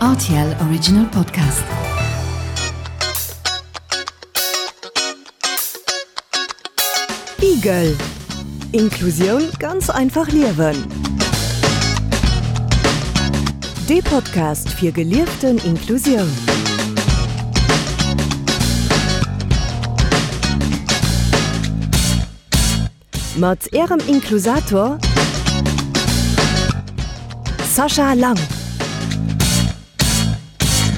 Rtl Original Podcast. Igel Inklusioun ganz einfach liewen. Dee Podcast fir gelieften Inklusioun. Mat Ärem Inklusator Sascha Lang.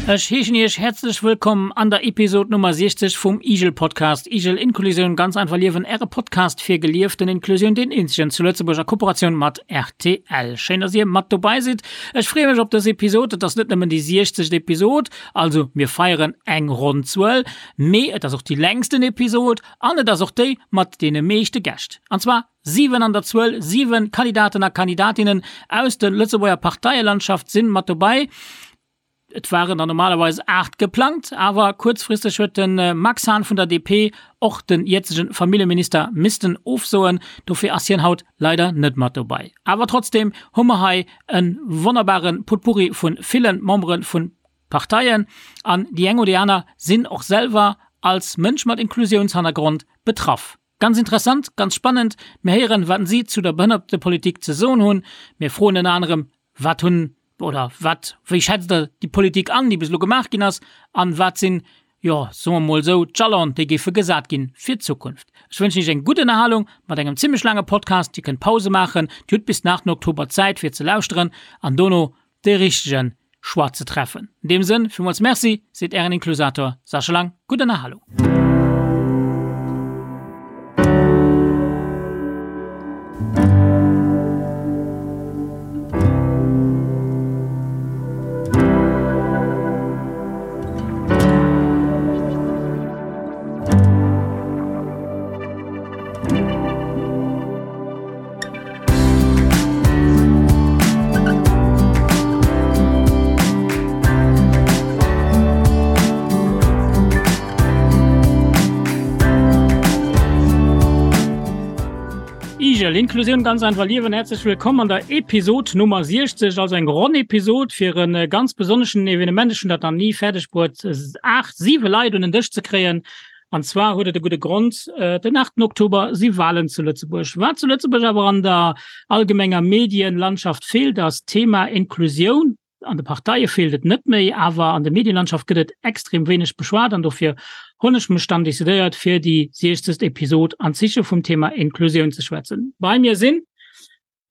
Ech heeschen Iech häerzlech wëllkomm an der Episod Nummer 60 vum Igel Podcast. Igel Inklusioun ganz einfach liewen, Äre Podcast fir gelieften Inklusioun, deen eenzegen zu Lëtzebuerg a Kooperatioun mat rtl. Schéin, dass Dir mat dobei sidd. Ech freeë mech op dës Episod. Et ass net nëmmen déi 60. Episod, also mir feieren eng ronn Zuel, mee et ass och déi längsten Episod An et ass och déi mat deene meeschte Gäscht, an zwar 7 an der Zuel, 7 Kandidaten a Kandidatinnen aus der Lëtzebuerger Parteielandschaft sinn mat dobäi. Et waren der normalerweis 8 geplangt, awer kuerzfristeg huet de Max Hahn vun der DP, och den jëtzegen Familljeminister, missten ofsoen. Dofir ass hien haut leider net mat dobäi. Awer trotzdeem hu mer hei e wonnerbare Potpourri vu ville Membere vu Parteien, an déi eng oder déi aner sinn och selwer als Mënsch mat Inklusiounshannergrond betraff. Ganz interessant, ganz spannend. Mir héieren, wat si zu der Behënnertepolitik ze soen hunn. Mir froen ënner anerem, wat hunn oder wat, wéi schätzt Der déi Politik an, déi bis elo gemaach ginn ass, an wat sinn, jo, soe mer mol esou, d'Jalon, déi géife gesat ginn fir d'Zukunft. Ech wënschen Iech eng gutt Ënnerhalung mat engem zimmlech laange Podcast. Dir kënnt Pause maachen, Dir hutt bis den 8 Oktober Zäit fir ze lauschteren an dono de richtegen Choix ze treffen. In deem Sënn, villmools Merci, seet Ären Inklusator Sascha Lang. Gutt Ënnerhalung. Igel, Inklusioun ganz einfach liewen. Herzlech willkomm an der Episod Nummer 60, also eng ronn Episod fir en äh, ganz besonneschen Evenement. Ech hunn dat nach ni fäerdeg bruet, 8, 7 Leit un den Dësch ze kréien. An zwar huet et e gudde Grond, Den 8 Oktober si Walen zu Lëtzebuerg. Wat zu Lëtzebuerg awer an der allgemenger Medienlandschaft feelt, ass d'Thema Inklusioun. An de Parteie feelt et net méi, awer an der Medienlandschaft gëtt et extrem wéineg beschwat. An dofir hunn ech mech dann decidéiert, fir déi 60. Episod an Zeeche vum Thema Inklusioun ze schwätzen. Bei mir sinn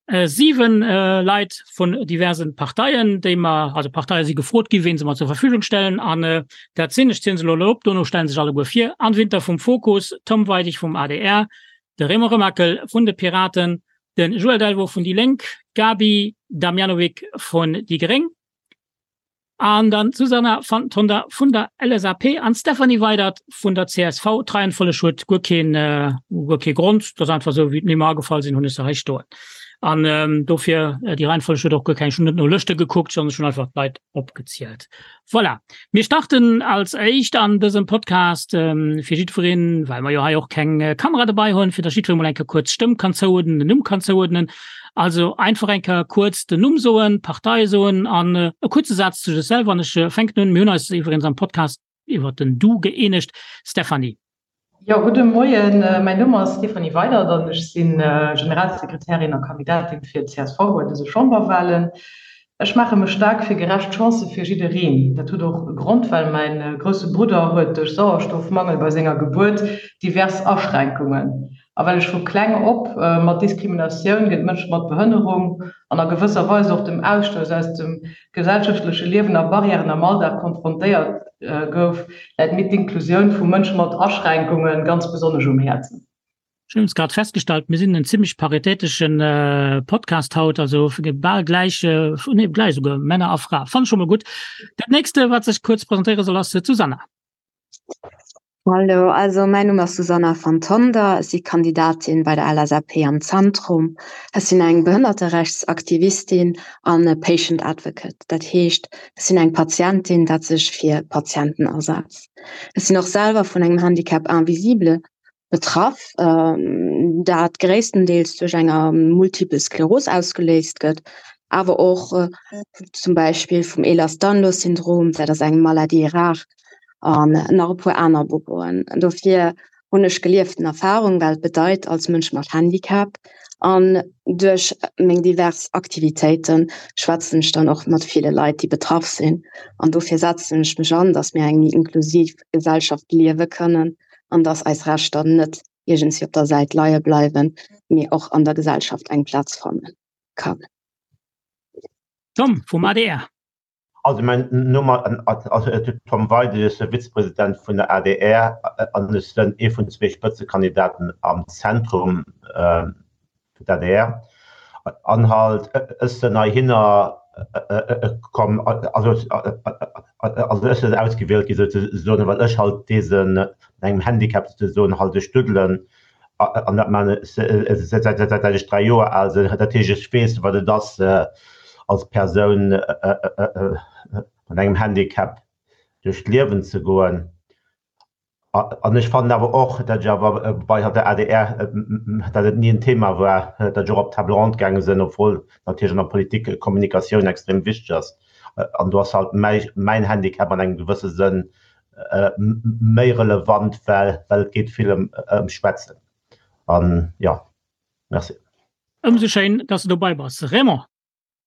7 Leit vun diversen Parteien, déi mer, also Parteie si gefrot gi ween se mer zur Verfügung stellen an dat sinn, ech zielen se elo op, dono stellen sech alleguer vir, Anne Winter vum Fokus, Tom Weidig vum adr, de Raymond Remakel vun de Piraten, de Joël Delvaux vun déi Lénk, d'Gaby Damjanovic vun déi Gréng, An dann d'Susanna van Tonder vun der LSAP an d'Stéphanie Weydert vun der csv. D'Reihenfolleg huet guer keen, guer kee Grond, dat ass einfach esou, wéi d'Nimm mer agefall sinn, hunn ech se hei stoen. An dofir, déi Reihenfolleg huet och guer keng, ech hunn net no Lëschte gekuckt, sondern ech hunn einfach d'Leit opgezielt. Voilà. Mir starten als éischt an dësem Podcast fir jiddwereen, well mer jo hei och keng Kamera dobei hunn, fir datt jiddweree mol eng Kéier kuerz d'Stëmm kann zouuerdnen, den Numm kann zouuerdnen. Also einfach eng Kéier kuerz den Numm soen, d'Partei soen an e kuerze Saz zu sech selwer. An ech fänken un, mir hunn eis iwwregens am Podcast iwwert den Du gëeenegt. Stéphanie. Jo, gudde Moien. Mäin Numm ass Stéphanie Weydert an ech si Generalsekretärin a Kandidatin fir d'CSV bei dëse Chamberwahlen. Ech maache mech staark fir gerecht Chancë fir jiddereen. Dat huet och e Grond, well mäin grousse Brudder huet duerch Sauerstoffmangel bei senger Gebuert divers Aschränkungen. A well ech vu kleng op mat Diskriminatioun géint Mënsche mat Behënnerung an a gewësser Weis och dem Ausstouss aus dem gesellschaftleche Liewen a Barrièren am Alldag konfrontéiert gouf, läit mir d'Inklusioun vu Mënsche mat Aschränkunge ganz besonnesch um Häerzen. Ech hunn grad festgestallt, mir sinn en zimmlech paritätesche Podcast haut, also bal gläich, nee gläich esouguer, Männer a Fra. Fannen ech scho mol gutt. Dat nächste wat sech kuerz presentéiere soll ass d'Susanna. Hallo, also mäin Numm ass Susanna van Tonder, ech si Kandidatin bei der LSAP am Zentrum. Ech sinn eng Behënnerterechtsaktivistin an e Patient Advocate, dat heescht ech sinn eng Patientin, dat sech fir Patienten asetzt. Ech sinn och selwer vun engem Handicap invisible betraff, dat gréisstendeels duerch enger Multiple Skleros ausgeléist gëtt. Awer och zum Beispill vum Ehlers-Danlos-Syndrom, dat ass eng Maladie rare, an nach e puer aner Boboen. Dofir hunn ech gelieften Erfahrung, wat et bedeit als Mënsch mat Handicap. An duerch meng divers Aktivitéite schwätzen ech dann och mat ville Leit, déi betraff sinn. An dofir setzen ech mech an, dass mir eng méi inklusiv Gesellschaft liewe kënnen an dass eis Rechter net iergendswéi op der Säit leie bleiwen, mee och an der Gesellschaft eng Plaz fanne kann. Tom vum adr. Also mäin Numm ass Tom Weidig, ech si Vizepresident vun der adr an ech sinn ee vun zwee Spëtzekandidaten am Zentrum fir d'ADR. An halt ech sinn heihinner komm, also ech sinn ausgewielt gi souzesoen, well ech halt dee mat engem Handicap souzesoen halt ech duddelen an dat man ech säit ech 3 Joer al sinn. Dat heescht, ech weess, wat et ass, als Persoun mat engem Handicap duerch d'Liewen ze goen. An ech fannen awer och, datt ech awer bei der adr, datt et ni en Thema war, datt ech och op d'Table ronde gaange sinn, obwuel natierlech an der Politik Kommunikatioun extrem wichteg ass. An do ass halt mäin Handicap an engem gewësse Sënn méi relevant, well well et geet vill ëm ëm Schwätzen. An jo, merci. Ëmsou schéin, dass de dobei bass, Raymond.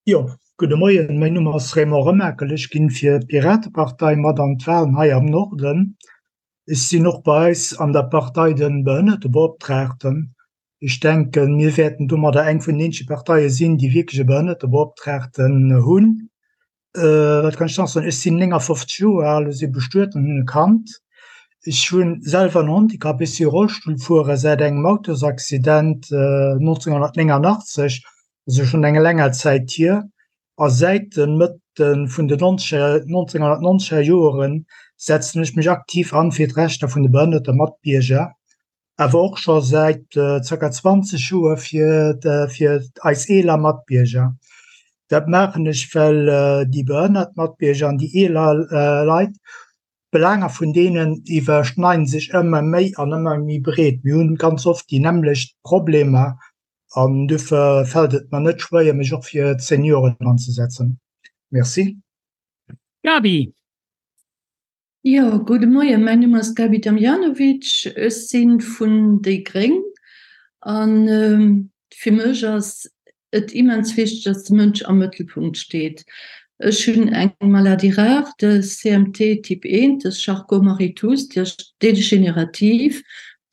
Jo, gudde Moien, mäin Numm ass Raymond Remakel, ech ginn fir d'Piratepartei mat an d'Wahlen hei am Norden. Ech sinn och bei eis an der Partei de Behënnertebeoptraagten. Ech denken, mir wäerten domadder eng vun den eenzege Parteie sinn, déi wierklech e Behënnertebeoptraagten hunn. Wat kann ech nach soen? Ech sinn 59 Joer al, ech si bestuet an hunn e Kand. Ech hu selwer en Handicap, ech si Rollstullfuerer säit engem Autosaccident 1989, also schonn eng länger Zäit hier. A säit de Mëtte vun den 1990er Joere setzen ech mech aktiv an fir d'Rechter vun de behënnerte Matbierger. Awer och scho säit zirka 20 Joer fir fir eis eeler Matbierger. Dat maachen ech, well déi behënnert Matbierger an déi eeler Leit, d'Belaanger vun deenen iwwerschneiden sech ëmmer méi an ëmmer méi breet. Mir hunn ganz oft déi nämmlecht Problemer an dofir fält et mer net schwéier, mech och fir d'Senioren anzesetzen. Merci. Gaby. Jo, gudde Moien, mäin Numm ass Gaby Damjanovic, ech si vun déi Gréng a fir mech ass et immens wichteg, dass de Mënsch am Mëttelpunkt steet. Ech hunn eng Maladie rare, de CMT Typ 1, de Charcot-Marie-Tooth, déi ass degenerativ,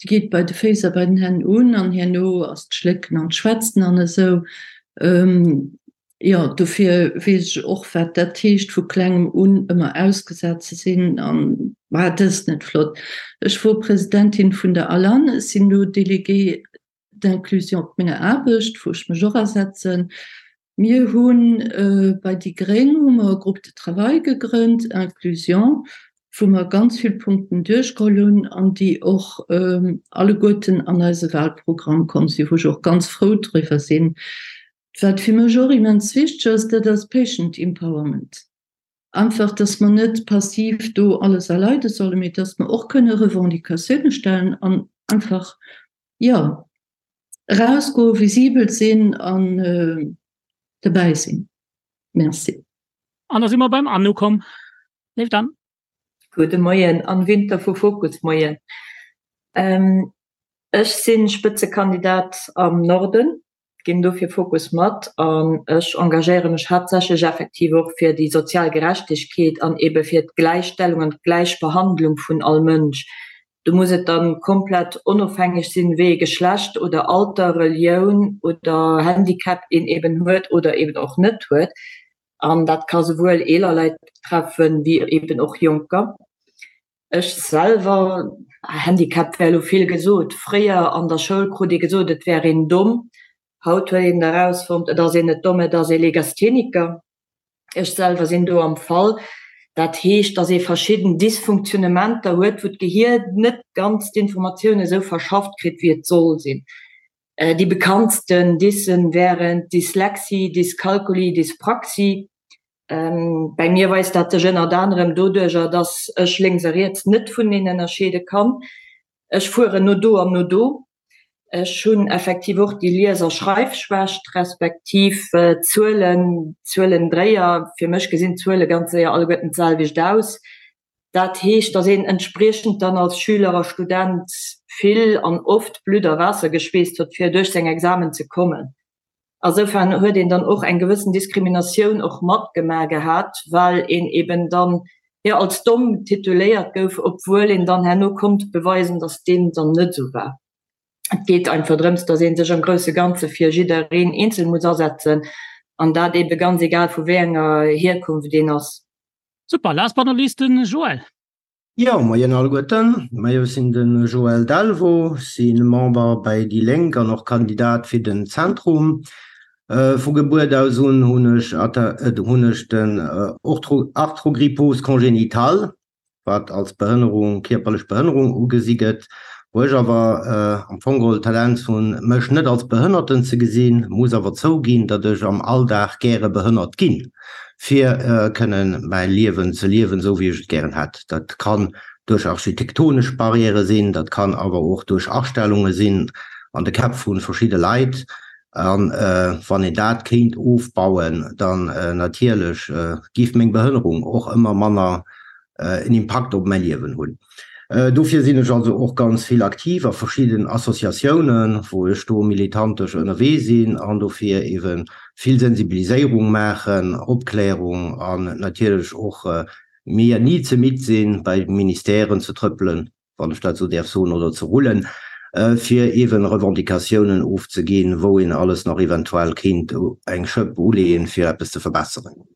déi geet bei de Féiss a bei den Hänn un an herno ass d'Schlécken an d'Schwätzen an esou. Jo, dofir weess ech och, wat dat heescht, vu klengem un ëmmer ausgesat ze sinn. An war dëst net flott? Ech wor Presidentin vun der ALAN, ech sinn elo Déléguée d'inclusion op menger Aarbecht, wou ech mech och asetzen. Mir hu bei déi gréng hu mer e Groupe de travail gegrënnt, Inclusion, wou mer ganz vill Punkten duerchgeholl hunn an déi och alleguerten an eise Wahlprogramm komm sinn, wou ech och ganz frou driwwer sinn. Wat fir mech och immens wichteg ass, dat ass Patient Empowerment. Einfach, dass mer net passiv do alles erleide sollen, mee dass mer och kënne Revendicatioune stellen an einfach, jo, erausgoen, visibel sinn an dobäi sinn. Merci. An da si mer beim Anne ukomm. Léift Anne. Gudde Moien, Anne Winter vu Fokus. Moien. Ech si Spëtzekandidat am Norden. ginn dofir Fokus mat an ech engagéiere mech haaptsächlech effektiv och fir déi sozial Gerechtegkeet an ebe fir d'Gläichstellung an d'Gläichbehandlung vun all Mënsch. Do muss et dann komplett onofhängeg sinn, wéi ee Geschlecht oder Alter, Relioun oder Handicap een eben huet oder eben och net huet. An dat ka souwuel eeler Leit betreffen, wéi eben och Jonker. Ech selwer, Handicap wär elo vill gesot, fréier an der Schoul krut ee gesot, et wär een domm. Haut huet een erausfonnt, et ass een net domm, et ass ee Legastheniker. Ech selwer sinn do am Fall. Dat heescht, datt ee verschidden Dysfunktionnementer huet, wou d'Gehier net ganz d'Informatioun esou verschafft kritt, wéi et soll sinn. Déi bekanntsten Dyssen wären Dyslexie, Dyskalkulie, Dyspraxie. Bäi mir weist dat sech ënnert anerem doduercher, dass ech lénks a riets net vuneneen ënnerscheede kann. Ech fueren no do an no do. Ech hunn effektiv och déi Lies a Schreifschwächt, respektiv Zuelen, Zuelendréier. Fir mech gesinn d'Zuele ganz séier alleguerten d'selwecht aus. Dat heescht, datt een entspriechend dann als Schüler a Student vill an oft Blutt a Waasser geschweesst huet, fir duerch seng Examen ze kommen. Asoufern huet een dann och eng gewëssen Diskriminatioun och matgemaach gehat, well een eben dann, jo, als domm tituléiert gouf, obwuel een dann herno konnt beweisen, dass deem dann net esou war. Et geet einfach drëms, dass ee sech am grousse Ganze fir jiddereen eenzel muss asetzen, an dat ebe ganz egal vu wéi enger Hierkunft een ass. Super, last but not least den Joël. Jo, moien alleguerten. Majo, ech sinn de Joël Delvaux, si Member bei déi Lénk an och Kandidat fir den Zentrum. Vu Gebuert aus un hunn ech hunn ech den Arthrogrypose congénitale, wat als Behënnerung, kierperlech Behënnerung ugesi gëtt, wou ech awer am Fong geholl d'Tendenz hunn, mech net als Behënnerten ze gesinn, muss awer zouginn, datt ech am Alldag gäre behënnert ginn. fir kënnen mäi Liewen ze liewen, esou wéi ech et gären hätt. Dat kann duerch architektonesch Barrièrë sinn, dat kann awer och duerch Astellunge sinn an de Käpp vu verschidde Leit. A wann een dat kéint ofbauen, dann natierlech géif meng Behënnerung och ëmmer manner en Impakt op mäi Liewen hunn. Dofir sinn ech also och ganz vill aktiv a verschidden Associatiounen, wou ech do militantesch ënnerwee sinn an dofir eebe vill Sensibiliséierung maachen, Opklärung an natierlech och mir ni ze midd sinn, bei Ministèren ze trëppelen, wann ech dat esou däerf soen, oder ze rullen, fir eeben Revendicatiounen ofzeginn, wou een alles nach eventuell kéint eng Schëpp uleeën, fir eppes ze verbesseren.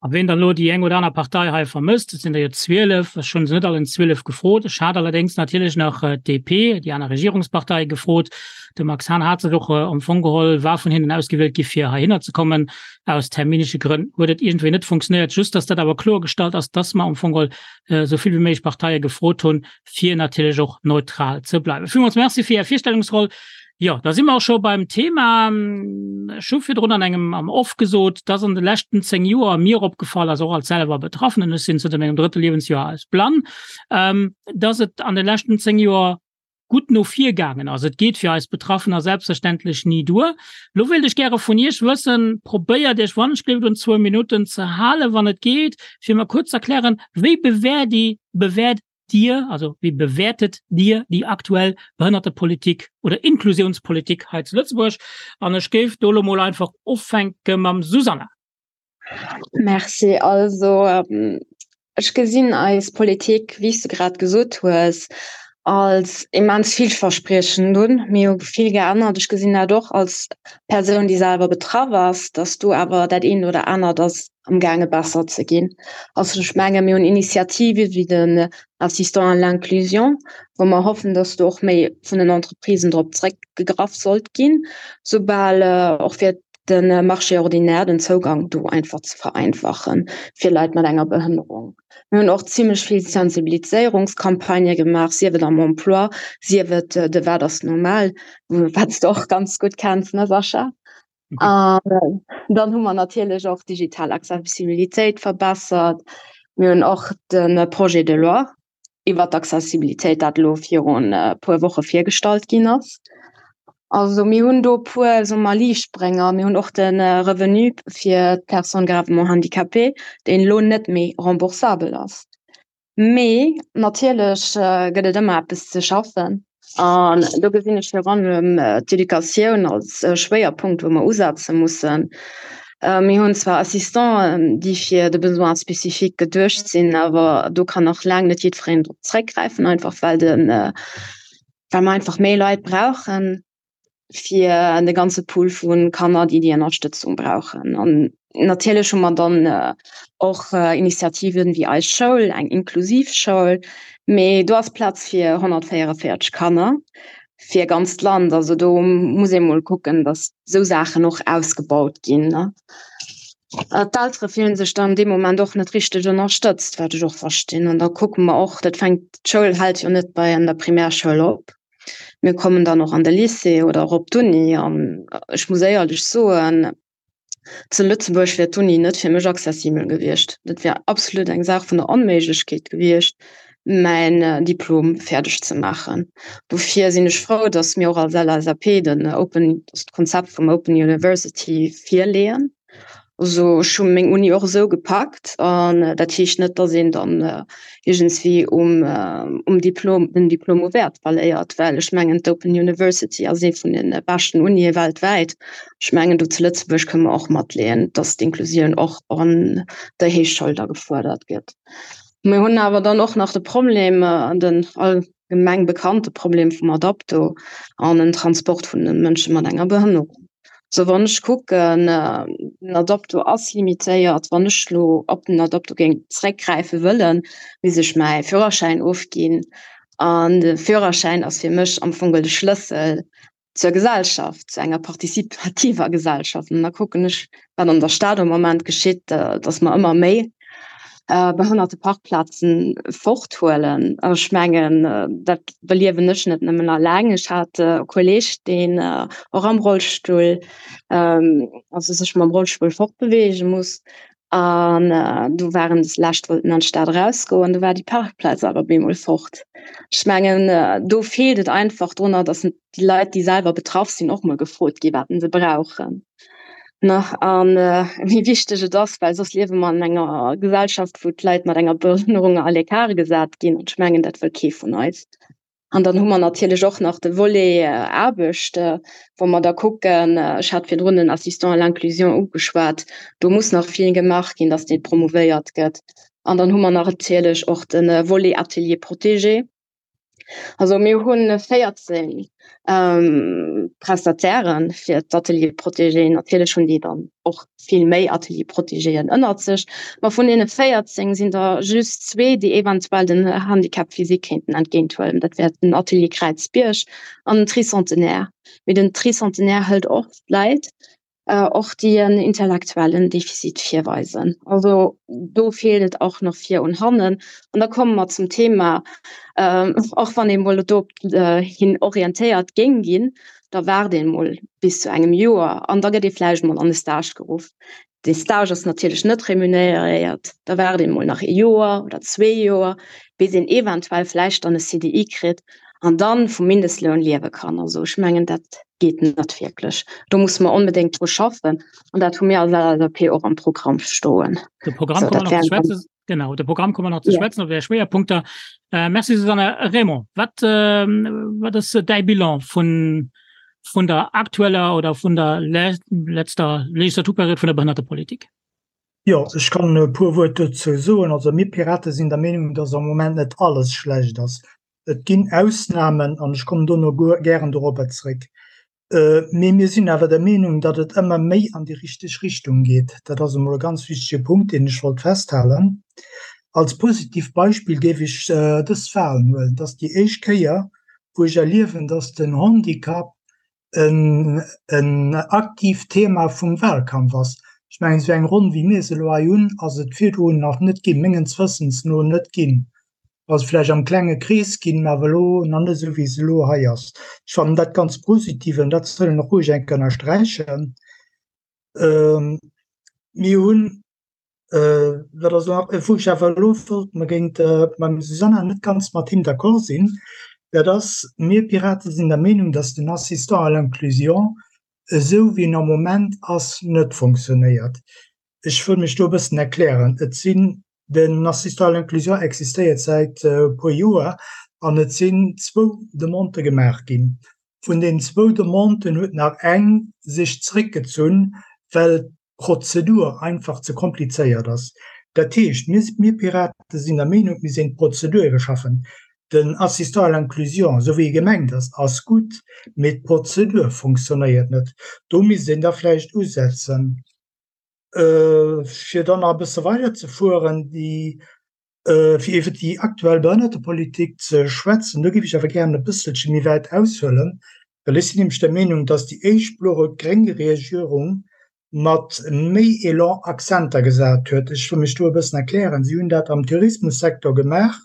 A ween dann elo déi eng oder aner Partei hei vermësst, et sinn der jo 12, ech hunn se net allen 12 gefrot, ech hat allerdéngs natierlech nach d'DP, déi aner Regierungspartei, gefrot. De Max Hahn hat sech och am Fong geholl, war vun hinnen ausgewielt gi fir heihinner ze kommen. Aus terminesche Grënn huet et iergendwéi net funktionéiert. Just datt dat awer kloergestallt ass, datt mer am Fong geholl esou vill wéi méiglech Parteie gefrot hunn, fir natierlech och neutral ze bleiwen. Villmools Merci fir Är Virstellungsroll. Jo, da si mer och scho beim Thema. Ech hu virdrun an engem am Off gesot, dass an de leschten 10 Joer mir opgefall ass, och als selwer Betraffenen, ech sinn zënter mengem drëtte Liewensjoer als blann, dass et an de leschten 10 Joer gutt no vir gaangen ass. Et geet fir eis Betraffener selbstverständlech ni duer. Lo wéilt ech gäre vun Iech wëssen, probéiert Iech wannechgelift un zwou Minutten ze halen, wann et geet, fir mer kuerz ze erklären, wéi bewäert Dir, bewäert Dir, also wéi bewäertet Dir déi aktuell Behënnertepolitik oder Inklusiounspolitik hei zu Lëtzebuerg? An ech géif do elo mol einfach ufänke mam Susanna. Merci. Also ech gesinn eis Politik, wéi s de grad gesot hues, als immens villverspriechend un. Mir hu vill geännert. Ech gesinn dat och als Persoun, déi selwer betraff ass, datt do awer dat eent oder anert ass amgaange besser ze ginn. Also ech menge mir hunn Initiative wéi den Assistant à l'inclusion, wou mer hoffen, datt do och méi vun den Entreprisen drop zréckgegraff sollt ginn, soubal och fir de Marché ordinaire den Zougang do einfach ze vereinfachen fir Leit mat enger Behënnerung. Mir hunn och zimmlech vill Sensibiliséierungscampagnë gemaach, sief et am Emploi, sief et de Wat ass normal, wat s de och ganz gutt kenns, ne Sascha? An dann hu mer natierlech och digital Accessibilitéit verbessert. Mir hunn och de Projet de loi iwwer d'Accessibilitéit, dat elo virun e puer Woche virgestallt ginn ass. Also mir hunn do e puer, soe mer, Liichtbrénger. Mir hunn och de Revenu fir d'Personnes gravement handicapées, deen elo net méi remboursabel ass. Mee natierlech gëtt et ëmmer eppes ze schaffen. An do gesinn ech virun allem d'Educatioun als Schwéierpunkt, wou mer usetze mussen. Mir hunn zwar Assistenten, déi fir de Besoin spécifique geduecht sinn, awer do kann nach laang net jiddwereen drop zréckgräifen, einfach well de well mer einfach méi Leit brauchen fir de ganze Pool vu Kanner, déi déi Ënnerstëtzung brauchen. An natierlech hu mer dann och Initiativen wéi Eis Schoul, eng inklusiv Schoul, mee do ass Plaz fir 144 Kanner fir e ganzt Land. Also do muss ee mol kucken, datt esou Saachen och ausgebaut ginn. D'Eltere fillen sech dann dee Moment och net richteg ënnerstëtzt, wat ech och verstinn. An da kucke mer och, dat fänkt, d'Schoul hält jo net bei an der Primärschoul op. Mir kommen dann och an de Lycée oder och op d'Uni. An ech muss éierlech soen, zu Lëtzebuerg wär d'Uni net fir mech accessibel gewiescht. Dat wär absolut eng Saach vun der Onméiglechkeet gewiescht. mäin Diplom fäerdeg ze maachen. Dofir sinn ech frou, datt mir och als LSAP den Open, d'Konzept vum Open University virleeën. Also ech hu meng Uni och esou gepackt an dat heescht net, datt een dann iergendswéi um um Diplom den Diplom u Wäert verléiert, well ech mengen d'Open University ass ee vun de beschten Unie weltwäit. Ech mengen do zu Lëtzebuerg kënne mer och matleeën, datt d'Inklusioun och an der Héichschoul da gefuerdert gëtt. Mir hunn awer dann och nach de Problem, den allgemeng bekannte Problem vum Adapto an den Transport vun de Mënsche mat enger Behënnerung. Sou wann ech kucken, den Adapto ass limitéiert, wann ech lo op den Adapto géing zréckgräife wëllen, misst ech mäi Führerschäin ofginn an de Führerschäin ass fir mech am Fong de Schlëssel zur Gesellschaft, zu enger participativer Gesellschaft. An da kucken ech, wat an der Stad am Moment geschitt, dass mer ëmmer méi Behënnerteparkplazen forthuelen. Ech mengen, dat beliewen ech net nëmmen alleng. Ech hat e Kolleeg, deen och am Rollstull, also sech mam Rollstull fortbeweege muss. An do waren des lescht wollten an d'Stad erausgoen, do war déi Parkplaz awer bemol fort. Ech mengen, do feelt et einfach drunner, datt déi Leit, déi selwer betraff sinn, och mol gefrot gi wat se brauchen. Nach an wéi wichteg et ass, well soss liewe mer an enger Gesellschaft, wou d'Leit mat enger Behënnerung à l'écart gesat ginn. An ech mengen, dat wëll kee vun eis. An dann hu mer natierlech och nach de Volet Aarbecht, wou mer da kucken, ech hat virdrun den Assistant à l'inclusion ugeschwat, do muss nach vill gemaach ginn, dass dee promouvéiert gëtt. An dann hu mer nach natierlech och de Volet Atelier protégé. Also mir hu 14 Prestataire fir d'Ateliers protégés. Natierlech hunn déi dann och vill méi Ateliers protégéen ënnert sech. Ma vun deene 14 sinn der just zwee, déi eventuell den Handicap physique kéinten entgéinthuelen. Dat wär den Atelier Kräizbierg an den Tricentenaire. Mee den Tricentenaire hëlt och Leit, och déi en intellektuellen Defizit virweisen. Also do feelt et och nach vir un hannen. An da komme mer zum Thema, och wann ee mol do hin orientéiert géing ginn, da waart een mol bis zu engem Joer an da gëtt ee vläicht mol an e Stage geruff. Dee Stage ass natierlech net remuneréiert, da waart een mol nach ee Joer oder zwee Joer, bis een eventuell vläicht dann e CDI kritt an dann vum Mindestloun liewe kann. Also ech mengen, dat geet net wierklech. Do musse mer onbedéngt dru schaffen an dat hu mir als LSAP och am Programm stoen. De Programm komme mer nach ze schwätzen. Genau, de Programm komme mer nach ze schwätzen op Är Schwéierpunkter. Äh, merci Susanne. Raymond, wat, äh, wat ass däi Bilan vun, vun der aktueller oder vun der le letzter Legislaturperiod vun der Behënnertepolitik? Jo, ech kann e puer Wuert dozou soen. Also mir Pirate sinn der Meenung, dass am Moment net alles schlecht ass. Et ginn Ausnamen an ech kommen dono gären dorobber zréck. Mee mir sinn awer der Meenung, datt et ëmmer méi an déi richteg Richtung geet. Dat ass emol e ganz wichtege Punkt, deen ech wollt festhalen. Als positivt Beispill géif ech dës Wahlen huelen. Et ass déi éischt Kéier, wou ech erliewen, datt den Handicap en aktiivt Thema vum Wahlkampf ass. Ech mengen, esou eng Ronn, wéi mir se elo hei hunn, ass et virdrun nach net ginn, mengens Wëssens no net ginn. ass vläicht am klenge Krees ginn, mä awer elo nach net esou, wéi se elo hei ass. Ech fannen dat ganz positiv an dat soll een och roueg eng Kéier ënnersträichen. Mir hunn, wat ass elo nach, wou ech awer elo wollt, mer géint mam Susanna net ganz mat him d'accord sinn, dat ass, mir Piraten sinn der Meenung, dass den Assistant à l'inclusion, esou wéi en am Moment ass, net fonctionnéiert. Ech wëll mech do e bëssen erklären. Et sinn Den Assistant à l'inclusion existéiert säit e puer Joer an et sinn zwou Demandë gemaach ginn. Vun den zwou Demanden huet nach eng sech zréckgezunn, well d'Prozedur einfach ze komplizéiert ass. Dat heescht, mir, mir Pirate sinn der Meenung, et misst een d'Prozedur iwwerschaffen. Den Assistant à l'inclusion, esou wéi e gemengt ass, ass gutt, mee d'Prozedur fonctionnéiert net. Do misst een da vläicht usetzen. Fir dann nach e bësse weider ze fueren, déi, fir iwwer déi aktuell Behënnertepolitik ze schwätzen, do géif ech awer gären e bësselche méi wäit aushuelen, well ech sinn nämlech der Meenung, dass déi éischt blo-rot-gréng Regierung mat méi Elan Akzenter gesat huet. Ech wëll mech do e bëssen erklären. Si hunn dat am Tourismussektor gemaach,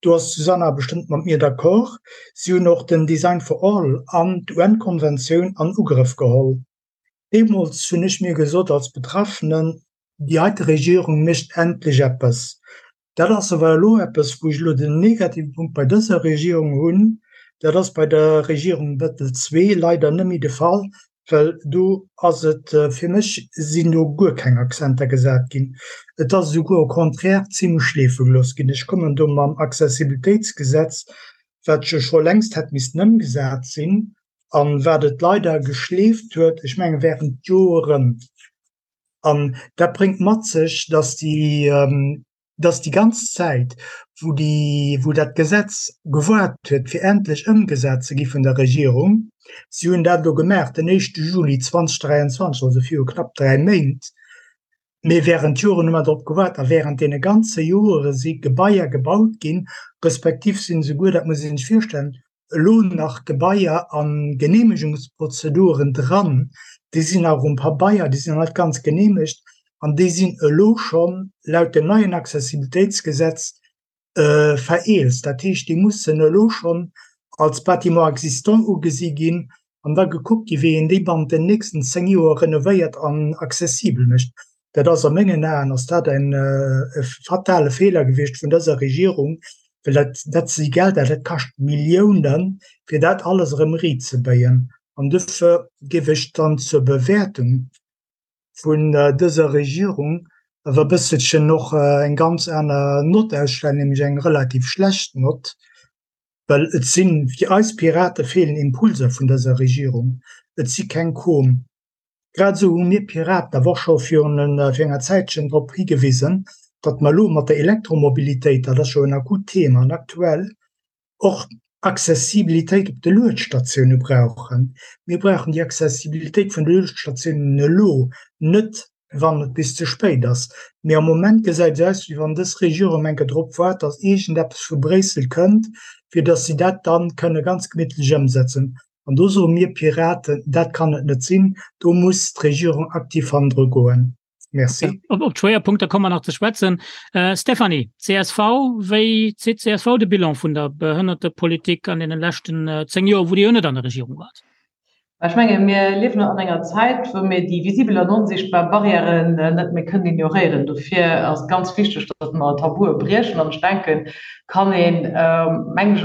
do ass d'Susanna bestëmmt mat mir d'accord. Si hunn och den Design for All an d'UN-Konventioun an Ugrëff geholl. Deemools hunn ech mir gesot als Betraffenen, déi heite Regierung mécht endlech eppes. Dat ass awer elo eppes, wou ech elo den negative Punkt bei dëser Regierung hunn. Dat ass bei der Regierung Bettel II leider net méi de Fall, well do ass et, fir mech sinn do guer keng Akzenter gesat ginn. Et ass esouguer au contraire zimlech schleefe gelooss ginn. Ech kommen do mam Accessibilitéitsgesetz, wat jo scho längst hätt missten ëmgesat sinn a wat et leider geschleeft huet, ech menge während Joren. An dat bréngt mat sech, dass déi, dass déi ganz Zäit, wou déi, wou dat Gesetz gewaart huet, fir endlech ëmgesat ze gi vun der Regierung, si hunn dat elo gemaach den éischte Juli 2023, also viru knapp 3 Méint, mee während Joren hu mer drop gewaart a während deene ganze Joere si Gebaier gebaut ginn, respektiv sinn esouguer, dat muss ee sech virstellen, elo nach Gebaier a Geneemegungsprozeduren dran, déi sinn nach um Pabeier, déi sinn nach net ganz geneemegt an déi sinn elo schonn laut dem neien Accessibilitéitsgesetz vereelzt. Dat heescht, déi mussen elo schonn als Bâtiment existant ugesi ginn an da gekuckt gi wéi een déi bannent den nächsten 10 Joer renovéiert an accessibel mécht. Dat ass a mengen Aen ass dat en e fatale Feeler gewiescht vun dëser Regierung, well dat dat si Gelder, dat kascht Milliounen, fir dat alles erëm riitzebéien. An dofir géif ech dann zur Bewäertung vun dëser Regierung awer e bësselchen och eng ganz aner Nott ausstellen, nämlech eng relativ schlecht Nott, well et sinn, fir eis Pirate feelen Impulser vun dëser Regierung, et si keng komm. Grad esou hu mir Piraten awer och scho virun fir enger Zäitchen drop higewisen, datt mer elo mat der Elektromobilitéit, dat ass jo en akut Thema an aktuell, och Accessibilitéit op de Luedstatioune brauchen. Mir brauchen déi Accessibilitéit vun de Luedstatiounen elo, net wann et bis ze spéit ass. Mee am Moment gesäit et aus, wéi wann dës Regierung enke drop waart, datt iergendeppes vu Bréissel kënnt, fir datt si dat da kënne ganz gemittlech ëmsetzen. An do soe mir Piraten, dat kann et net sinn, do muss d'Regierung aktiv hannendru goen. Merci. Op op d'Schwéierpunkter komme mer nach ze schwätzen. Stéphanie, csv, wéi zitt csv de Bilan vun der Behënnertepolitik an deene leschten 10 Joer, wou Dir jo net an der Regierung waart? Ech menge mir liewen an enger Zäit, wou mir déi visibel an onsichtbar Barrièren net méi kënnen ignoréieren. Dofir ass et ganz wichteg, datt mer Tabue briechen. An ech denken, kann een, meng ech,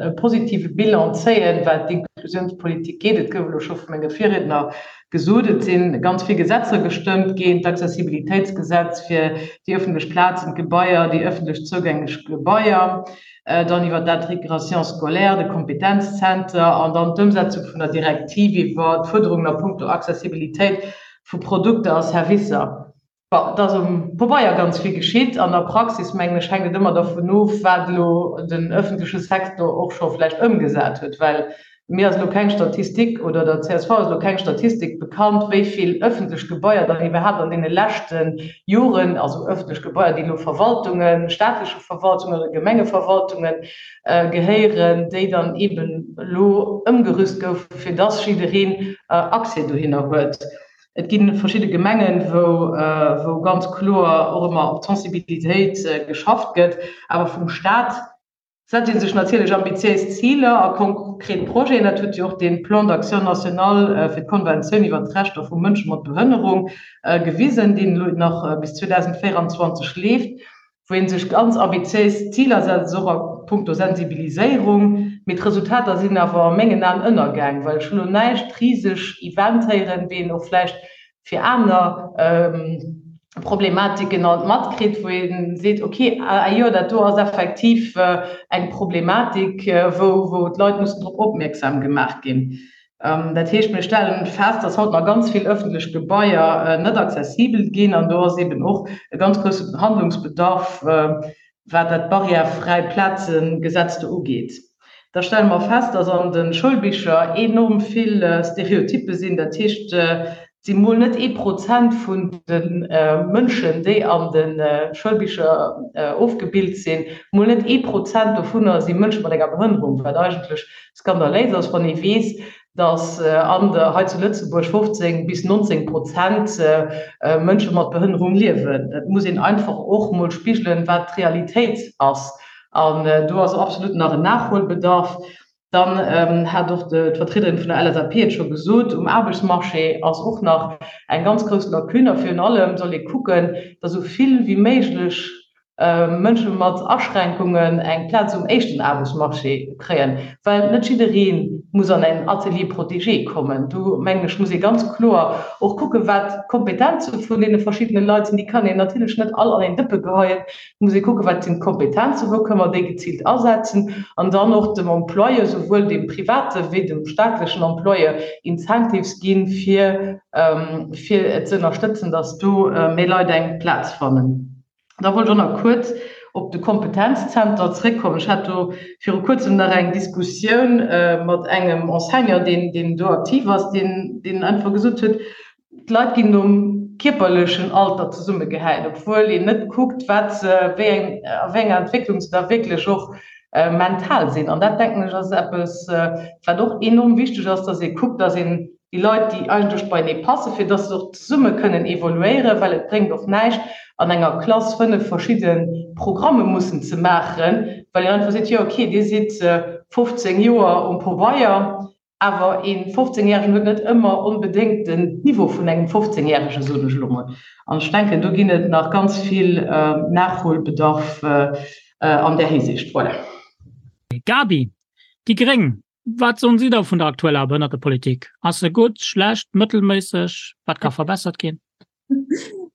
e positive Bilan zéien, wat d'Inklusionspolitik geet. Et gouf elo scho vu menge Virriedner gesot, et si ganz vill Gesetzer gestëmmt ginn, d'Accessibilitéitsgesetz fir déi ëffentlech Plazen, d'Gebaier, déi ëffentlech zougänglech Gebaier, dann iwwert d'Intégration scolaire, de Kompetenzzenter an dann d'Ëmsetzung vun der Direktiv iwwer d'Fuerderungen a puncto Accessibilitéit vu Produkter a Servicer. Bon, et ass um Pabeier ganz vill geschitt. An der Praxis, mengen ech, hänkt et ëmmer dervun of, wat elo den öffentleche Secteur och scho vläicht ëmgesat huet. Well mir ass elo keng Statistik oder der csv ass elo keng Statistik bekannt, wéi vill öffentlech Gebaier dann iwwerhaapt an deene leschte Joren, also öffentlech Gebaier, déi elo Verwaltungen, staatleche Verwaltungen oder Gemengeverwaltungen gehéieren, déi dann eeben elo ëmgerüst goufen, fir dass jiddereen Accès dohinner huet. Et gi verschidde Gemengen, wou ganz kloer och ëmmer op d'Sensibilitéit geschafft gëtt. Awer vum Staat setzt ee sech natierlech ambitiéis Ziler a konkret Projeten. Dat huet jo och dee Plan d'action national fir d'Konventioun iwwert d'Rechter vu Mënsche mat Behënnerung gewisen, deen elo nach bis 2024 leeft. wou ee sech ganz ambitiéis Ziler setzt, och a puncto Sensibiliséierung, mee d'Resultater sinn awer a mengen Aen ënnergaang, well ech hunn elo näischt riseg Event héieren, wéi een och vläicht fir aner Problematiken alt matkritt, wou ee seet, okay, ah jo, dat do ass effektiv eng Problematik, wou d'Leit mussen drop opmierksam gemaach ginn. Dat heescht, mir stellen fest, dass haut nach ganz vill öffentlech Gebaier net accessibel ginn. An do ass eeben och e ganz grousse Handlungsbedarf, wat dat barrièrefräi Plazengesetz do ugeet. Da stelle mer fest, dass an de Schoulbicher enorm vill Stereotyppe sinn. Dat heescht, et si mol net ee Prozent vun de Mënschen, déi an de Schoulbicher ofgebilt sinn, mol net ee Prozent dovunner si Mënsche mat enger Behënnerung, wat eigentlech Skandaléis ass, wann ee weess, datt an der hei zu Lëtzebuerg 15 bis 19 Prozent Mënsche mat Behënnerung liewen. Dat muss een einfach och mol spigelen, wat d'Realitéit ass. An do ass absolut nach en Nachholbedarf. Dann hat och d'Vertriederin vun der LSAP et scho gesot, um Aarbechtsmarché ass och nach eng ganz grouss Lacune. A virun allem soll ee kucken, datt esou vill wéi méiglech. Mënsche mat Aschränkungen eng Plaz um éischten Aarbechtsmarché kréien, well net jidderee muss an en Atelier protégé kommen. Do, mengen ech, muss ee ganz kloer och kucken, wat d'Kompetenze vun deene verschiddene Leit sinn. Déi kann een natierlech net all an een Dëppe geheien. Et muss ee kucken, wat sinn d'Kompetenzen, wou kënnen mer déi geziilt asetzen an dann och dem Employeur, souwuel deem private wéi dem staatlechen Employeur, Incentives ginn, fir fir et ze ënnerstëtzen, dass do méi Leit eng Plaz fannen. Da wollt ech och nach kuerz op de Kompetenzzenter zréckkommen. Ech hat do viru Kuerzem nach eng Diskussioun mat engem Enseignant, deen, deen do aktiv ass, deen, deen einfach gesot huet, d'Leit ginn nom kierperlechen Alter zesummegehäit, obwuel een net kuckt, wat se, wéi eng, a wéi enger Entwécklung se da wierklech och mental sinn. An dat, denken ech, ass eppes, wat och enorm wichteg ass, dass ee kuckt, dass een déi Leit, déi eigentlech beienee passen, fir dass se och zesumme kënnen evoluéieren, well et bréngt och näischt, an enger Klass 5 verschidde Programme mussen ze maachen, well een einfach seet, jo okay, Dir sidd 15 Joer um Pobeier, awer ee 15 Järegen huet net ëmmer onbedéngt den Niveau vun engem 15 Järegen, soen ech elo mol. An ech denken, do ginn et nach ganz vill Nachholbedarf an där Hisiicht. Voilà. Gaby, déi gréng, Wat soen si da vun der aktueller Behënnertepolitik? Ass se gutt, schlecht, mëttelméisseg? Wat ka verbessert ginn?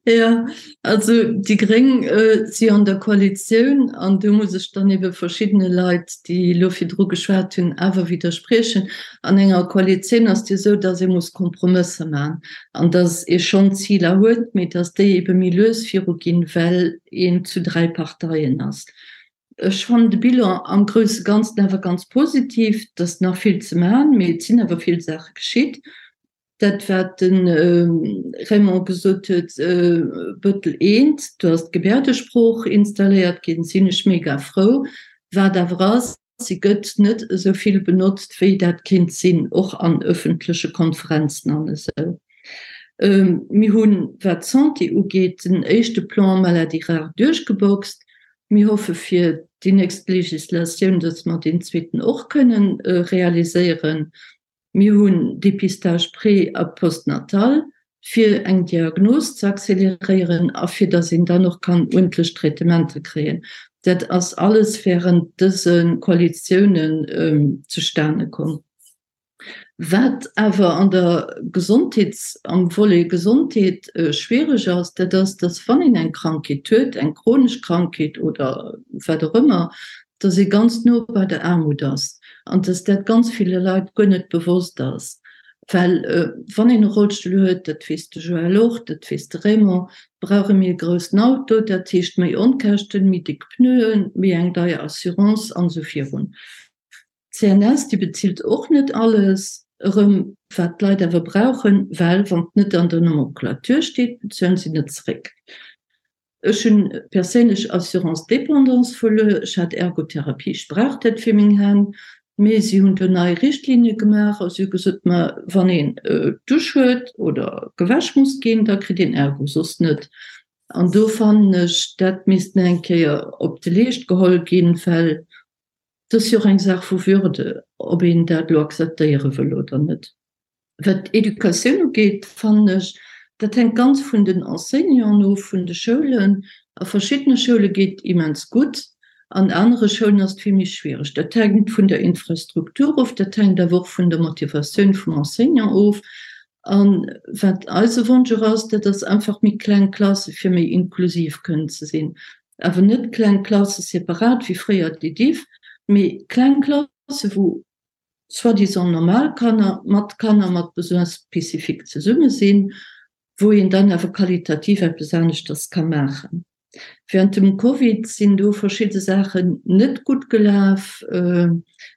Jo, also déi Gréng si an der Koalitioun an do muss ech dann ebe verschiddene Leit, déi elo virdru geschwat hunn, awer widderspriechen. An enger Koalitioun ass et jo esou, datt ee muss Kompromësser maachen an datt ee schonn Ziler huet, mee datt déi ebe méi lues viruginn, well een zu 3 Parteien ass. Ech fannen de Bilan am grousse Ganzen awer ganz positiv. Et ass nach vill ze maachen, mee et sinn awer vill Saache geschitt. Dat wat de Raymond gesot huet, Bëttel eent, do ass d'Gebärdesprooch installéiert ginn, sinn ech mega frou. Wat awer ass, si gëtt net esou vill benotzt, wéi dat kéint sinn, och an öffentleche Konferenzen an esou. Mir hunn, wat d'Santé ugeet, den éischte Plan Maladies rares duerchgeboxt. Mir hoffe fir déi nächst Legislatioun, dass mer deen zweeten och kënnen realiséieren. Mir hunn Dépistage pré a postnatal, fir eng Diagnos ze accéléréieren a fir dass een dann och kann uerdentlech Traitementer kréien. Dat ass alles während dëse Koalitiounen zustane komm. Wat awer an der Gesondheets-, am Volet Gesondheet schwiereg ass, dat ass, dass wann een eng Krankheet huet, eng chronesch Krankheet oder wat och ëmmer, dass ee ganz no bei der Aarmut ass an dass dat ganz ville Leit guer net bewosst ass. Well wann een e Rollstull huet, dat weess de Joël och, dat weess de Raymond, brauch e méi e groussen Auto, dat heescht méi Onkäschten, méi déck Pneuen, méi eng deier Assurance an esou virun. D'CNS, déi bezilt och net alles erëm, wat d'Leit awer brauchen, well wann et net an der Nomenclature steet, bezuelen si net zeréck. Ech hunn perséinlech Assurance dépendance verluer, ech hat Ergotherapie, ech brauch dat fir meng Hänn, mee si hunn do nei Richtlinie gemaach a si hu gesot, ma wann een d'Dusch huet oder gewäsch muss ginn, da kritt een Ergo, soss net. An do fannen ech, dat misst nach eng Kéier op de Leescht geholl ginn, well Et ass jo och eng Saach vu Würde, ob een dat elo akzeptéiere wëll oder net. Wat d'Educatioun ugeet, fannen ech, dat hänkt ganz vun den Enseignanten of, vun de Schoulen. A verschiddene Schoule geet et immens gutt, an anere Schoulen ass et vill méi schwiereg. Dat hänkt vun der Infrastruktur of, dat hänkt awer och vun der Motivatioun vum Enseignant of. A wat eise Wonsch och ass, dat ass einfach méi kleng Klasse fir méi inklusiv kënnen ze sinn. Awer net kleng Klasse separat wéi fréier d'EDIFF, mee kleng Klasse wou soi-disant normal Kanner mat Kanner mat Besoins spécifiques zesumme sinn, wou een dann awer qualitativ eppes aneschters ka maachen. Während dem Covid sinn do verschidde Saachen net gutt gelaf.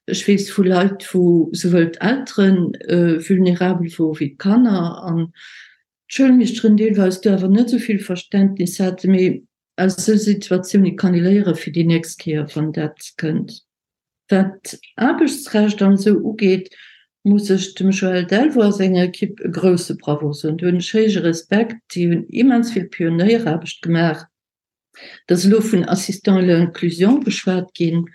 Ech weess vu Leit, wou souwuel d'Eltere vulnerabel wore wéi d'Kanner an d'Schoulmeeschteren deelweis do awer net esou vill Verständnis haten. Mee aus esou Situatioune kann ee léiere fir déi nächst Kéier, wann dat kënnt. Wat Aarbechtsrecht an esou ugeet, muss ech dem Joël Delvaux a senger Ekipp e grousse Bravo soen. Do hunn ech héije Respekt. Déi hunn immens vill Pionéieraarbecht gemaach. Et ass elo vun Assistants à l'inclusion geschwat ginn.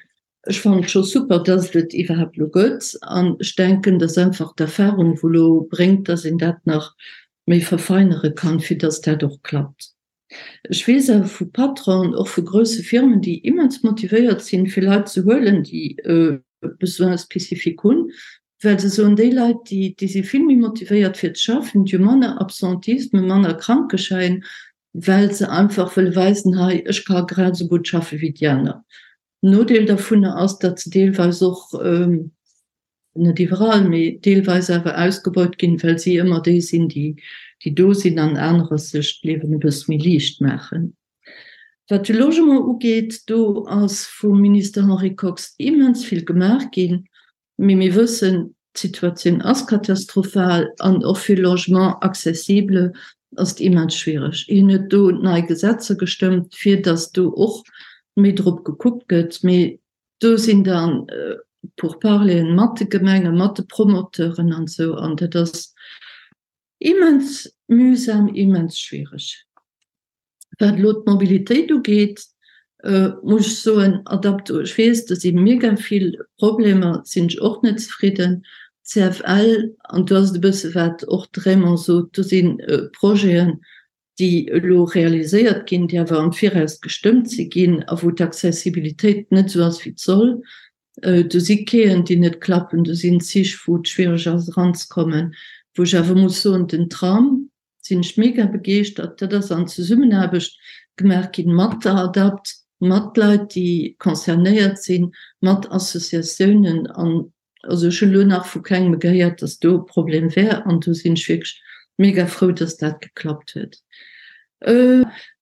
Ech fannen et scho super, dass et et iwwerhaapt elo gëtt. An ech denken, dass einfach d'Erfahrung, wou elo bréngt, dass een dat nach méi verfeinere kann, fir dass dat och klappt. Ech weess awer vu Patronen, och vu grousse Firmen, déi immens motivéiert sinn, fir Leit ze huelen, déi e Besoin spécifique hunn, well se soen, déi Leit, déi, déi si vill méi motivéiert fir ze schaffen, déi hu manner Absentisme, manner Krankeschäin, well se einfach wëlle weisen, hei, ech ka grad esou gutt schaffe wéi déi aner. Nodeel dovunner ass, datt se deelweis och, net iwwerall, mee deelweis awer ausgebeut ginn, well si ëmmer déi sinn, déi, déi do sinn an anerer sech d'Liewen e bësse méi liicht maachen. Wat de Logement ugeet, do ass vum Minister Henri Kox immens vill gemaach ginn, mee mir wëssen, d'Situatioun ass katastrophal an och fir Logement accessible ass et immens schwiereg. Hien huet do nei Gesetzer gestëmmt, fir datt do och méi drop gekuckt gëtt, mee Do sinn da Pourparleren mat de Gemengen, mat de Promoteuren an esou, an dat ass immens mühsam, immens schwiereg. Wat elo d'Mobilitéit ugeet, muss ech soen, Adapto, ech weess, do si mega vill Problemer, sinn ech och net zefridden. CFL, an do ass et e bësse wat och de Raymond sot, do si Projeten, déi elo realiséiert ginn, déi awer am Viraus gestëmmt si ginn a wou d'Accessibilitéit net esou ass, wéi et soll. Do si Quaien, déi net klappen, do sinn Zich, wou et schwiereg ass eranzekommen. Wou ech awer muss soen, den Tram, sinn ech mega begeeschtert. Dat ass an Zesummenaarbecht gemaach ginn mat der ADAPT, mat Leit, déi concernéiert sinn, mat Associatiounen. An Also ech hunn elo nach vu kengem gehéiert, dass do e Problem wär an do sinn ech wierklech mega frou, dass dat geklappt huet.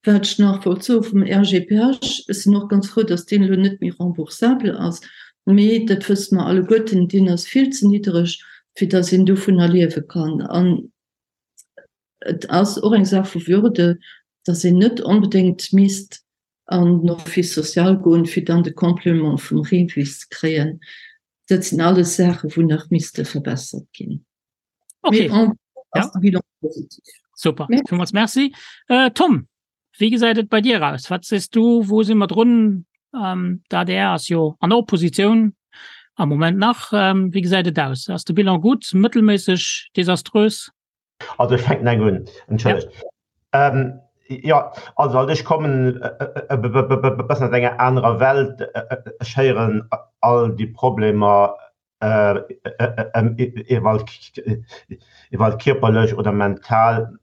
Wat ech nach wollt soe vum RGPH, ech sinn och ganz frou, dass deen elo net méi remboursabel ass, mee dat wësse mer alleguerten, deen ass vill ze niddereg, fir dass een dovunner liewe kann. An et ass och eng Saach vu Würde, dass een net onbedéngt misst an den Office social goen, fir dann de Complément vum REVIS ze kréien. Dat sinn alles Saachen, wou nach misste verbessert ginn. Okay. Mee en gros Ja. ass de Bilan positiv. Super, Merci. villmools Merci. Äh, Tom, wéi gesäit et bei dir aus? Wat sees du, wou si mer drun? Ähm, D'ADR ass jo an der Oppositioun am Moment nach. Ähm, wéi gesäit et aus? Ass de Bilan gutt, mëttelméisseg, desaströs? Also ech fänken eng un, entschëllegt. Jo, also halt ech kommen e bëssen aus enger anerer Welt. Ech héieren all déi Problemer iwwer kierperlech oder mental,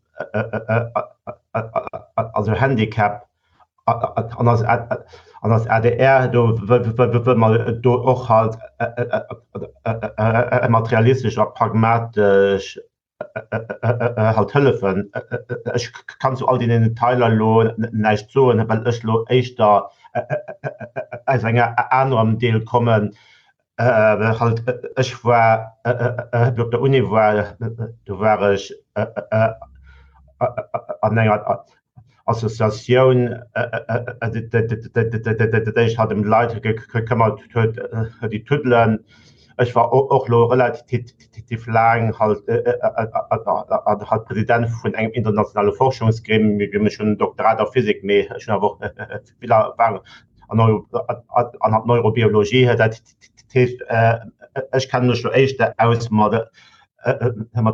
also Handicap an als an als adr do wëlle mer do och halt materialistesch a pragmatesch halt hëllefen. Ech kann zu all deenen Detailer elo näischt soen, well ech elo éischter aus enger anerem Deel kommen. Halt ech war, wéi op der Uni war, do war ech an enger Associatioun, déi sech halt ëm d'Leit gekëmmert huet, déi tuddelen. Ech war och elo relativ laang halt halt President vun engem internationale Forschungsgremium. Ech hunn en Doktorat a Physik, mee ech hunn awer och vill Erfahrung an Neurobiologie. Dat heescht, ech kenne mech elo éischter aus mat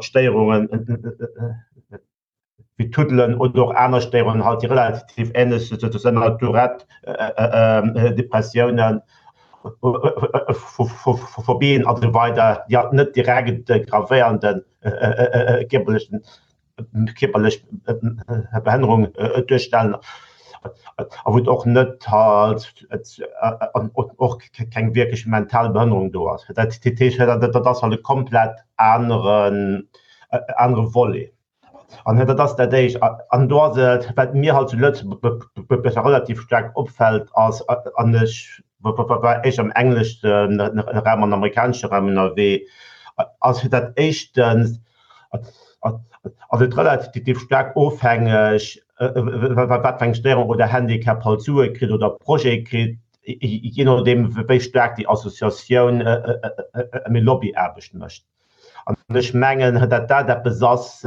Stéierungen, wéi Tuddelen oder och aner Stéierungen halt, déi relativ änlech sinn, Tourette, Depressiounen, Phobien a sou weider, déi halt net direkt e gravéierende kierperlechen, kierperlech Behënnerung duerstellen a wou et och net halt och keng wierklech mental Behënnerung do ass. Dat heescht, dat ass halt e komplett aneren, anere Volet. An dat ass dat Éischt. An do ass et, wat mir halt zu Lëtzebuerg relativ staark opfält, ass, an ech war éischter am englesche Raum an amerikanesche Raum ënnerwee, ass fir dat éischtens ass et relativ staark ofhängeg, wat fir eng Stéierung oder Handicap halt Sue kritt oder Projet kritt, jee nodeem wéi staark déi Associatioun méi Lobbyaarbecht mécht. An ech mengen, datt dat eppes ass,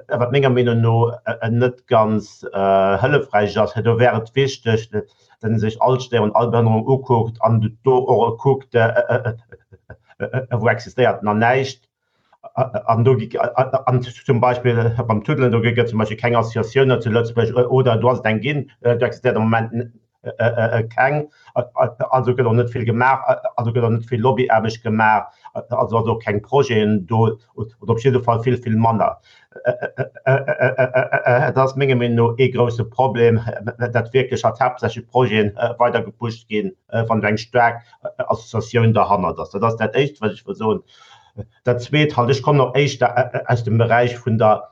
wat menger Meenung no net ganz hëllefräich ass. Do wär et wichteg, datt ee sech all Stéierung, all Behënnerung ukuckt an do och kuckt, wou existéiert nach näischt. An do an zum Beispill beim Tuddelen, do gëtt zum Beispill keng Associatioun zu Lëtzebuerg oder do ass et eng ginn, do existéiert am Moment keng. Also gëtt och net vill gemaach, also gëtt och net vill Lobbyaarbecht gemaach, also ass och keng Projeten do oder op jidde Fall vill, vill manner. Et ass menger Meenung no ee grouse Problem, datt wierklech halt haaptsächlech Projete weider gepusht ginn, wann do eng staark Associatioun derhannert ass. Dat ass dat Éischt, wat ech wëll soen. Dat Zweet halt, ech kommen och éischter aus dem Beräich vun der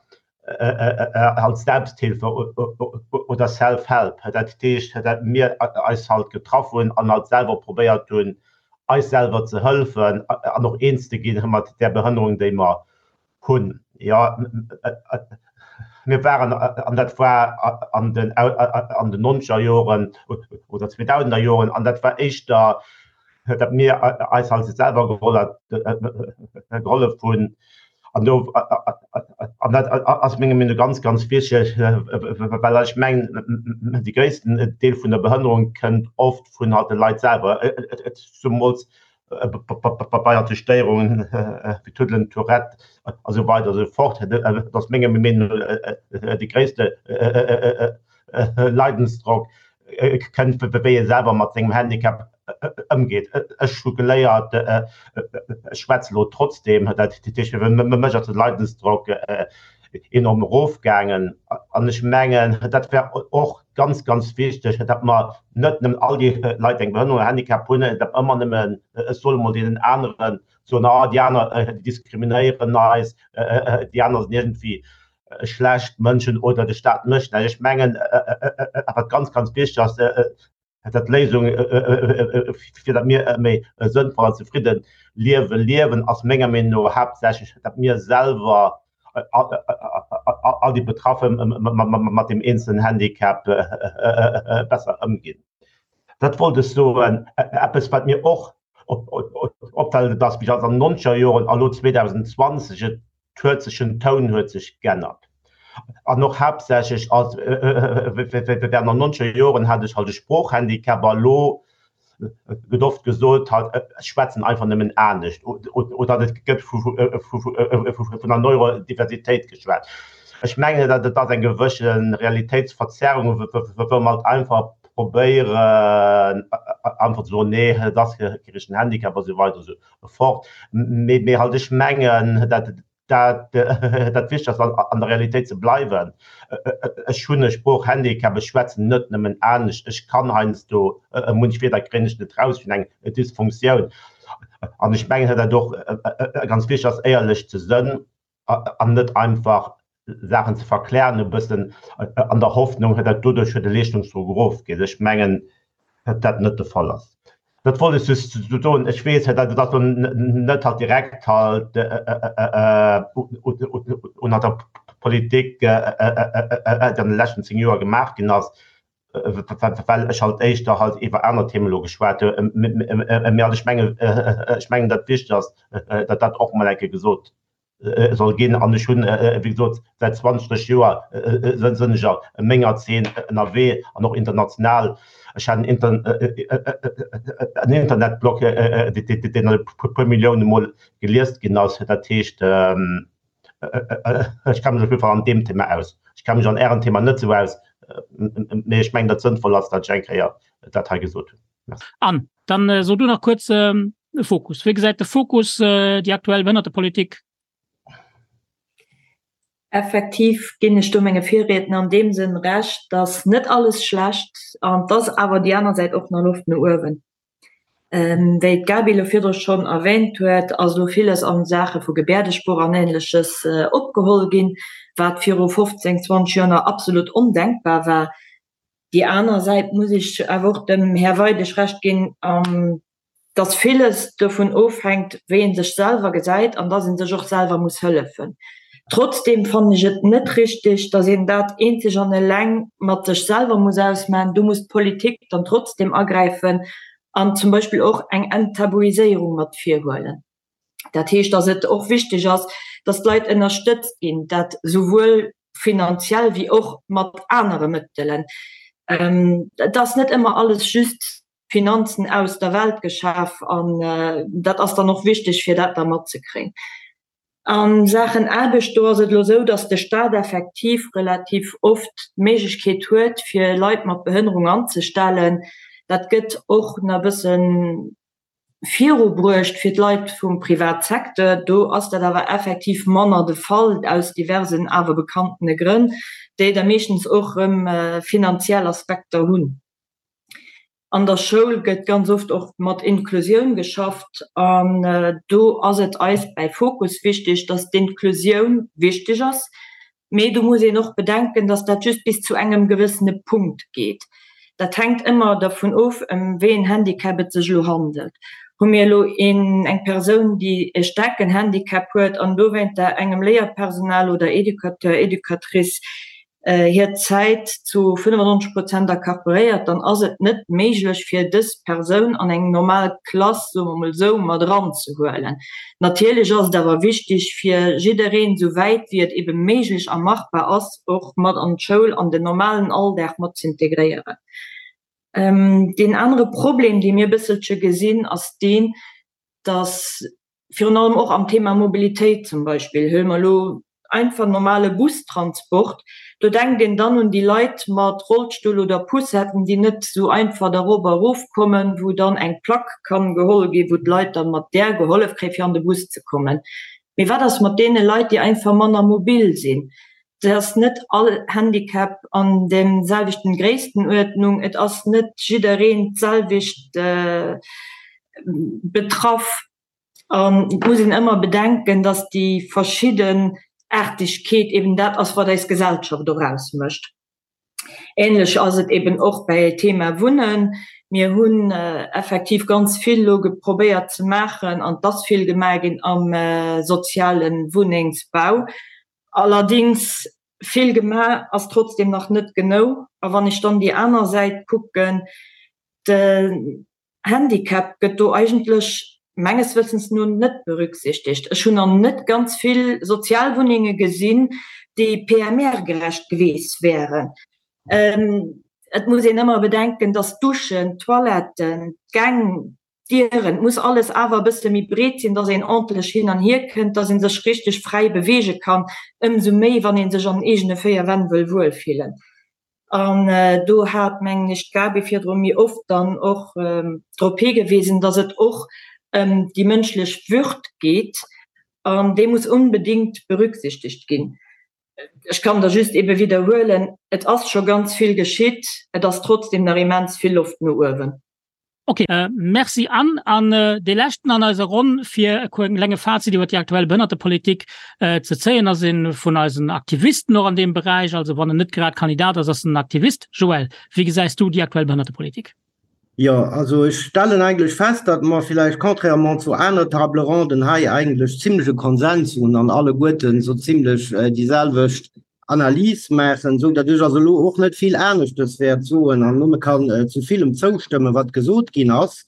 halt Selbsthilfe oder Self-Help. Dat heescht, dat mir eis halt getraff hunn an halt selwer probéiert hunn, eis selwer ze hëlfen an och eens ze ginn mat där Behënnerung, déi mer hunn. Jo, mir waren, an dat war an den an den nonzeger Joren oder zweedausender Joren, an dat war éischter, datt mir eis halt selwer gehollef hunn. An do, an dat ass menger Meenung no ganz, ganz wichteg, well ech mengen, de gréissten Deel vun der Behënnerung kënnt oft vun halt de Leit selwer, zemools bei halt de Stéierungen wéi Tuddelen, Tourette a sou weider a sou fort. Dat ass menger Meenung no de gréisste Leidensdrock kënnt, wéi ee selwer mat sengem Handicap ëmgeet. Ech hu geléiert, ech schwätze lo trotzdeem, dat heescht, fir mech ass de Leidensdrock enorm erofgaangen. An ech mengen, dat wär och ganz, ganz wichteg, datt mer net nëmmen all déi Leit, déi eng Behënnerung oder Handicap hunn, datt mer ëmmer nëmmen, ech soe mol, deenen aneren soen, ah, déi aner, déi diskriminéieren eis, déi aner sinn iergendwéi schlecht Mënschen oder de Staat mécht näischt. Ech mengen, wat ganz, ganz wichteg ass, dat d'Léisung, fir datt mir e méi sënnvoll an zefridde Liewe liewen, ass menger Meenung no haaptsächlech, datt mir selwer, all déi Betraffe mat deem eenzelen Handicap besser ëmginn. Dat wollt ech soen. Eppes, wat mir och opfält, et ass, wéi an den nonzeger Joren a lo 2020, et huet sech den Toun huet sech g'ännert an och haaptsächlech als während den nonzeger Joren hat ech halt e Sproochhandicap a lo gëtt oft gesot halt ech schwätzen einfach nëmmen anescht oder et gëtt vu vun der Neurodiversitéit geschwat. Ech mengen dat et ass eng gewësse Realitéitsverzerrung wou mer halt einfach probéieren einfach ze soen nee et ass kee richtegen Handicap a sou weider a sou fort. Mee, mee halt ech mengen, dat, dat, dat wichteg ass, an der Realitéit ze bleiwen. Ech hunn e Sproochhandicap, ech schwätzen net nëmmen anescht, ech kann heiansdo munch Wierder kréien ech net raus, ech hunn eng Dysfunktioun. An ech mengen, dat och ganz wichteg ass, éierlech ze sënn an net einfach Saachen ze verklären e bëssen an der Hoffnung, datt doduerch de Leeschtungsdrock erofgeet. Ech mengen, datt dat net de Fall ass. Dat wollt ech just soen. Ech weess, datt dat elo net halt direkt halt un der Politik, déi an de leschten 10 Joer gemaach ginn ass, well ech halt éischter halt iwwer aner Themen elo geschwat hunn. Mee halt ech mengen, ech mengen, datt wichteg ass, datt dat och mol eng Kéier gesot soll ginn. An ech hunn, wéi gesot, säit 20 Joer sënn ech a menger Zeen ënnerwee an och international. Ech hat en Internetblog, deen e puer Millioune Mol geliest ginn ass. Dat heescht, ech kenne mech op jidde Fall an deem Thema aus. Ech kenne mech an Ärem Thema net esou aus, mee ech mengen, datt et sënnvoll ass, datt ech eng Kéier dat hei gesot hunn. Merci. Anne, dann so du nach kuerz De Fokus. Wéi gesäit de Fokus déi aktuell Behënnertepolitik? Effektiv ginn ech do menge Virriedner an deem Sënn Recht, dass net alles schlecht an dass awer déi aner Säit och nach Loft no uewen. Wéi d'Gaby elo virdru schonn erwähnt huet, ass elo villes a Saache vu Gebäerdesprooch an Ähnleches opgeholl ginn, wat viru 15, 20 Joer nach absolut ondenkbar war. Déi aner Säit muss ech awer och dem Här Weidig Recht ginn, dass villes dovun ofhänkt, wéi ee sech selwer gesäit an dass ee sech och selwer muss hëllefen. Trotzdeem fannen ech et net richtig, dass een dat eenzeg an eleng mat sech selwer muss ausmachen. Do muss d'Politik dann trotzdeem agräifen an zum Beispill och eng Enttabuiséierung mat virhuelen. Dat heescht, dass et och wichteg ass, dass d'Leit ënnerstëtzt ginn, dat souwuel finanziell wéi och mat anere Mëttelen. Et ass net ëmmer alles just Finanzen aus der Welt geschaf an dat ass dann och wichteg, fir dat da matzekréien. A Saachen Aarbecht, do ass et elo esou, datt de Stat effektiv relativ oft d'Méiglechkeet huet, fir Leit mat Behënnerung anzestellen. Dat gëtt och nach e bësse virubruecht fir d'Leit vum Privatsecteur. Do ass dat awer effektiv manner de Fall, aus diversen awer bekannene Grënn, déi da meeschtens och erëm finanziell Aspekter hunn. An der Schoul gëtt ganz oft och mat Inklusioun geschafft an do ass et eis bäi Fokus wichteg, dass d'Inklusioun wichteg ass, mee do muss een och bedenken, dass dat just bis zu engem gewëssene Punkt geet. Dat hänkt ëmmer dervun of, ëm wéi en Handicap et sech elo handelt. Hu mir elo een, eng Persoun, déi e staarken Handicap huet an dowéinter engem Léierpersonal oder Educateur, Educatrice hir Zäit zu 95 Prozent accaparéiert, dann ass et net méiglech fir dës Persoun an eng normal Klass, soe mer mol esou, mat eranzehuelen. Natierlech ass et awer wichtig fir jiddereen, esou wäit wéi et ebe méiglech a machbar ass, och mat an d'Schoul, an den normalen Alldag mat z'integréieren. Deen anere Problem, dee mir e bësselche gesinn, ass deen, dass virun allem och am Thema Mobilitéit zum Beispill, huele mer elo einfach normale Bustransport, do denkt een dann un déi Leit mat Rollstull oder Poussetten, déi net esou einfach da rop a rofkommen, wou dann eng Plack kann geholl ginn, wou d'Leit dann mat där gehollef kréien, fir an de Bus ze kommen. Mee wat ass mat deene Leit, déi einfach manner mobil sinn? Et ass net all Handicap an der selwechten Gréisstenuerdnung, et ass net jiddereen d'selwecht betraff an et muss een ëmmer bedenken, dass déi Verschiddenaartegkeet eben dat ass, wat eis Gesellschaft och ausmécht. Ähnlech ass et eben och bei Thema Wunnen. Mir hunn effektiv ganz vill elo geprobéiert ze maachen an et ass vill gemaach ginn am soziale Wunnengsbau. Allerdings, vill gemaach ass trotzdem nach net genou. A wann ech dann déi aner Säit kucken, den Handicap gëtt do eigentlech menges Wëssens no net berücksichtegt. Ech hunn nach net ganz vill Sozialwunnenge gesinn, déi PMR-gerecht geweest wären. Et muss een ëmmer bedenken, dass d'Duschen, d'Toiletten, d'Gäng, d'Dieren, et muss alles awer e bësse méi breet sinn, dass een ordentlech hin an hier kënnt, dass ee sech richteg fräi beweege kann, ëmsou méi, wann ee sech an den eegene 4 Wänn wëll wuelfillen. An do hat, mengen ech, d'Gaby virdru méi oft dann och drop higewisen, dass et och ëm déi mënschlech Würd geet an déi muss onbedéngt berücksichtegt ginn. Ech kann da just ebe widderhuelen, Et ass scho ganz vill geschitt, et ass trotzdem nach immens vill Loft no uewen. Ok, Merci Anne. An dee leschten an eiser Ronn, fir e klenge Fazit iwwer déi aktuell Behënnertepolitik ze zéien, ass ee vun eisen Aktivisten och an deem Beräich, also wann en net grad Kandidat ass, ass en Aktivist. Joël, wéi gesäis du déi aktuell Behënnertepolitik? Jo, also ech stellen eigentlech fest, datt mer villäicht contrairement zu aner Table ronden hei eigentlech zimlech e Konsens hunn an alleguerten esou zimlech déi selwecht Analys maachen, esou datt ech also elo och net vill aneschtes wäert soen an nëmme kann zu villem zoustëmmen, wat gesot ginn ass.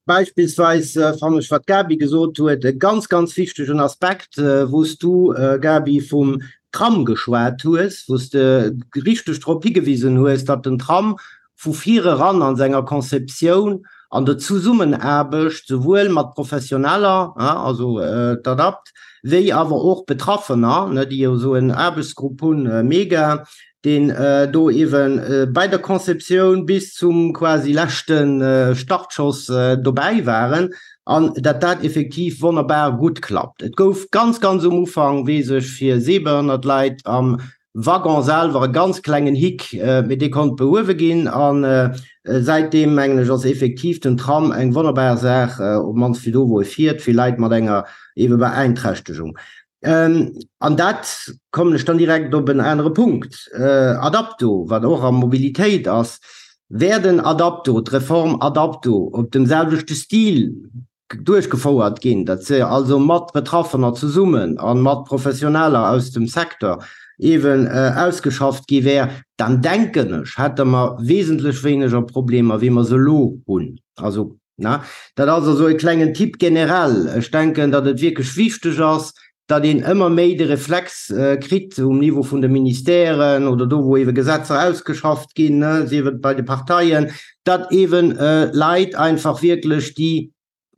Beispillsweis fannen ech, wat d'Gaby gesot huet, e ganz, ganz wichtegen Aspekt, wou s du, Gaby, vum Tram geschwat hues, wou s de richteg drop higewisen hues, datt den Tram vu vir eran an senger Conceptioun an der Zusummenaarbecht souwuel mat Professioneller, also d'ADAPT, wéi awer och Betraffener, déi jo esou en Aarbechtsgrupp hunn, MEGA, deen do ewe bei der Conceptioun bis zum quasi leschte Startschoss dobäi waren, an dat dat effektiv wonnerbar gutt klappt. Et gouf ganz, ganz um Ufank, weess ech, fir sehbehënnert Leit am Waggon selwer e ganz klengen Hick, mee dee konnt behuewe ginn an säitdeem, mengen ech, ass effektiv den Tram eng wonnerbar Saach, op d'mannst fir do, wou e fiert, fir Leit mat enger eebe Beeinträchtegung. An dat kommen ech dann direkt op en anere Punkt, Adapto, wat och a Mobilitéit ass. Wär den Adapto, d'Reform Adapto op dem selwechte Stil duerchgefouert ginn, datt se also mat Betraffener zesummen a mat Professioneller aus dem Secteur eeben ausgeschafft gi wär, dann denken ech, hätte mer wesentlech wéineger Problemer, wéi mer se elo hunn. Also, ne, dat ass also e klengen Tipp generell. Ech denken, datt et wierklech wichteg ass, datt een ëmmer méi de Reflex kritt um Niveau vun de Ministèren oder do, wou eebe Gesetzer ausgeschafft ginn, sief et bei de Parteien, datt eeben Leit einfach wierklech déi.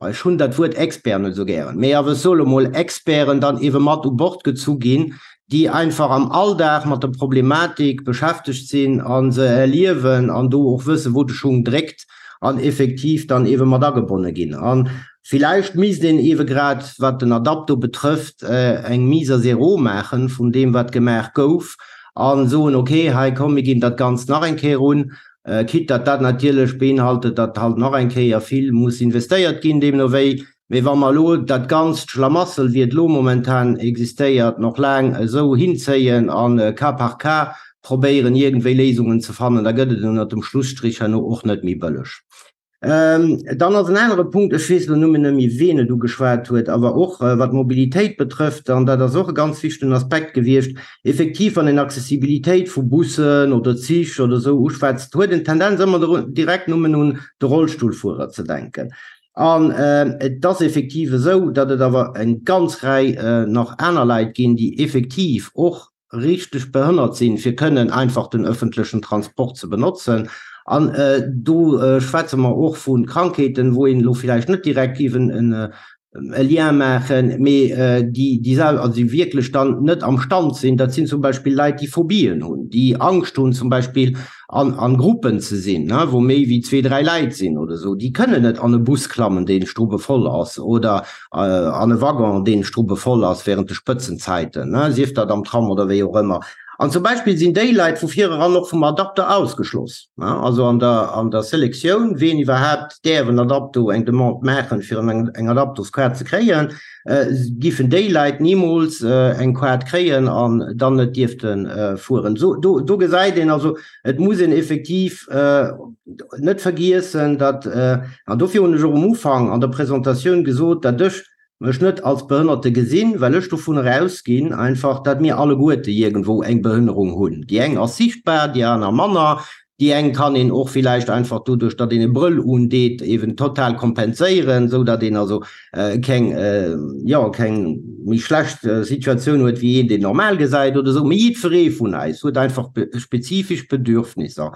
Ech hunn dat Wuert Expert net esou gären, mee awer ech soe lo mol Experten dann eebe mat u Bord gezu ginn, déi einfach am Alldag mat der Problematik beschäftegt sinn a se erliewen an do och wëssen, wou de Schung dréckt an effektiv dann eebe mat agebonne ginn. A villäicht misst een eebe grad, wat den Adapto betrëfft, eng Mise à zéro maache vun deem, wat gemaach gouf a soen, okay, hei komm, mir ginn dat Ganzt nach eng Kéier un, Quitte datt dat natierlech beinhaltet, datt halt nach eng Kéier vill muss investéiert ginn, deemno wéi. Mee wa mer elo dat ganzt Schlamassel, wéi et elo momentan existéiert, nach laang esou hinzéien a cas par cas probéieren, iergendwéi Léisungen ze fannen, da gëtt et ënnert dem Schlusstrich herno och net méi bëlleg. Dann ass en anere Punkt, ech weess elo nëmmen net méi, ween et ugeschwat huet, awer och wat d'Mobilitéit betrëfft, an dat ass och e ganz wichtegen Aspekt gewiescht, effektiv, wann een Accessibilitéit vu Bussen oder Zich oder esou uschwätzt, huet een d'Tendenz ëmmer direkt nëmmen un de Rollstullfuerer ze denken. An et ass effektiv esou, datt et awer eng ganz Rei nach aner Leit ginn, déi effektiv och richteg behënnert sinn, fir kënnen einfach den öffentlechen Transport ze benotzen. An do schwätze mer och vu Krankheeten, wou een elo villäicht net direkt géif e Lien maachen, mee déi déi sel also déi wierklech dann net am Stand sinn. Dat sinn zum Beispill Leit, déi Phobien hunn, déi Angscht hunn zum Beispill an an Gruppen ze sinn, ne, wou méi wéi zwee, dräi Läit sinn oder esou. Déi kënnen net an e Bus klammen, dee strubbevoll ass, oder an e Waggon, dee strubbevoll ass während de Spëtzenzäiten, ne, sief dat am Tram oder wéi och ëmmer. An zum Beispill sinn déi Leit vu vireran och vum Adapter ausgeschloss, ne, also an der an der Selektioun, ween iwwerhaapt däerf en Adapto, eng Demande maachen, fir en eng Adaptoskaart ze kréien, giffen déi Leit nimools eng Kaart kréien an dann net dierfte fueren. Sou, do, do gesäit een also, et muss een effektiv net vergiessen, datt, an dofir hunn ech och um Ufank an der Presentatioun gesot, datt ech mech net als Behënnerte gesinn, well ech dovunner ausginn einfach, datt mir alleguerte iergendwou eng Behënnerung hunn. Déi eng ass sichtbar, déi aner manner. Déi eng kann een och villäicht einfach doduerch, datt een e Brëll undeet, eben total kompenséieren, esou datt een also keng, jo, keng méi schlecht Situatioun huet wéi een, deen normal gesäit oder esou. Mee jiddweree vun eis huet einfach spezifesch Bedürfnisser.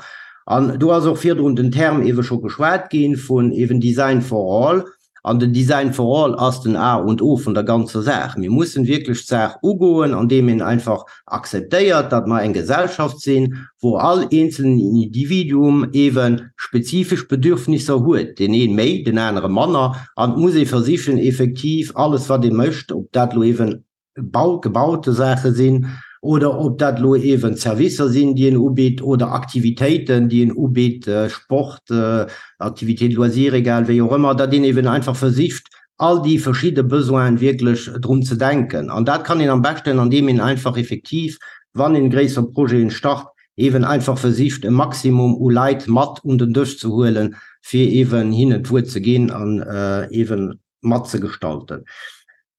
An do ass och virdrun den Term eebe scho geschwat ginn vun eben Design for all. An den Design for all ass den A und O vun der ganzer Saach. Mir mussen wierklech d'Saach ugoen, andeem een einfach akzeptéiert, datt mer eng Gesellschaft sinn, wou all eenzelnen Individuum eebe spezifesch Bedürfnisser huet, deen ee méi, den anere manner. An et muss ee versichen, effektiv alles, wat ee mécht, ob dat elo eeben Bau, gebaute Saache sinn oder ob dat elo eeben Servicer sinn, déi een ubitt oder Aktivitéiten, déi een ubitt, Sport, Activités de loisirs, egal wéi och ëmmer, datt een eeben einfach versicht, all déi verschidde Besoinen wierklech drun ze denken. An dat kann een am beschten, andeem een einfach effektiv, wann een gréisser Projeten start, eeben einfach versicht, e Maximum u Leit mat un den Dësch ze huelen, fir eeben hinnen d'Wuert ze ginn an eeben mat ze gestalten.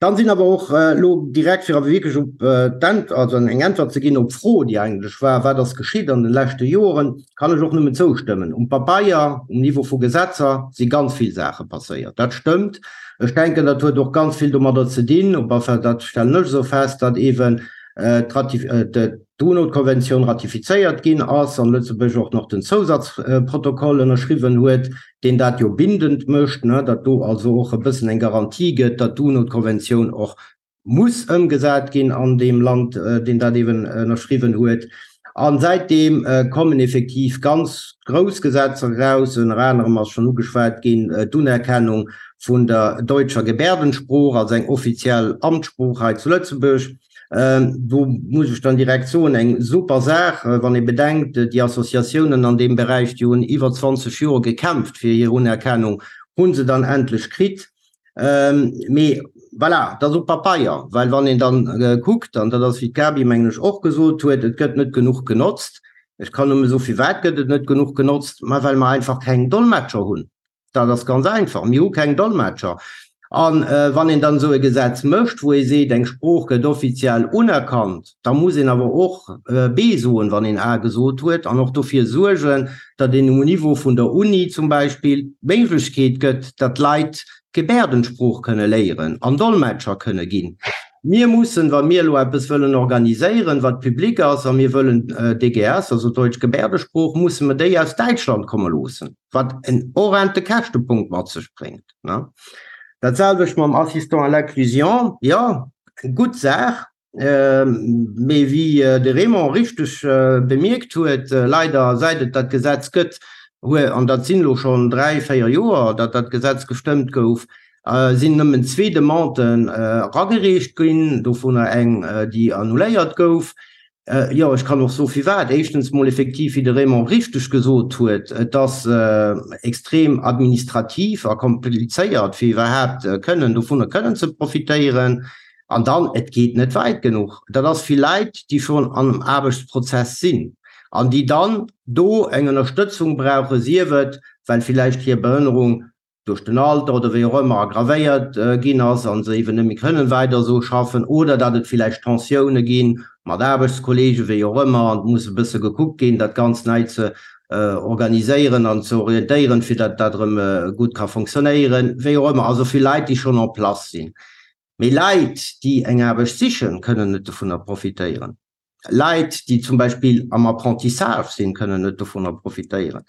Dann sinn awer och elo direkt, fir awer wierklech op d'Änt-, also eng Äntwert ze ginn op d'Fro, déi eigentlech war, Wat ass geschitt an de leschte Joren? kann ech och nëmmen zoustëmmen. Um Pabeier, um Niveau vu Gesetzer si ganz vill Saache passéiert. Dat stëmmt. Ech denken, dat huet och ganz vill domadder ze dinn, op alle Fall dat stellen ech esou fest, datt eeben d'UNO-Konventioun ratifizéiert ginn ass an Lëtzebuerg och nach den Zousatzprotokoll ënnerschriwwen huet, deen dat jo bindend mécht, datt do also och e bëssen eng Garantie gëtt, datt d'UNO-Konventioun och muss ëmgesat ginn an deem Land, deen dat eeben ënnerschriwwen huet. A säitdeem kommen effektiv ganz grouss Gesetzer eraus, ënner anerem ass schonn ugeschwat ginn d'Unerkennung vun der deutscher Gebärdensprooch als eng offiziell Amtssprooch hei zu Lëtzebuerg. Do muss ech dann direkt soen, eng super Saach, wann ee bedenkt, déi Associatiounen an deem Beräich, déi hunn iwwer 20 Joer gekämpft fir hir Unerkennung, hu se dann endlech kritt. Mee voilà, dat ass op Papeier, well wann een dann kuckt, an dat ass, wéi d'Gaby, mengen ech, och gesot huet, et gëtt net genuch genotzt. Ech kann nëmme soen, firwat gëtt et net genuch genotzt? Ma well mer einfach keng Dolmetscher hunn. Dat ass ganz einfach, Mir hu keng Dolmetscher. A wann een dann esou e Gesetz mécht, wou ee seet, eng Sprooch gëtt offiziell unerkannt, da muss een awer och B soen, wann een A gesot huet, an och dofir suergen, datt een um Niveau vun der Uni zum Beispill d'Méiglechkeet gëtt, datt d'Leit d'Gebärdensprooch kënne léieren an Dolmetscher kënne ginn. Mir mussen, wa mir elo eppes wëllen organiséieren, wat public ass, a mir wëllen DGS, also Deutsch Gebärdesprooch, musse mer déi aus Däitschland komme loossen. wat en horrende Käschtepunkt mat sech bréngt. Dat selwecht mam Assistant à l'inclusion, jo, gutt Saach, mee wéi de Raymond richteg bemierkt huet, leider säit et dat Gesetz gëtt, an dat sinn elo schonn dräi, véier Joer, datt dat Gesetz gestëmmt gouf, sinn nëmmen zwee Demanden eragereecht ginn, dovunner eng, déi annuléiert gouf. Jo, ech kann och soe firwat. Éischtens mol effektiv, wéi de Raymond richteg gesot huet, et ass extrem administrativ a komplizéiert, fir iwwerhaapt kënnen dovunner kënnen ze profitéieren. An dann, et geet net wäit genuch. Dat ass fir Leit, déi schonn am Aarbechtsprozess sinn an déi dann do eng Ënnerstëtzung brauchen, sief et, well villäicht hir Behënnerung duerch den Alter oder wéi och ëmmer aggravéiert ginn ass a se eeben net méi kënnen weider esou schaffen oder datt et villäicht Tensioune gi mat Aarbechtskolleegen, wéi och ëmmer, an et muss e bësse gekuckt ginn, dat Ganzt nei ze organiséieren an ze orientéieren, fir datt dat erëm gutt ka fonctionnéieren, wéi och ëmmer. Also fir Leit, déi schonn en place sinn. Mee Leit, déi eng Aarbecht sichen, kënnen net dovunner profitéieren. Leit, déi zum Beispill am Apprentissage sinn, kënnen net dovunner profitéieren.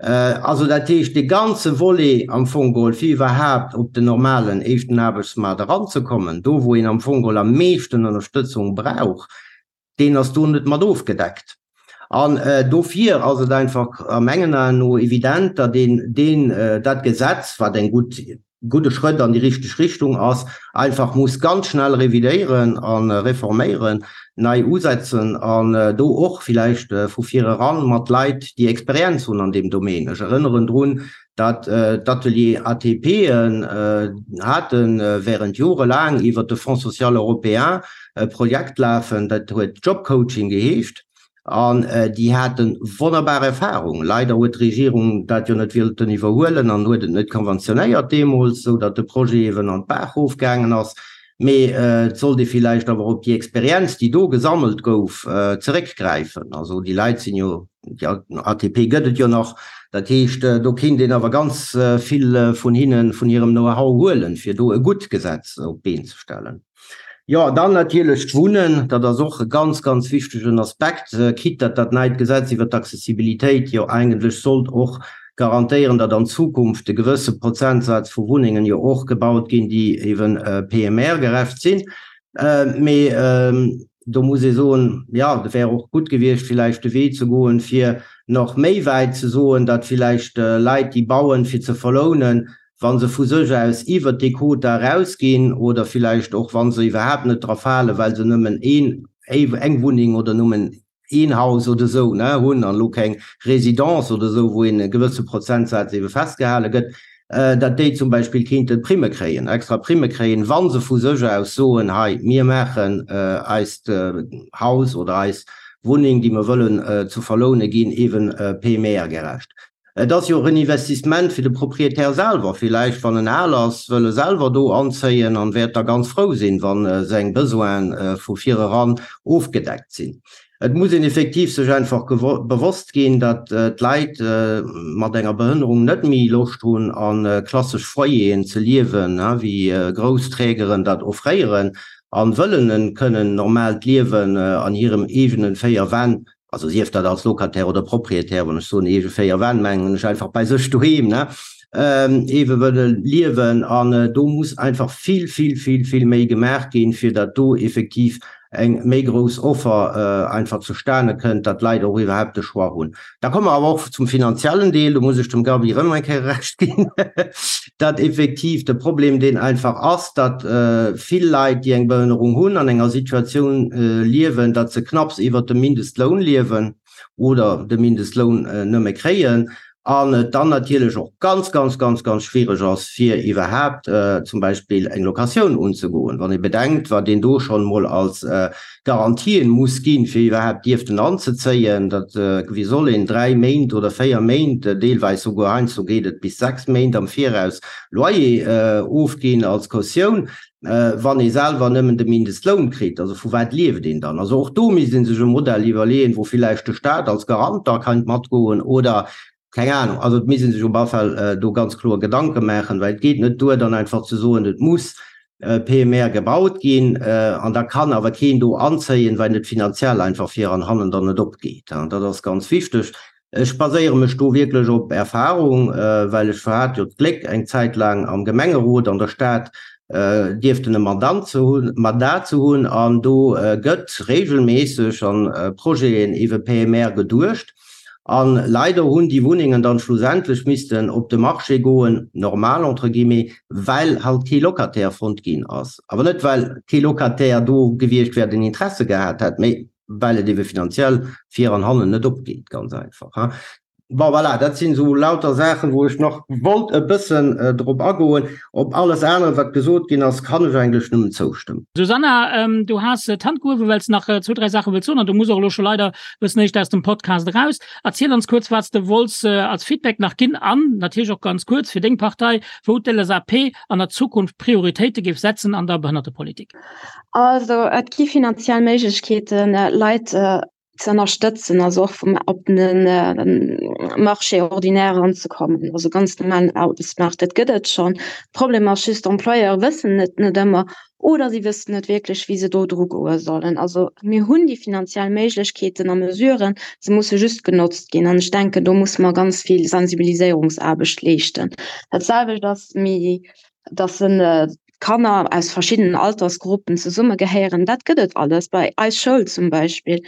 Also dat heescht, dee ganze Volet am Fong geholl, fir iwwerhaapt op den normalen éischten Aarbechtsmaart eranzekommen, do wou een am Fong geholl am meeschten Ënnerstëtzung brauch, deen ass do net mat ofgedeckt. An dofir ass et einfach a mengen Aen no evident, datt een deen, dat Gesetz, wat eng gutt, gudde Schrëtt an déi richteg Richtung ass, einfach muss ganz schnell revidéieren a reforméieren, nei usetzen an do och villäicht vu vir eran mat Leit, déi Experienz hunn an deem Domaine. Ech erënneren drun, datt d'Atelier ATPen hate während jorelaang iwwert de Fonds social européen e Projekt lafen, dat huet Jobcoaching geheescht. An déi hate wonnerbar Erfahrung. Leider huet d'Regierung dat jo net wëllten iwwerhuelen an huet et net konventionéiert deemools, esou datt de Projet eeben an d'Baach erofgaangen ass. Mee et sollt ee villäicht awer op déi Experienz, déi do gesammelt gouf, zeréckgräifen. Also déi Leit sinn jo, déi ATP gëtt et jo nach. Dat heescht, do kéint een awer ganz vill vun hinnen, vun hirem Know-how huelen, fir do e gutt Gesetz op d'Been ze stellen. Jo, dann natierlech d'Wunnen, dat ass och e ganz, ganz wichtegen Aspekt, quitte datt dat neit Gesetz iwwert d'Accessibilitéit jo eigentlech sollt och garantéieren, datt an Zukunft e gewësse Prozentsaz vu Wunnengen jo och gebaut ginn, déi eeben PMR-gerecht sinn. Mee do muss ee soen, jo, et wär och gutt gewiescht villäicht de Wee ze goen, fir nach méi wäit ze soen, datt villäicht Leit, déi bauen, fir ze verlounen, wa se vu sech aus iwwert déi Quota erausginn oder villäicht och wa se iwwerhaapt net dra falen, well se nëmmen een, eng Wunneng oder nëmmen een Haus oder esou, ne, hunn an elo keng Résidence oder esou, wou een e gewësse Prozentsaz ebe festgehale gëtt, datt déi zum Beispill kéinte Primme kréien, extra Primme kréien, wa se vu sech aus soen, hei, mir maachen eist Haus oder eis Wunneng, déi mer wëllen zu verloune ginn, eeben PMR-gerecht. Et ass jo och en Investissement fir de Propriétaire selwer. Villäicht, wann en al ass, wëll e selwer do anzéien an wäert da ganz frou sinn, wa seng Besoine vu vireran ofgedeckt sinn. Et muss een effektiv sech einfach bewosst ginn, datt d'Leit mat enger Behënnerung net méi Loscht hunn, a klassesch Foyeren ze liewen, wéi grouss Trägeren dat offréieren, a wëllen e kënnen normaalt Liewen an hirem eegenen 4 Wänn also sief dat als Locataire oder Propriétaire, wann ech soen eege 4 Wänn, mengen ech einfach bei sech doheem, ne, ewe wëlle liewen. An do muss einfach vill, vill, vill, vill méi gemaach ginn, fir datt do effektiv eng méi grouss Offer einfach zustane kënnt, datt d'Leit och iwwerhaupt de Choix hunn. Da komme mer awer och zum finanziellen Deel, do muss ech dem Gaby erëm eng Kéier Recht ginn, datt effektiv de Problem deen einfach ass, datt vill Leit, déi eng Behënnerung hunn, an enger Situatioun liewen, datt se knapps iwwert dem Mindestloun liewen oder de Mindestloun nëmme kréien an et dann natierlech och ganz, ganz, ganz, ganz schwiereg ass, fir iwwerhaapt zum Beispill eng Locatioun unzegoen, wann ee bedenkt, wat een do schonn emol als Garantien muss ginn, fir iwwerhaapt dierften anzezéien, dat, wéi soll een 3 Méint oder 4 Méint, deelweis souguer heiansdo geet et bis 6 Méint am Viraus Loyer ofginn als Kautioun, wann ee selwer nëmmen de Mindestloun kritt? Also vu wat lieft een dann? Also och do misst ee sech e Modell iwwerleeën, wou villäicht de Staat als Garant da keint matgoen oder Keng Ahnung, also et misst ee sech op alle Fall do ganz kloer Gedanke maachen, well et geet net duer, dann einfach ze soen, et muss PMR gebaut ginn an da kann awer keen do anzéien, well et finanziell einfach vir an hannen dann net opgeet. Dat ass ganz wichteg. Ech baséiere mech do wierklech op Erfahrung, well ech hat jo d'Gléck, eng Zäit laang am Gemengerot an der Stad dierften e Mandant ze hunn, Mandat ze hunn, an do gëtt regelméisseg an Projeten iwwe PMR geduecht. A leider hunn déi Wunnengen dann schlussendlech missten op de Marché goen, normal entre guillemets, well halt kee Locataire fonnt ginn ass. Awer net well kee Locataire do gewiescht wär, deen Interesse gehat hätt, mee well et ebe finanziell vir an hannen net opgeet, ganz einfach. Bon, voilà, dat sinn esou lauter Saachen, wou ech nach wollt e bëssen drop agoen. Op alles anere, wat gesot ginn ass, kann ech eigentlech nëmmen zoustëmmen. Susanna, du has d'Hand gehuewen, well s de nach zwou, dräi Saache wëlls soen an du muss och elo scho leider e bëssen éischter aus dem Podcast eraus. Erziel ons kuerz, wat s de wollts als Feedback nach ginn an natierlech och ganz kuerz fir deng Partei, wou d'LSAP an der Zukunft Prioritéite géif setzen an der Behënnertepolitik. Also, et gi finanziell Méiglechkeeten, Leit ze ënnerstëtzen, also och vum op den Marché ordinaire eranzekommen, also ganz normalen Aarbechtsmaart, dat gëtt et schonn. Problem ass just, d'Employeure wëssen et net ëmmer oder si wëssen net wierklech, wéi se do dru goe sollen. Also mir hunn déi finanziell Méiglechkeeten a Mesuren, se musse just genotzt ginn. An ech denken, do musse mer ganz vill Sensibiliséierungsaarbecht leeschten. Dat selwecht ass méi, dass en Kanner aus verschiddenen Altersgruppen zesummegehéieren, dat gëtt et alles bei eis Schoul zum Beispill.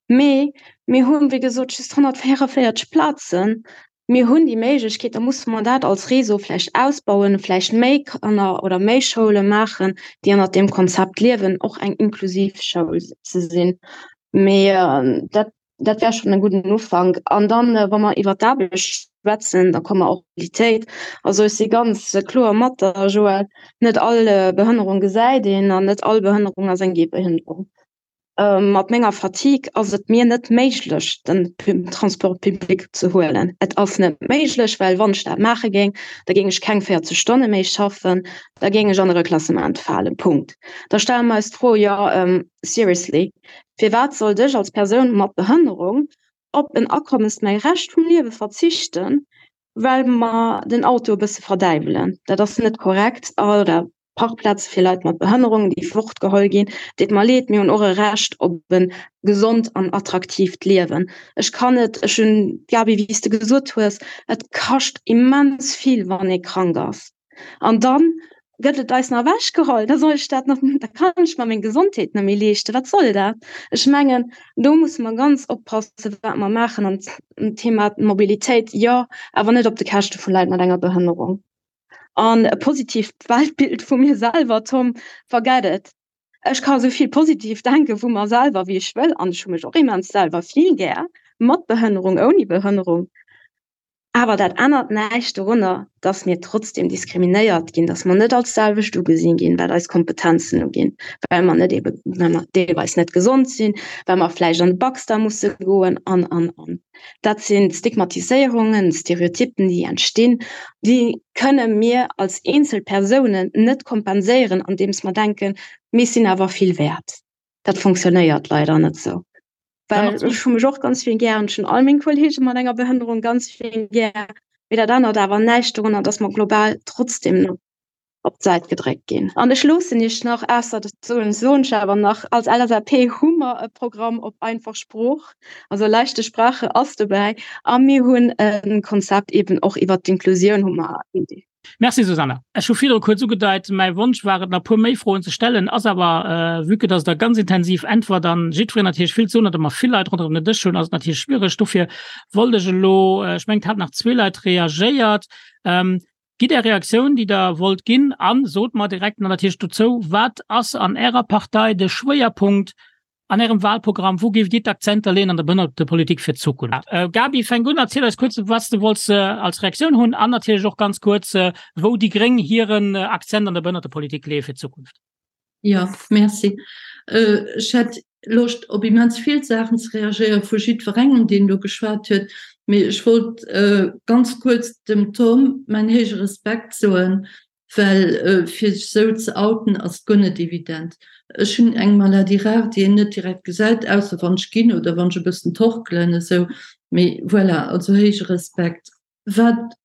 Mee mir hunn, wéi gesot, just 144 Plazen. Mir hunn déi Méiglechkeet, da musse mer dat als Réseau vläicht ausbauen, vläicht méi Kanner oder méi Schoule maachen, déi ënnert deem Konzept liewen, och eng inklusiv Schoul ze sinn. Mee dat Dat wär schonn e gudden Ufank. An dann, wa mer iwwer d'Aarbecht schwätzen, da komme mer och op d'Mobilitéit. Also ech si ganz kloer mat der, Joël, net all Behënnerung gesäit een an net all Behënnerung ass eng Gehbehënnerung. Mat menger Fatigue ass et mir net méiglech, den Transport public ze huelen. Et ass net méiglech, well wann ech dat maache géing, da géing ech keng 40 Stonne méi schaffen, da géing ech an e Reklassement falen. Punkt. Da stelle mer eis d'Fro, jo, seriously, Firwat sollt ech als Persoun mat Behënnerung op en Akommes mäi Rescht vum Liewe verzichten, well mer den Auto e bësse verdäiwelen? Dat ass net korrekt. Oder Parkplaze fir Leit mat Behënnerung, déi fortgeholl ginn. Deet mer leed, mir hunn och e Recht op e gesond an attraktiivt Liewen. Ech kann net, ech hunn, Gaby, wéi s de gesot hues, et kascht immens vill, wann ee krank ass. An dann gëtt et eis nach ewechgeholl, da soll ech dat nach, da kann ech mer meng Gesondheet net méi leeschten. Wat soll dat? Ech mengen, do musse mer ganz oppassen, wat mer maachen. An Thema Mobilitéit, jo, awer net op de Käschte vu Leit mat enger Behënnerung. An e positiivt Weltbild vu mir selwer, Tom, forget it. Ech ka sou vill positiv denke vu mer selwer, wéi ech wëll, an ech hu mech och immens selwer vill gär, mat Behënnerung, ouni Behënnerung. Awer dat ännert näischt dorunner, dass mir trotzdem diskriminéiert ginn, dass mer net als selwecht ugesinn ginn, wat eis Kompetenzen uginn, well mer net ebe, well mer deelweis net gesond sinn, well mer vläicht an de Baxter musse goen an, an, an. Dat sinn Stigmatiséierungen, Stereotypen, déi entstinn, déi kënne mir als eenzel Persounen net kompenséieren, andeems mer denken, mir sinn awer vill wäert. Dat fonctionnéiert leider net esou. Well ech hu mech och ganz vill gär an ech hunn all meng Kolleege mat enger Behënnerung ganz vill gär. Mee dat ännert awer näischt dorunner, datt mer global trotzdem nach op d'Säit gedréckt ginn. An ech loossen Iech nach, ausser dat soen soen ech awer nach, als LSAP hu mer e Programm op einfach Sprooch, also leichte Sprache ass dobäi a mir hunn e Konzept eeben och iwwert d'Inklusioun hu mer. Merci Susanna. Ech hu virdru kuerz ugedeit, mäi Wonsch war et nach e puer méi Froen ze stellen, ass awer, vue que dass Der ganz intensiv äntwert an jiddwereen natierlech vill ze soen huet a mer vill Leit ronderëm den Dësch hunn, ass et natierlech schwiereg. Dofir wollt ech elo, ech mengen et hat nach zwee Leit reagéiert, gitt Är Reaktioun, déi Der wollt ginn a sot mer direkt nach natierlech dozou, wat ass an Ärer Partei de Schwéierpunkt An Ärem Wahlprogramm, wou géift Dir d'Akzenter leeën an der Behënnertepolitik fir d'Zukunft? Gaby, fänk un, erziel eis kuerz, wat s de wollts als Reaktioun hunn an natierlech och ganz kuerz, wou déi gréng hiren Akzent an der Behënnertepolitik leeë fir d'Zukunft. Jo, merci. Ech hätt Loscht, op immens vill Saachen ze reagéieren, vu jiddwerengem, deen do geschwat huet. Mee ech wollt ganz kuerz dem Tom mäin héije Respekt soen, Well fir sech esou ze outen ass guer net evident. Ech hunn eng Maladie rare, déi een net direkt gesäit, ausser wann ech ginn oder wann ech e bëssen torkelen esou. Mee voilà, also héije Respekt. Wat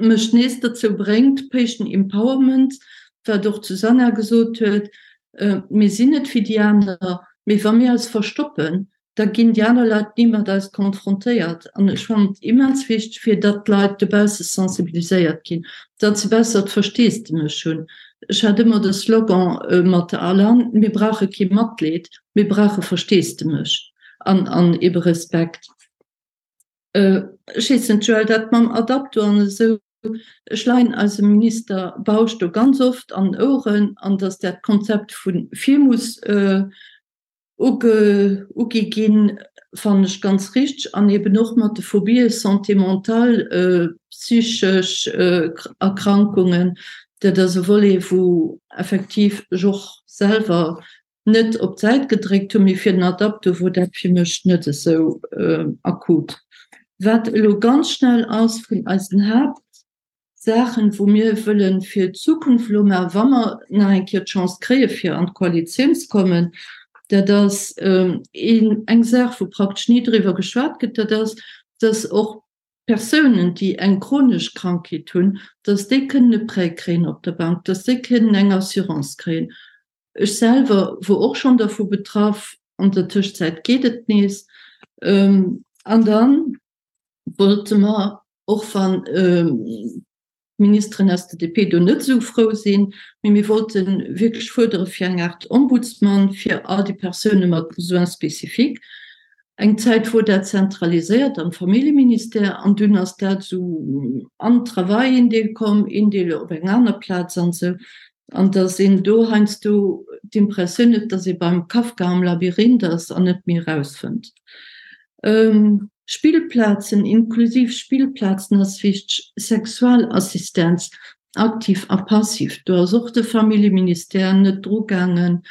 mech nees dozou bréngt, Patient Empowerment, wat och d'Susanna gesot huet, mir sinn net wéi déi aner, mee wa mir eis verstoppen, Da ginn déi aner Leit ni mat eis konfrontéiert. An ech fannen et immens wichteg, fir datt d'Leit dobausse sensibiliséiert ginn, datt se bessert Versteesdemech hunn. Ech hat ëmmer de Slogan mat der Alan, Mir brauche kee Matleed, mir brauche Versteesdemech an an ebe Respekt. Ech weess net, Joël, dat mam Adapto an esou, ech leien eisem Minister Bausch do ganz oft an den Oueren, an datt dat Konzept vu vir muss Ugi ginn, fannen ech ganz richteg, an eben och mat de Phobien, Santé mentale, psychesch Erkrankungen, dat ass e Volet, wou effektiv ech och selwer net op d'Säit gedréckt hunn, mee fir den Adapto wor dat fir mech net esou akut. Wat elo ganz schnell ass vun eisen Haapt. Saachen, wou mir wëllen fir d'Zukunft elo maachen, wa mer nach eng Kéier d'Chance kréie fir an d'Koalitioun ze kommen, dat ass eng Saach, wou praktesch ni driwwer geschwat gëtt, dat ass, dass och Persounen, déi eng chronesch Krankheet hunn, dass déi kënnen e Prêt kréien op der Bank, dass déi kënnen eng Assurance kréien. Ech selwer wor och schonn dervu betraff, an der Tëschzäit geet et nees. An dann wollte mer, och wann d'Ministeren aus der DP do net esou frou sinn, mee mir wollte wierklech fuerdere fir eng Aart Ombudsman fir all déi Persoune mat Besoins spécifiques. Eng Zäit wor dat zentraliséiert am Familljeministère an dunn ass dat esou an Travail een Deel komm, een Deel op eng aner Plaz an esou. An datt een do heiansdo d'Impressioun huet, datt ee beim Kafka am Labyrinth ass an net méi erausfënnt. Spillplazen, inklusiv Spillplazen ass wichteg, Sexualassistenz, aktiv a passiv, do ass och de Familljeministère net drugaangen.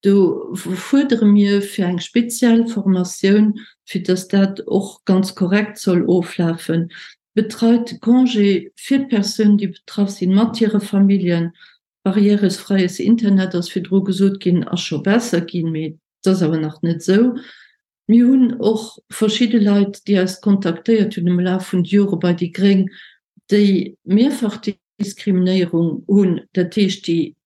Do fuerdere mir fir eng speziell Formatioun, fir datt dat och ganz korrekt soll oflafen. Betreite Congé fir d'Persounen, déi betraff sinn, mat hire Familljen. Barrièresfreies Internet ass virdru gesot ginn, ass scho besser ginn, mee et ass awer nach net esou. Mir hunn och verschidde Leit, déi eis kontaktéiert hunn am Laf vun de Jore bei déi gréng, déi mehrfach Diskriminéierung hunn, dat heescht, déi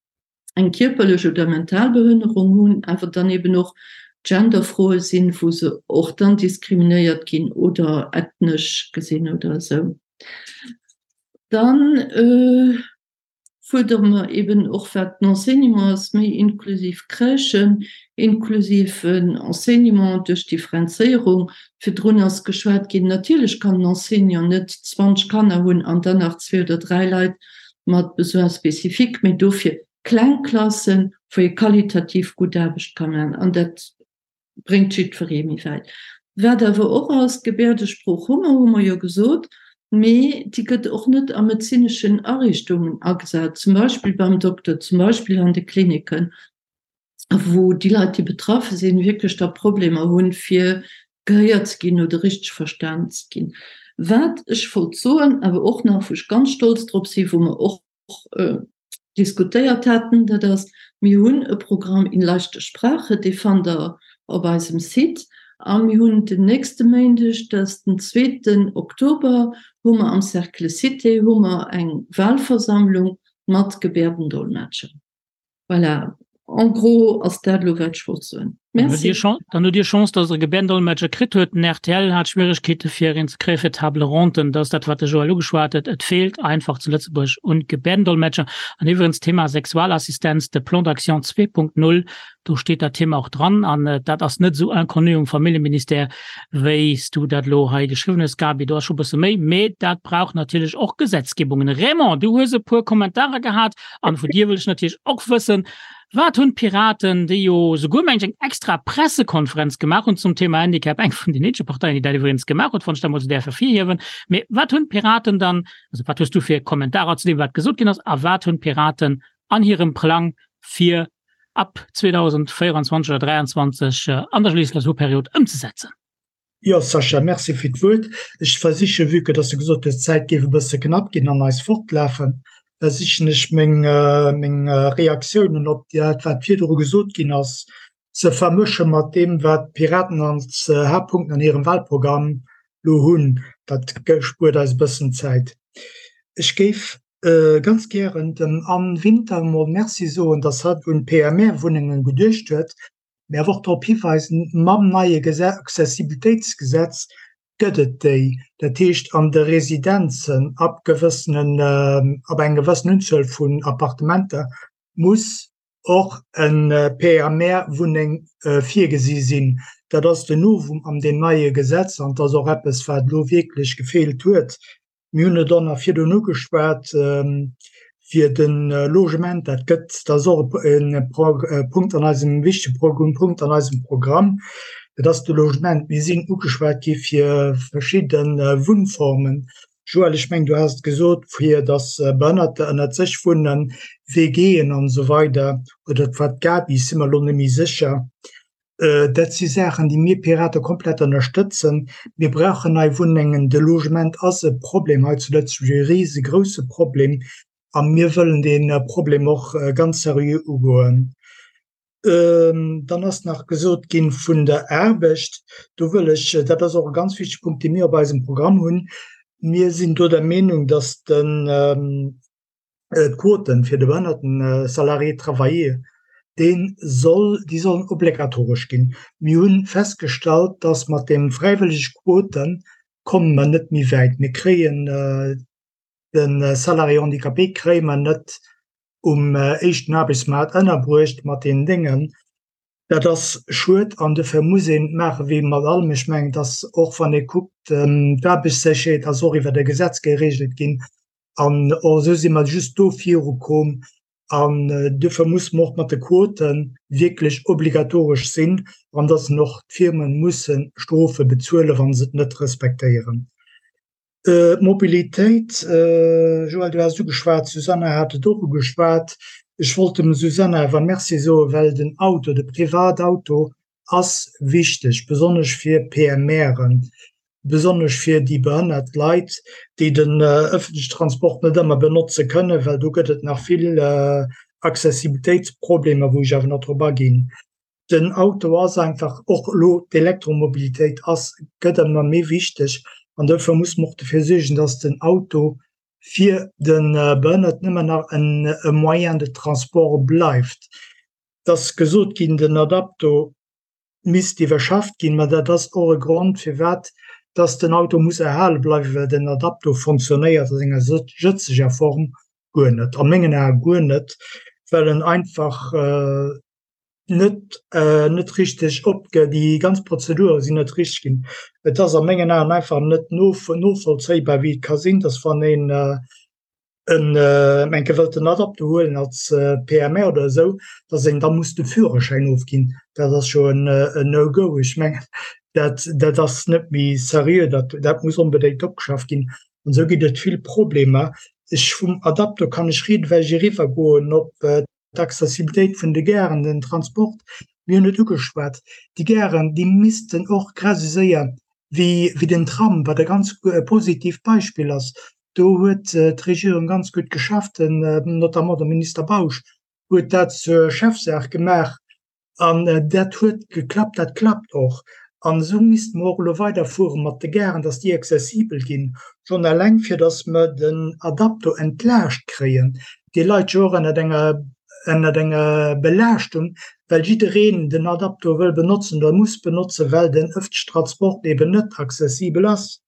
eng kierperlech oder mental Behënnerung hunn, awer dann eben och Genderfroe sinn, wou se och dann diskriminéiert ginn oder ethnesch gesinn oder esou. Dann fuerdere mer eben och, wat den Enseignement ass, méi inklusiv Crèchen, inklusiven Enseignement duerch Differenzéierung. Virdrun ass geschwat ginn, natierlech kann en Enseignant net 20 Kanner hunn an dann nach zwee oder dräi Leit mat Besoins spécifiques, mee dofir kleng Klassen, wou ee qualitativ gutt Aarbecht ka maachen. An dat bréngt jiddweree méi wäit. Wat awer och ass, d'Gebäerdesprooch hu mer, hu mer jo gesot, mee déi gëtt och net a medezineschen Ariichtungen agesat, zum Beispill beim Dokter, zum Beispill an de Kliniken, wou déi Leit, déi betraffe sinn, wierklech da Problemer hunn, fir gehéiert ze ginn oder richteg verstanen ze ginn. Wat ech wollt soen, awer och nach, wou ech ganz stolz drop sinn, wou mer och diskutéiert haten, dat ass, mir hunn e Programm in leichter Sprache, dee fannt Der op eisem Site. A mir hunn den nächste Méindeg, dat ass den zweeten Oktober, hu mer am Cercle Cité hu mer eng Wahlversammlung mat Gebärdendolmetscher. Voilà, en gros ass dat elo wat ech wollt soen. Merci. Dann hutt Dir Chance, datt Der e Gebärdendolmetscher kritt huet. Den rtl hat Schwieregkeete fir een ze kréie fir d'Table ronde. Dat ass dat, wat de Joël ugeschwat huet. Et feelt einfach zu Lëtzebuerg un Gebärdendolmetscher. An iwwregens, Thema Sexualassistenz, de Plan d'action 2.0, do steet dat Thema och dran. An dat ass net esou inconnu um Familljeministère, wéi s du dat elo hei geschriwwen hues, Gaby. Do ass scho e bësse méi. Mee dat brauch natierlech och Gesetzgebungen. Raymond, du hues e puer Kommentarer gehat. An vun dir wëll ech natierlech och wëssen, Wat hunn d'Piraten, déi jo souguer, meng ech, eng extra Pressekonferenz gemaach hunn zum Thema Handicap, eng vun den eenzege Parteien, déi dat iwwregens gemaach huet, wann ech dat emol esou däerf ervirhiewen, mee wat hunn d'Piraten dann, also wat hues du fir Kommentarer zu deem, wat gesot ginn ass, a wat hunn d'Piraten an hirem Plang fir ab 2024 oder 2023 an der Legislaturperiod ëmzesetzen? Jo, Sascha, merci fir d'Wuert. Ech versichen, vue que dass de gesot hues, d'Zäit géif e bësse knapp ginn an eis fortlafen, versichen ech meng, meng Reaktiounen op dat, wat virdru gesot ginn ass, ze vermësche mat deem, wat d'Piraten als Haaptpunkten an hirem Wahlprogramm elo hunn. Dat spuert eis e bëssen Zäit. Ech géif ganz gären dem Anne Winter emol Merci soen, dass hatt un d'PMR-Wunnengen geduecht huet. Mee awer och drop hiweisen, mam neie Accessibilitéitsgesetz gëtt et déi, dat heescht an de Residenzen ab gewëssenen, ab eng gewëssen Unzuel vun Appartementer muss och e PMR-Wunneng virgesi sinn. Dat ass den Novum an deem neie Gesetz an et ass och eppes, wat elo wierklech gefeelt huet. Mir hunn et och nach virdrun ugeschwat, fir de Logement, dat gëtt, dat ass och e Punkt an eisem, wichtege Punkt an eisem Programm, dat ass de Logement. Mir sinn ugeschwat gi fir verschidde Wunnformen. Joël, ech mengen, du has et gesot, fir datt Behënnerter ënnert sech wunnen, WGen an esou weider, oder et war d'Gaby, ech si mer elo net méi sécher. Dat si Saachen, déi mir Pirate komplett ënnerstëtzen. Mir brauchen nei Wunnengen. De Logement ass e Problem hei zu Lëtzebuerg, e risegrousse Problem. A mir wëllen dee Problem och ganz seriö ugoen. Dann ass nach gesot gi vun der Aarbecht. Do wëll ech, dat ass och e ganz wichtege Punkt, dee mir op eisem Programm hunn, Mir sinn do der Meenung, datt den, d'Quoten fir de behënnerten Salarié travaillé, dee soll, déi sollen obligatoresch ginn. Mir hu festgestallt, dass mat deem fräiwëllege Quote komme mer net méi wäit. Mir kréien de Salarié handicapé kréie mer net um éischten Aarbechtsmaart ënnerbruecht mat deenen Déngen. Dat ass schued an dofir muss een et maache wéi mat allem. Ech mengen, dass och wann ee kuckt, d'Aarbechtssécherheet ass och iwwert e Gesetz geregelt ginn, An och esou si mer just do virukomm. An duerfir muss mer och mat de Quote wierklech obligatoresch sinn an dass en och d'Firme musse Strofe bezuelen, wa se et net respektéieren. D'Mobilitéit, Joël, du has et ugeschwat, d'Susanna hat et och ugeschwat. Ech wollt dem Susanna awer Merci soen, well den Auto, de Privatauto ass wichteg, besonnesch fir PMRen, besonnesch fir déi behënnert Leit, déi den ëffentlechen Transport net ëmmer benotze kënnen, well do gëtt et nach vill Accessibilitéitsproblemer, wou ech awer nach drop aginn. Den Auto ass einfach och elo, d'Elektromobilitéit ass, gëtt ëmmer méi wichteg an dofir muss mer och dofir suergen, dass den Auto fir de Behënnerten ëmmer nach e Moyen de transport bleift. Et ass gesot ginn, den Adapto misst iwwerschafft ginn, mä dat ass och e Grond, firwat dass den Auto muss erhale bleiwen, well den Adapto fonctionnéiert a senger jëtzeger Form guer net, a mengen Ae guer net, well en einfach net net richteg opge-, déi ganz Prozedure sinn net richteg ginn. Et ass a mengen Aen einfach net novollzéibar, wéi et ka sinn, dass wann een en enke wëllt en Adapto huelen als PMR oder esou, dass een da muss de Führerschäin ofginn, dat ass jo en No-Go. Ech mengen, dat, dat ass net méi seriö, dat, dat muss onbedéngt opgeschafft ginn. An esou ginn et vill Problemer. Ech, vum Adapto kann ech rieden, well ech eriwwergoen op d'Accessibilitéit vun de Garen, den Transport, mir hunn et ugeschwat, déi Garen, déi missten och grad esou séier wéi, wéi den Tram, wat e ganz positivt Beispill ass, do huet d'Regierung ganz gutt geschafft, notamment de Minister Bausch huet dat zur Chefsaach gemaach, An dat huet geklappt, dat klappt och. An esou misste mer och elo weiderfuere mat de Garen, dass déi accessibel ginn, schonn eleng fir dass mer den Adapto entlaascht kréien. Dee leit jo och ënnert enger, ënnert enger Belaaschtung, well jiddereen den Adapto wëll benotzen oder muss benotzen, well den ëffentlechen Transport eben net accessibel ass.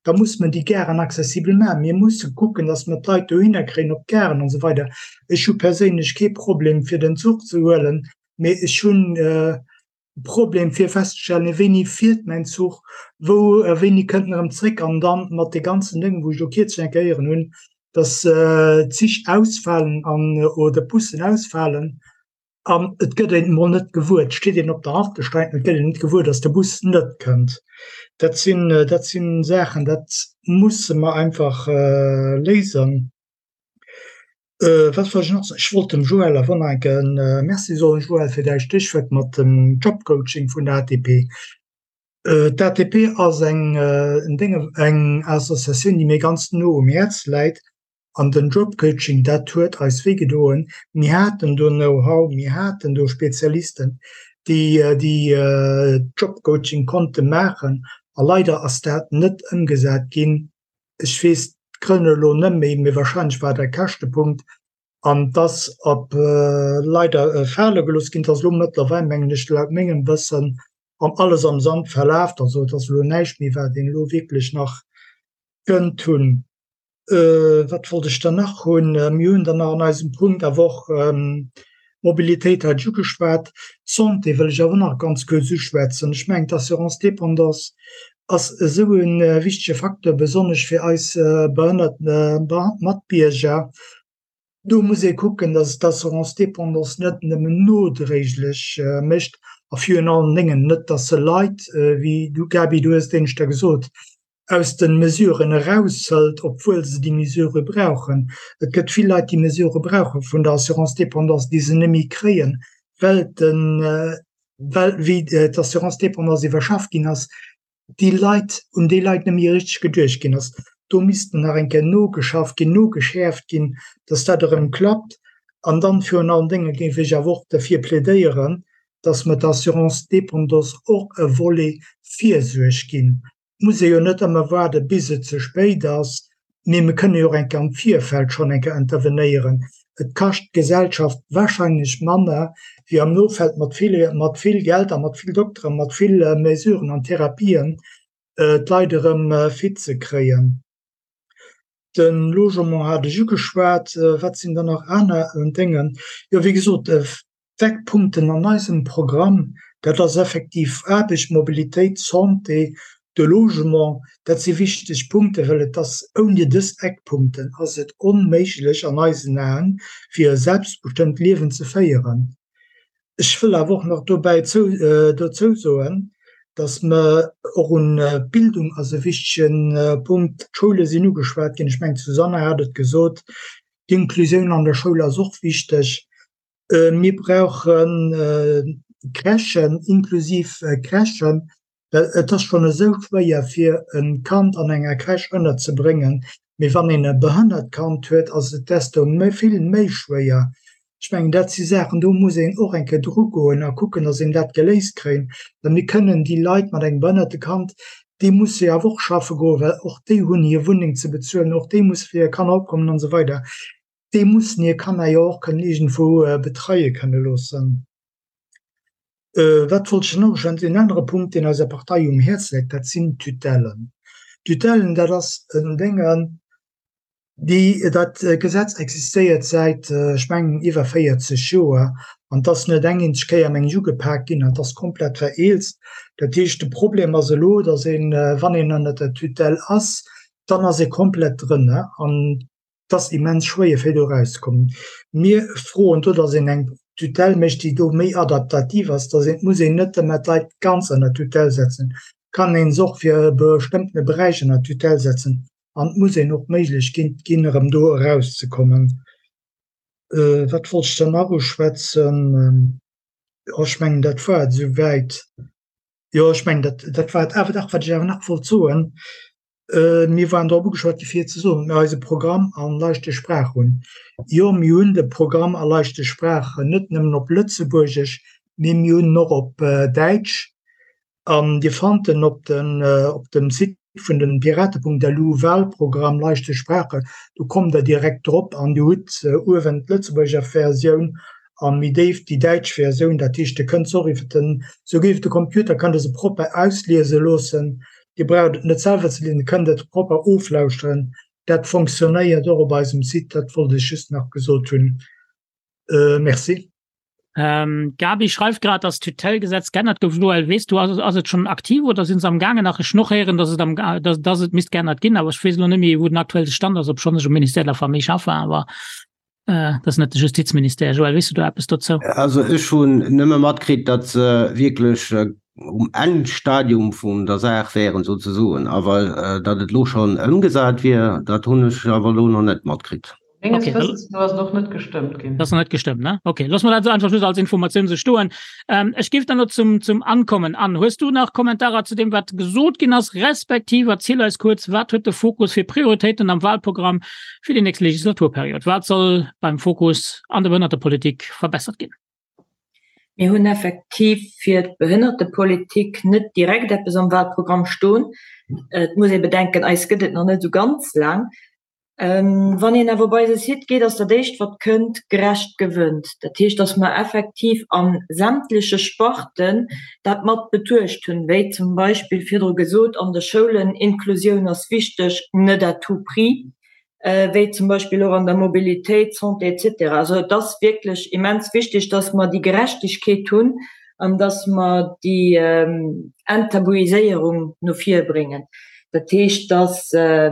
Da muss mer déi Garen accessibel maachen. Mir musse kucken, dass mer d'Leit dohinner kréien, op d'Garen an esou weider. Ech hu perséinlech kee Problem, fir den Zuch ze huelen, mee ech hunn e Problem, fir festzestellen, wéini fiert mäin Zuch, wou, wéini kënnt en erëm zréck. An dann mat de ganzen Déngen, wou ech elo kierzlech eng Kéier héieren hunn, dass d'Zich ausfalen an, oder d'Bussen ausfalen, An et gëtt een emol net gewuer, et steet een op der Haltestreck an et gëtt een net gewuer, datt de Bus net kënnt. Dat sinn, dat sinn Saachen, dat musse mer einfach léisen. Wat wollt ech nach soen? Ech wollt dem Joël awer nach eng Kéier Merci soen, Joël, fir däi Stéchwuert mat dem Jobcoaching vun der ATP. D'ATP ass eng, eng Associatioun, déi mir ganz no um Häerz läit. An den Jobcoaching, dat huet eis wéi gedoen. Mir haten do Know-how, mir haten do Spezialisten, déi déi Jobcoaching konnte maachen. A leider ass dat net ëmgesat ginn. Ech weess d'Grënn elo net méi, mee wahrscheinlech war dat e Käschtepunkt. An et ass op leider fale gelooss ginn. Et ass elo mëttlerweil, mengen ech, laut mengem Wëssen an alles am Sand verlaf. Also et ass elo näischt méi, wat een elo wierklech nach kënnt hunn. Wat wollt ech dann nach hunn? Mir hunn dann nach an eisem Punkt awer och d'Mobilitéit hat ech ugeschwat. D'Santé wëll ech awer och nach ganz kuerz uschwätzen. Ech mengen, d'Assurance dépendance ass esou e wichtege Facteur, besonnesch fir eis behënnert Matbierger. Do muss ee kucken, dass d'Assurance dépendance net nëmmen nodréiglech mécht a virun allen Déngen net, dass se Leit, wéi du Gaby, du hues et éineschter gesot, aus de Mesuren eraushëlt, obwuel se déi Mesurë brauchen. Et gëtt vill Leit, déi Mesurë brauche vun der Assurance dépendance, déi se net méi kréien, well den, well wéi d'Assurance dépendance iwwerschafft ginn ass, déi Leit, un déi Leit net méi richteg geduecht ginn ass. Do misst nach eng Kéier nogeschafft ginn, nogeschäerft ginn, dass dat erëm klappt. An dann virun allen Dénge géif ech awer och derfir plädéieren, dass mer d'Assurance dépendance och e Volet Virsuerg ginn. Et muss ee jo net ëmmer waarde bis et ze spéit ass, mee mir kënne jo och eng Kéier am Virfeld schonn eng Kéier intervenéieren. Et kascht d'Gesellschaft wahrscheinlech manner wéi am Nofeld mat vill, mat vill Geld a mat vill Dokteren, mat vill Mesuren an Therapien d'Leit erëm fit ze kréien. De Logement hat ech ugeschwat. Wat sinn dann nach aner Dénge? Jo, wéi gesot, D'Eckpunkten an eisem Programm, dat ass effektiv Aarbecht, Mobilitéit, Santé, de Logement. Dat si wichteg Punkten, well et ass, ouni dës Eckpunkten ass et onméiglech an eisen Aen, fir e selbstbestëmmt Liewen ze féieren. Ech wëll awer och nach dobäi dozou soen, dass mer och un d'Bildung ass e wichtege Punkt. D'Schoule sinn ugeschwat ginn, ech mengen d'Susanne hat et gesot, d'Inklusioun an der Schoul ass och wichteg. Mir brauche Crèchen, inklusiv Crèchen, well et ass schonn esou schwéier fir e Kand an enger Crèche ënnerzebréngen, mee wann een e behënnert Kand huet, ass et desto vill méi schwéier. Ech mengen, dat si Saachen, do muss een och eng Kéier drugoen a kucken, datt een dat geléist kréien, well mir kënnen déi Leit mat engem behënnerte Kand, déi musse jo awer och schaffe goen, well och déi hunn hir Wunneng ze bezuelen, och déi musse fir hir Kanner opkommen an esou weider. Déi mussen hir Kanner jo och kënnen iergendwou betreie kënne loossen. Wat wollt ech nach uschwätzen? En anere Punkt, deen eiser Partei um Häerz läit, dat sinn d'Tutellen. D'Tutellen, dat ass en Dénge, déi, dat Gesetz existéiert säit, ech mengen, iwwer 40 Joer an et ass net eng eenzeg Kéier, meng ech, ugepak ginn an et ass komplett vereelzt. Dat heescht, de Problem ass elo, datt een, wann een ënnert der Tutelle ass, dann ass ee komplett drënner an Et ass immens schwéier fir do erauszekommen. Mir froen do, datt een eng Tutelle mécht, déi do méi adaptativ ass, datt een, et muss een net ëmmer d'Leit ganz ënner Tutelle setzen, et kann ee se och fir e bestëmmtene Beräich ënner Tutelle setzen an et muss een och d'Méiglechkeet ginn, erëm do erauszekommen. Wat wollt ech dann nach uschwätzen? Jo, ech mengen, dat war et esouwäit. Jo, ech mengen, dat, dat war et. Awer dach, wat ech awer nach wollt soen, Mir waren drop ugeschwat gi fir ze soen, datt mir eise Programm an leichte Spraache hunn. Jo, mir hunn de Programm a leichte Spraachen, net nëmmen op Lëtzebuergesch, mee mir hunn en och op Däitsch. An Dir fannt en op dem Site vun den Piraten.lu, Wahlprogramm leichte Sprache, do kommt Der direkt drop an Dir hutt uewen d'Lëtzebuerger Versioun a méi déif déi däitsch Versioun. Dat heescht, Dir kënnt se och iwwer den, souguer iwwer de Computer kënnt Der se propper ausliese loossen. Dir braucht et net selwer ze liesen, Dir kënnt et propper oflauschteren. Dat fonctionnéiert och op eisem Site. Dat wollt ech just nach gesot hunn. Merci. Gaby schreift grad, dass d'Tutellgesetz geännert gouf. Joël, weess du, ass, ass et schonn aktiv oder sinn se am gaangen nach? Ech hunn och héieren, dass et am, dass, dass et misst geännert ginn, awer ech weess elo net méi, wou den aktuelle Stand ass, obschonn ech um Ministère de la Famille schaffen, awer dat ass net de Justizministère. Joël, weess du do eppes dozou? Also ech hunn nëmme matkritt, datt se wierklech um Endstadium vun der Saach wären souzesoen, awer datt et elo schonn ëmgesat wier, dat hunn ech awer elo nach net matkritt. Menges okay. Wëssens no ass et och net gestëmmt ginn. Dat ass nach net gestëmmt, ne? Okay, loosse mer dat esou einfach just als Informatioun esou stoen. Ähm, ech géif dann elo zum, zum Ann kommen. Ann, hues du nach Kommentarer zu deem, wat gesot ginn ass, respektiv erziel eis kuerz, wat huet de Fokus fir Prioritéiten am Wahlprogramm fir déi nächst Legislaturperiod? Wat soll beim Fokus an der Behënnertepolitik verbessert ginn? Mir hunn effektiv fir d'Behënnertepolitik net direkt eppes am Wahlprogramm stoen. Et muss ee bedenken, eis gëtt et nach net esou ganz laang. Wann een awer op eise Site geet, ass dat éischt wat kënnt, gerecht gewënnt. Dat heescht, datt mer effektiv a sämtleche Sparten dat mat betuecht hunn, wéi zum Beispill virdru gesot an de Schoulen, Inklusioun ass wichteg, net à tout prix, wéi zum Beispill och an der Mobilitéit, Santé et cetera. Also et ass wierklech immens wichteg, datt mer déi Gerechtegkeet hunn an datt mer déi Enttabuiséierung no vir bréngen. Dat heescht, datt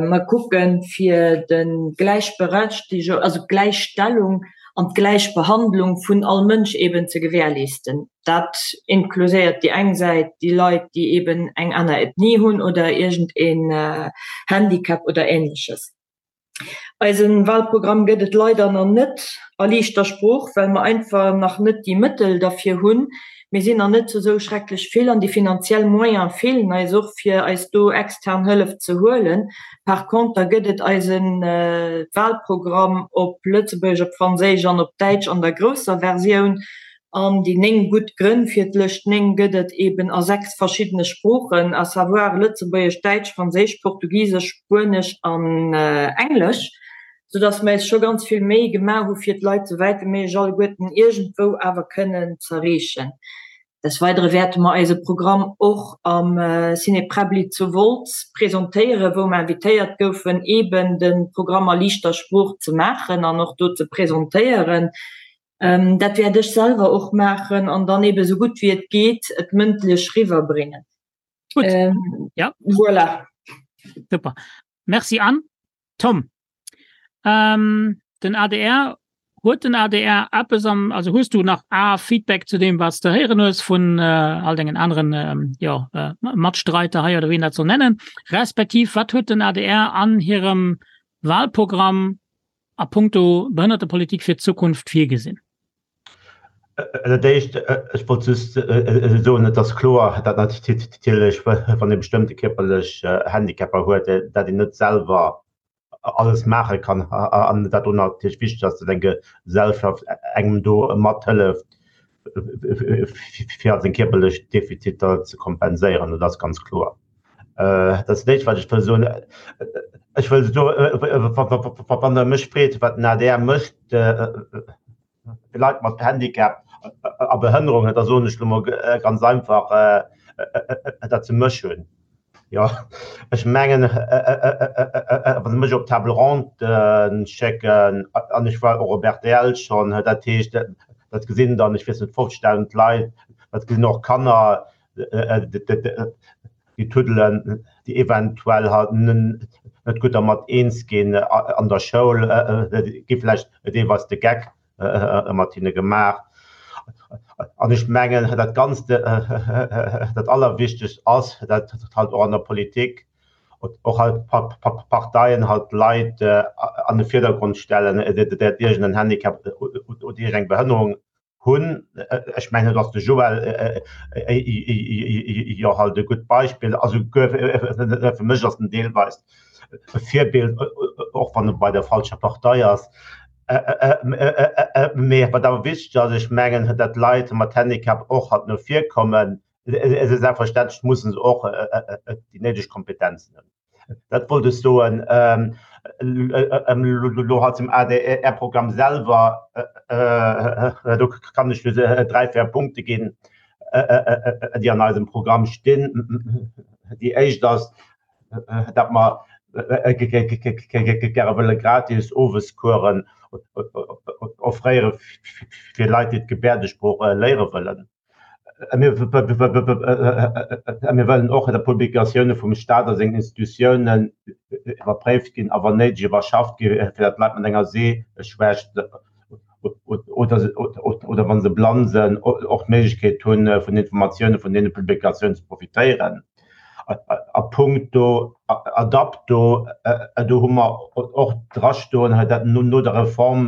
mer kucken, fir de Gläichberechtigung, also d'Gläichstellung an d'Gläichbehandlung vun all Mënsch eeben ze gewährleesten. Dat inkluséiert déi eng Säit déi Leit, déi eeben eng aner Ethnie hunn oder iergend een Handicap oder Ähnleches. Eise Wahlprogramm gëtt et leider nach net a liichter Sprooch, well mer einfach nach net déi Mëttel derfir hunn. Mir sinn nach net zu esou schrecklech vill an déi finanziell Moyene feelen eis och, fir eis do extern Hëllef ze huelen. Par conter gëtt et eise Wahlprogramm op Lëtzebuergesch, op Franséisch an op Däitsch an der grousser Versioun. An déi 9 gutt Grënn fir d'Lëscht 9 gëtt et eben a 6 verschiddene Sproochen, à savoir Lëtzebuergesch, Däitsch, Franséisch, Portugisesch, Spuenesch an Englesch, soudass mer eis scho ganz vill Méi gemaach hu fir d'Leit sou wäit wéi méiglech alleguerten iergendwou awer kënnen z'erreechen. Des Weidere wäerte mer eise Programm och am Ciné Präbbli zu Wolz presentéieren, wou mer invitéiert goufen, eben de Programm a liichter Sprooch ze maachen an och do ze presentéieren. Dat wäert ech selwer och maachen an dann ebe sou gutt wéi et geet et mëndlech riwwerbréngen. Gutt. Ähm, ja. Voilà. Super. Merci Anne. Tom, ähm, den ADR, huet den ADR eppes am, also hues du nach a Feedback zu deem, wat s de héieren hues vun äh, all dengen aneren ähm, ja, äh, Matstreiter hei oder wéi een dat soll nennen, respektiv wat huet den ADR an hirem Wahlprogramm a puncto Behënnertepolitik fir d'Zukunft virgesinn? Dat Éischt, ech wollt just soen, et ass kloer, datt natierlech, wann ee bestëmmte kierperlech Handicapper huet, datt een net selwer alles maache kann an dat do natierlech wichteg ass, datt eng Gesellschaft engem do mathëlleft, fir seng kierperlech Defiziter ze kompenséieren. Dat ass ganz kloer. Dat ass dat Éischt, wat ech wëll soen. Ech wëll soen, wann Der mech freet, wat den adr mécht fir Leit mat Handicap a Behënnerungen, da soen ech elo mol ganz einfach, datt se mech hunn. Jo, ech mengen, wa se mech op d'Table ronde schécken, an ech war och op rtl schonn, dat heescht, dat gesinn dann, ech weess net, 50.000 Leit, dat gesinn och Kanner, déi tuddelen, déi eventuell halt net gutt dermat eens ginn an der Schoul, gi vläicht deelweis de Geck mat hinne gemaach. An ech mengen, dat Ganzt, dat Allerwichtegst ass, dat halt och an der Politik och halt Parteien halt Leit an de Virdergrond stellen, déi iergend en Handicap oder iergend eng Behënnerung hunn. Ech mengen, do ass de Joël jo halt e gutt Beispill. Also fir mech ass en deelweis e Virbild, och wann e bei der falscher Partei ass. Mee wat awer wichteg ass, ech mengen, datt Leit mat Handicap och halt no vir kommen. Selbstverständlech musse se och déi néideg Kompetenzen hunn. Dat wollt ech soen. Elo halt zum ADR-Programm selwer, do kann ech just dräi, véier Punkte ginn, déi an eisem Programm stinn. Déi éischt ass, datt mer gäre wëlle gratis Owescoursen offréiere fir Leit, déi d'Gebäerdesprooch léiere wëllen. Mir wëllen och, datt d'Publikatioune vum Staat a sengen Institutiounen iwwerpréift ginn a wann néideg iwwerschafft gi fir datt Leit mat enger Seeschwächt oder wa se blann sinn och d'Méiglechkeet hunn, vun Informatioune vun deene Publikatiounen ze profitéieren. A punkto Adapto, do hu mer och drastoen, dat no der Reform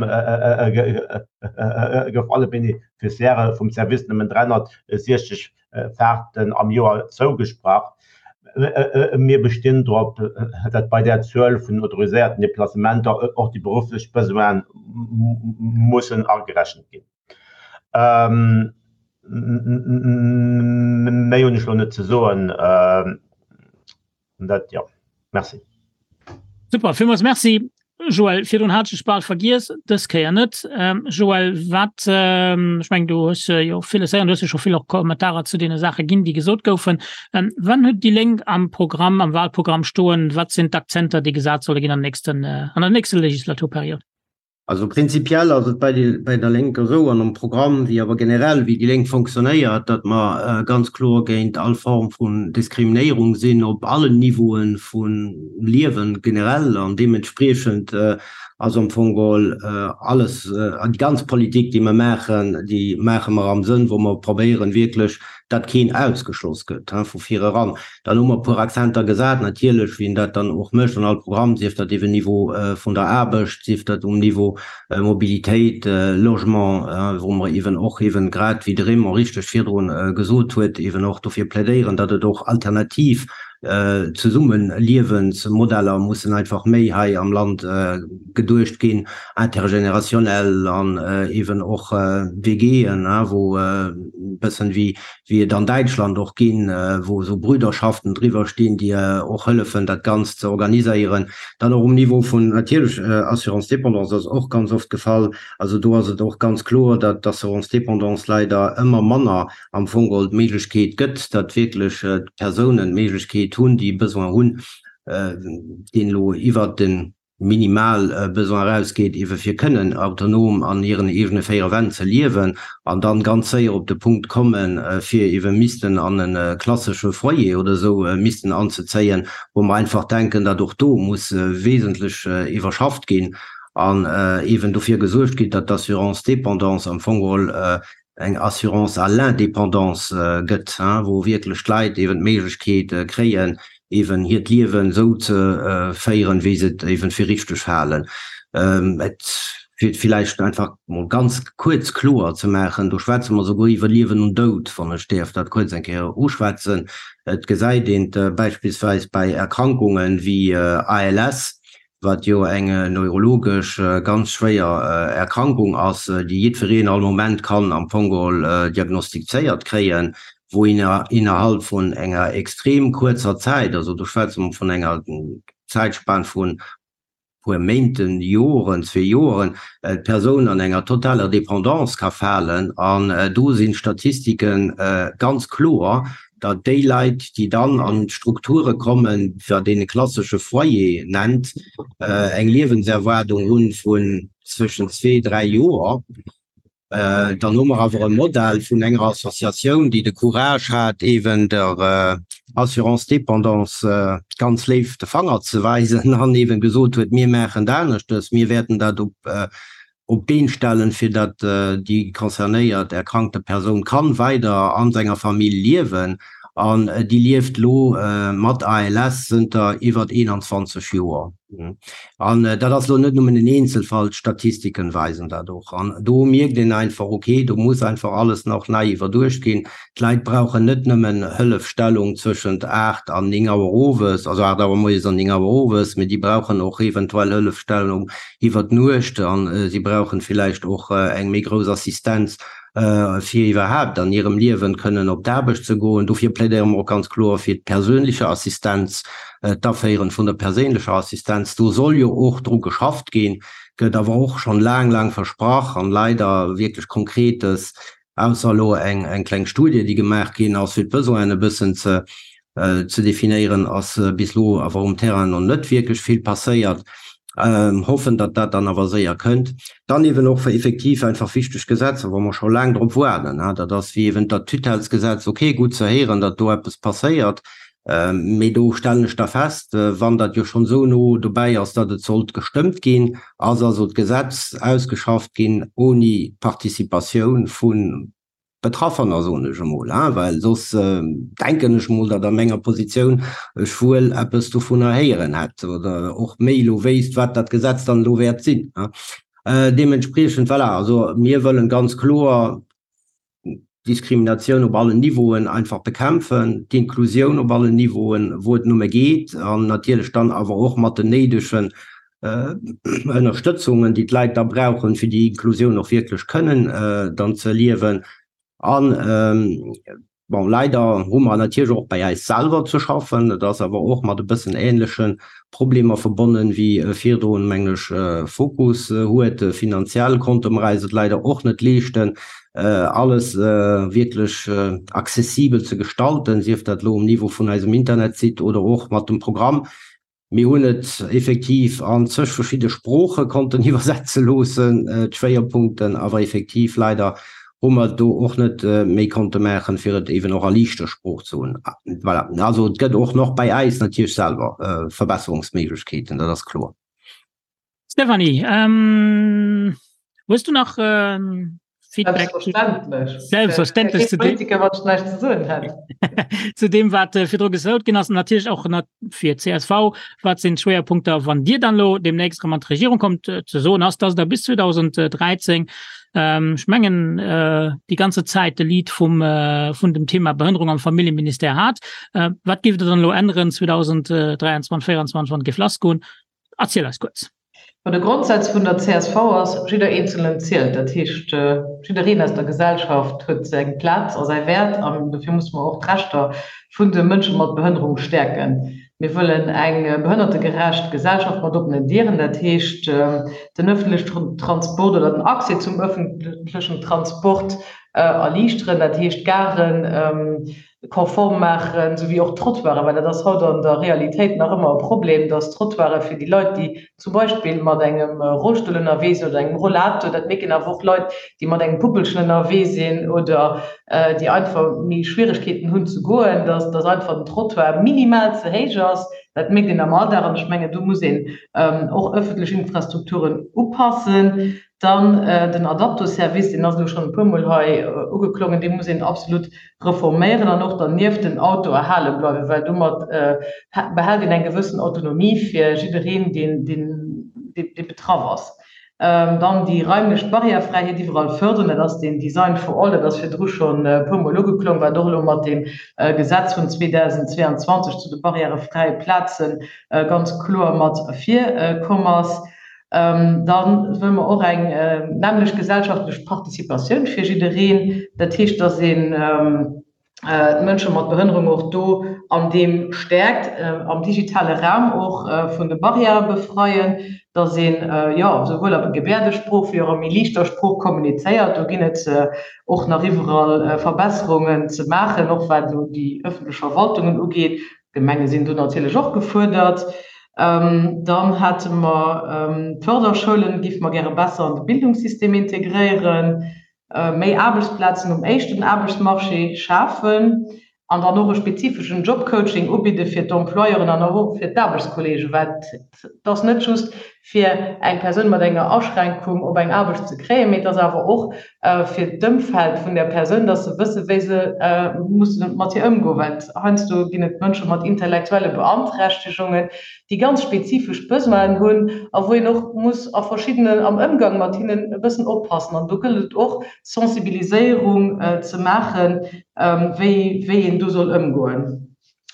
gouf alle Beneficiairë vum Service nëmmen 360 Faarten am Joer zougesprach. Mir bestinn drop, datt bei där Zuel vun autoriséierten Deplacementer och déi berufflech Besoine mussen agerechent ginn. Méi hunn ech elo net ze soen. Dat, jo. Merci. Super, villmools Merci. Joël, virdrun hat ech dech bal vergiess, dës Kéier net. Joël, wat, ech mengen, du hues jo villes héieren, du hues jo scho vill och Kommentarer zu deene Saache ginn, déi gesot goufen. Wann huet déi Lénk am Programm, am Wahlprogramm stoen? Wat sinn d'Akzenter, déi gesat solle ginn an nächsten, an der nächster Legislaturperiod? Also prinzipiell ass et bei bei der Lénker esou an am Programm, wéi awer generell wéi déi Lénk fonctionnéiert, datt mer ganz kloer géint all Form vun Diskriminéierung sinn op allen Niveaue vum Liewen generell an deementspriechend ass am Fong geholl alles, déi ganz Politik déi mer maachen, déi maache mer am Sënn wou mer probéieren wierklech, datt keen ausgeschloss gëtt vu vireran. Dann hu mer e puer Akzenter gesat, natierlech, wéi een dat dann och mécht an all Programm, sief dat iwwe Niveau vun der Aarbecht, sief dat um Niveau Mobilitéit, Logement, wou mer eeben och eeben, grad wéi de Raymond richteg virdrun gesot huet, eeben och dofir plädéieren, datt et och alternativ Zesummenliewensmodeller mussen einfach méi hei am Land geduecht ginn, intergénérationnel an eeben och WGen, wou e bëssen wéi wéi et an Däitschland och ginn, wou esou Brüderschaften driwwer stinn, déi och hëllefen, dat Ganzt ze organiséieren. Dann och um Niveau vun natierlech Assurance dépendance ass och ganz oft gefall. Also do ass et och ganz kloer, datt d'Assurance dépendance leider ëmmer manner am Fong geholl d'Méiglechkeet gëtt, datt wierklech d'Persounen d'Méiglechkeet hunn, déi e Besoin hunn, deen elo iwwert de minimal Besoin erausgeet, iewe fir kënnen autonom an hiren eegene véiere Wänn ze liewen an dann ganz séier op de Punkt kommen, fir iewe missten an e klassesche Foyer oder esou missten anzezéien, wou mer einfach denken, datt och do muss wesentlech iwwerschafft ginn an eeben dofir gesuergt ginn, datt d'Assurance dépendance am Fong geholl eng Assurance à l'indépendance gëtt, wou wierklech d'Leit eeben d'Méiglechkeet kréien, eeben hiert Liewen esou ze féieren, wéi se et eeben fir richteg halen. Et fir et villäicht einfach mol ganz kuerz kloer ze maachen, do schwätze mer souguer iwwer Liewen und Doud, wann ech däerf dat kuerz eng Kéier uschwätzen. Et gesäit een et beispillsweis bäi Erkrankungen wéi ALS, wat jo eng neurologesch ganz schwéier Erkrankung ass, déi jiddwereen all Moment kann am Fong geholl diagnostizéiert kréien, wou een innerhalb vun enger extrem kuerzer Zäit, also do schwätze mer vun enger Zäitspan vun puer Méinten, Joren, zwee Joren, d'Persoun an enger totaler Dépendance ka falen. An do sinn d'Statistike ganz kloer, datt déi Leit, déi dann an d'Strukture kommen, wat een e klassesche Foyer nennt, eng Liewenserwaardung hu vun zwëschen zwee, dräi Joer. Dann hu mer awer e Modell vun enger Associatioun, déi de Courage hat, eeben der Assurance dépendance ganz léif de Fanger ze weisen an eeben gesot huet, Mir maachen et aneschtes, mir wäerten dat op op d'Been stellen, fir datt déi concernéiert erkrankte Persoun kann weider an senger Famill liewen. An déi lieft lo mat ALS zënter iwwert 21 Joer. An dat ass lo net nëmmen en Eenzelfall, d'Statistiken weisen dat och. An do mierkt een einfach, ok, do muss einfach alles nach nei iwwerduecht ginn. D'Leit brauchen net nëmmen Hëllefstellung zwëschent 8 an 9 Auer owes, also 8 Auer moies an 9 Auer owes, mee déi brauchen och eventuell Hëllefstellung iwwer d'Nuecht a si brauchen villäicht och eng méi grouss Assistenz, fir iwwerhaapt an hirem Liewen kënnen op d'Aarbecht ze goen. Dofir plädéiere mer och ganz kloer fir d'persoenleche Assistenz, d'Aféieren vun der perséinlecher Assistenz. Do soll jo och dru geschafft ginn, gëtt awer och schonn laang, laang versprach an leider wierklech Konkretes Ausser elo eng kleng Studie, déi gemaach ginn ass, fir d'Besoinen e bëssen ze definéieren, ass bis elo awer um Terrain nach net wierklech vill passéiert. Hoffen, datt dat dann awer séier kënnt. Dann eeben och effektiv einfach wichteg Gesetzer, wou mer scho laang drop waarden. Dat ass wéi eeben dat Tutellesgesetz. Okay, gutt ze héieren, datt do eppes passéiert. Mee do stellen ech da fest, wann dat jo schonn esou no dobäi ass, datt et sollt gestëmmt ginn, ass also d'Gesetz ausgeschafft ginn ouni d'Participatioun vu Betraffener, soen ech emol, well soss denken ech emol, datt a menger Positioun ech wuel eppes dovunner héieren hätt oder och méi elo wéisst, wat dat Gesetz dann elo wäert sinn. Deementspriechend, voilà, also mir wëllen ganz kloer, d'Diskriminatioun op allen Niveauen einfach bekämpfen, d'Inklusioun op allen Niveauen, wou et nëmme geet, an natierlech dann awer och mat den néidegen Ënnerstëtzungen, déi d'Leit da brauchen, fir déi Inklusioun och wierklech kënnen dann ze erliewen. An. Bon, leider hu mer natierlech och bei eis selwer ze schaffen. Dat ass awer och mat e bëssen ähnleche Problemer verbonnen, wéi virdrun, mengen ech, Fokus huet. Finanziell konnte mer eis et leider och net leeschten, alles wierklech accessibel ze gestalten, sief dat elo um Niveau vun eisem Internetsite oder och mat dem Programm. Mir hunn et effektiv an zeg verschidde Sprooche konnten iwwersetze loossen, d'Schwéierpunkten, awer effektiv leider hu mer do och net méi konnte maachen, fir et eeben och a liichter Sprooch ze hunn. Voilà, also et gëtt och nach bei äis natierlech selwer Verbesserungsméiglechkeeten, dat ass kloer. Stéphanie, hues du nach Feedback? Selbstverständlech. Selbstverständlech zu dem, Politiker, wat ech näischt ze soen hätt. zu dem wat äh, virdru gesot ginn ass, natierlech och nat fir csv, wat sinn d'Schwéierpunkter, wann Dir dann elo demnächst erëm an d'Regierung kommt, äh, ze soen ass, dass Der bis 2013, ähm, ech mengen, äh, déi ganze Zäit de Lead vum, äh, vun dem Thema Behënnerung am Familljeministère hat. Äh, wat géift Der dann elo änneren 2023, 2024, wann et géif lassgoen? Erziel eis kuerz. Ma de Grondsaz vun der csv ass, Jidder Eenzelen zielt. Dat heescht, jiddereen aus der Gesellschaft huet seng Plaz a säi Wäert an dofir musse mer och d'Rechter vun de Mënsche mat Behënnerung stäerken. Mir wëllen eng behënnertegerecht Gesellschaft mat oppenen Dieren. Dat heescht, den ëffentlechen Transport oder den Accès zum ëffentlechen Transport erliichteren, dat heescht d'Garen, konform maachen, esou wéi och d'Trottoiren, well dat ass haut an der Realitéit nach ëmmer e Problem, dass d'Trottoiren fir déi Leit, déi zum Beispill mat engem Rollstull ënnerwee sinn oder engem Rollator, dat mierken awer och Leit, déi mat engem Puppelchen ënnerwee sinn oder déi einfach méi Schwieregkeeten hunn ze goen, dass dass einfach den Trottoir minimal ze héich ass. Dat mierkt een am Alldag an ech mengen, do muss een och ëffentlech Infrastrukturen upassen. Dann den Adapto-Service, deen ass elo schonn e puermol hei ugeklongen, dee muss een absolut reforméieren an och dernieft den Auto erhale bleiwen, well domat behält een eng gewëssen Autonomie fir jiddereen, deen, dee betraff ass. Dann déi raimlech Barrièrefräiheet iwwerall fërderen, dat ass deen Design for all, dat ass virdru schonn e puermol ugeklong, wat och elo mat deem Gesetz vun 2022 zu de barrièrefräie Plaze ganz kloer mat ervirkomm ass. Da wëlle mer och eng nämmlecht gesellschaftlech Participatioun fir jiddereen. Dat heescht, dass een d'Mënsche mat Behënnerung och do an deem stäerkt, am digitale Raum och vun de Barrièrë befreien, dass een, jo, souwuel a Gebäerdesprooch wéi och a méi liichter Sprooch kommunizéiert. Do ginn et och nach iwwerall Verbesserungen ze maachen, och wat elo déi ëffentlech Verwaltungen ugeet. D'Gemenge sinn do natierlech och gefuerdert. Dann hate mer d'Förderschoulen, géife mer gäre besser an de Bildungssystem integréieren, méi Aarbechtsplazen um éischten Aarbechtsmarché schafen an dann och e spezifeschen Jobcoaching ubidde fir d'Employeuren an och fir d'Aarbechtskolleegen, well et ass net just fir eng Persoun mat enger Aschränkung op eng Aarbecht ze kréien, mee et ass awer och fir d'Ëmfeld vun där Persoun, dass se wësse wéi se musse mat hir ëmgoen. Well heiansdo ginn et Mënsche mat intellektuelle Beanträchtegungen, déi ganz spezifesch Besoinen hunn a wou een och muss a verschiddenen, am Ëmgang mat hinnen e bëssen oppassen. An do gëllt et och Sensibiliséierung ze maachen, wéi wéi een do soll ëmgoen.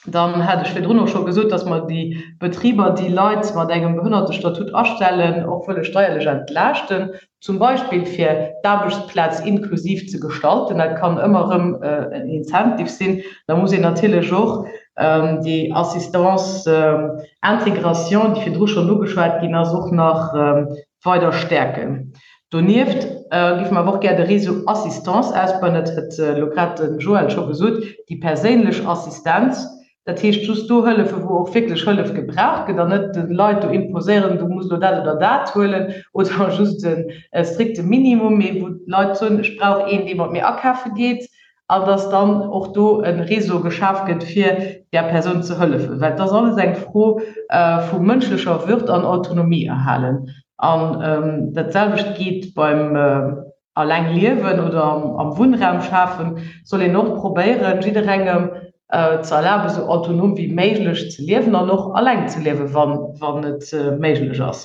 Dann hat ech virdrun och scho gesot, dass mer déi Betriber, déi Leit mat engem Behënnertestatut astellen, och wëlle steierlech entlaaschten, zum Beispill fir d'Aarbechtsplaz inklusiv ze gestalten. Dat kann ëmmer erëm en Incentive sinn. Da muss een natierlech och déi Assistance intégration, déi virdru schonn ugeschwat ginn ass, och nach weider stäerken. Donieft géife mer awer och gär de Réseau Assistance ausbauen, dat huet elo grad de Joël scho gesot, déi perséinlech Assistenz, dat heescht just do hëllefen, wou och wierklech Hëllef gebraucht gëtt an net de Leit do imposéieren, du muss elo dat oder dat huelen oder just e strikte Minimum, mee wou d'Leit soen, ech brauch een, dee mat mir akafe geet, an dass dann och do e Réseau geschaf gëtt, fir där Persoun ze hëllefen, well et ass alles eng Fro vu mënschlecher Würd an Autonomie erhalen. An dat selwecht geet beim alleng liewen oder am Wunnraum schafen, soll een och probéieren, jidderengem ze erlaben, esou autonom wéi méiglech ze liewen an och alleng ze liewen, wann et méiglech ass.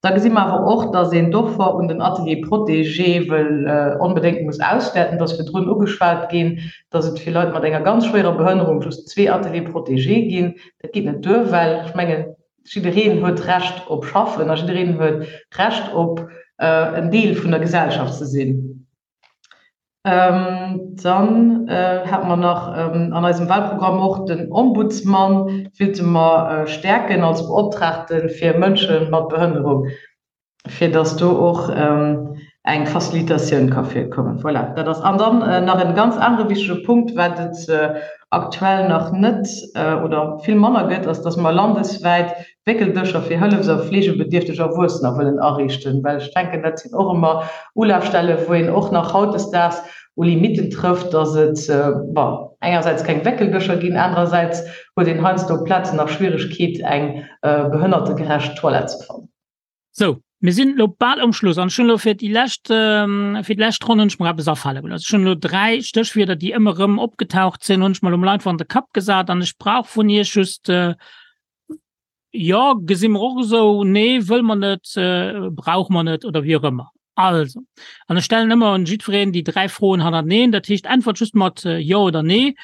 Da gesi mer awer och, dass een d'Offer un den Ateliers protégés wëll onbedéngt muss auswäerten. Et ass virdrun ugeschwat ginn, dass et fir Leit mat enger ganz schwéierer Behënnerung just zwee Ateliers protégés ginn. Dat geet net duer, well ech mengen, jiddereen huet Recht op Schaffen a jiddereen huet Recht op en Deel vun der Gesellschaft ze sinn. Dann hate mer nach an eisem Wahlprogramm och den Ombudsmann willte mer stäerken als Beoptraagte fir Mënsche mat Behënnerung, fir datt do och eng Facilitatioun ka virkommen. Voilà, dat ass. An dann nach e ganz anere wichtige Punkt, wat et aktuell nach net oder vill manner gëtt, ass, datt mer landeswäit Wéckeldëscher fir hëllefs a fleegebedierfteg Erwuessener wëllen ariichten, well ech denken, dat sinn och ëmmer Ulafstelle wou een och nach hautdesdaags u Limitten trëfft, datt et, bon, engersäits keng Wéckeldëscher ginn, anerersäits huet een heiansdo op Plazen nach Schwieregkeet eng behënnertegerecht Toilette ze fannen. Sou, mir sinn elo bal um Schluss an ech hunn elo fir déi lescht, fir déi lescht Ronn hunn ech mer eppes afale gelooss. Ech hunn elo 3 Stéchwierder, déi ëmmer erëm opgetaucht sinn, hunn ech mer elo mol einfach an de Kapp gesat an ech brauch vun Iech just, Jo, gesi mer och esou. Nee, wëlle mer net, brauche mer net oder wéi och ëmmer. Also, an ech stellen ëmmer un jiddwereen déi 3 Froen hannerteneen. Dat heescht, äntwert just mat Jo oder Nee.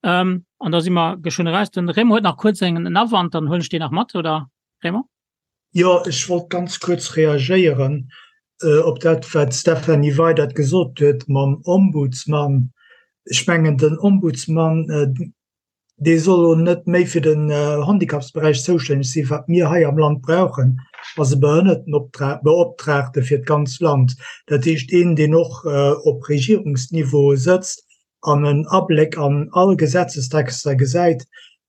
An da si mer geschwënn eraus. Den Raymond huet nach kuerz en Awand, dann huelen ech deen nach mat, oder Raymond? Jo, ech wollt ganz kuerz reagéieren op dat, wat d'Stéphanie Weydert gesot huet mam Ombudsmann. Ech mengen, den Ombudsmann, dee soll elo net méi fir den Handicapsberäich zoustänneg sinn. Wat mir hei am Land brauchen, ass e Behënnertenbeoptraagte fir d'ganz Land. Dat heescht een, deen och op Regierungsniveau sëtzt an en Abléck an all Gesetzestexter gesäit.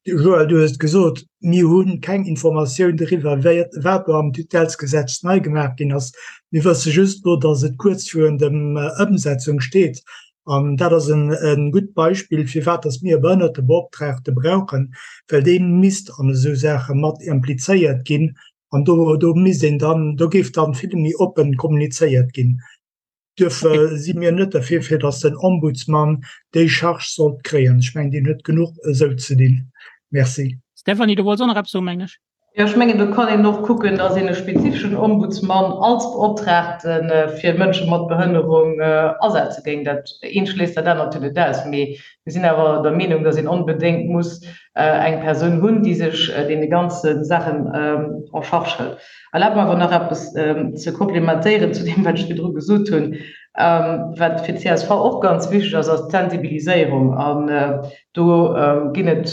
Joël, du hues et gesot, mir hu keng Informatioun doriwwer, wat do am Tutellesgesetz nei gemaach ginn ass. Mir wësse just elo, datt et kuerz virun der Ëmsetzung steet. An dat ass e gutt Beispill, firwat dass mir e Behënnertebeoptraagte brauchen, well dee misst an esou Saache mat implizéiert ginn. An do, do misst een dann, do géif dann vill méi oppen kommunizéiert ginn. Duerfir si mir net derfir, fir dass den Ombudsman déi Charge sollt kréien. Ech mengen, deen huet genuch esou ze dinn. Merci. Stéphanie, du wollts och nach eppes soen, mengen ech. Jo, ech mengen, do kann een och kucken, dass een e spezifeschen Ombudsmann als Beoptraagte fir Mënsche mat Behënnerung asetze géing. Dat eent schléisst dat anert jo net aus. Mee mir sinn awer der Meenung, dass een onbedéngt muss eng Persoun hunn, déi sech deene ganze Saachen en charge hëlt. Erlaabt mer awer nach eppes ze komplementéieren zu deem, wat ech virdru gesot hunn. Wat fir d'CSV och ganz wichteg ass, ass d'Sensibiliséierung. An do ginn et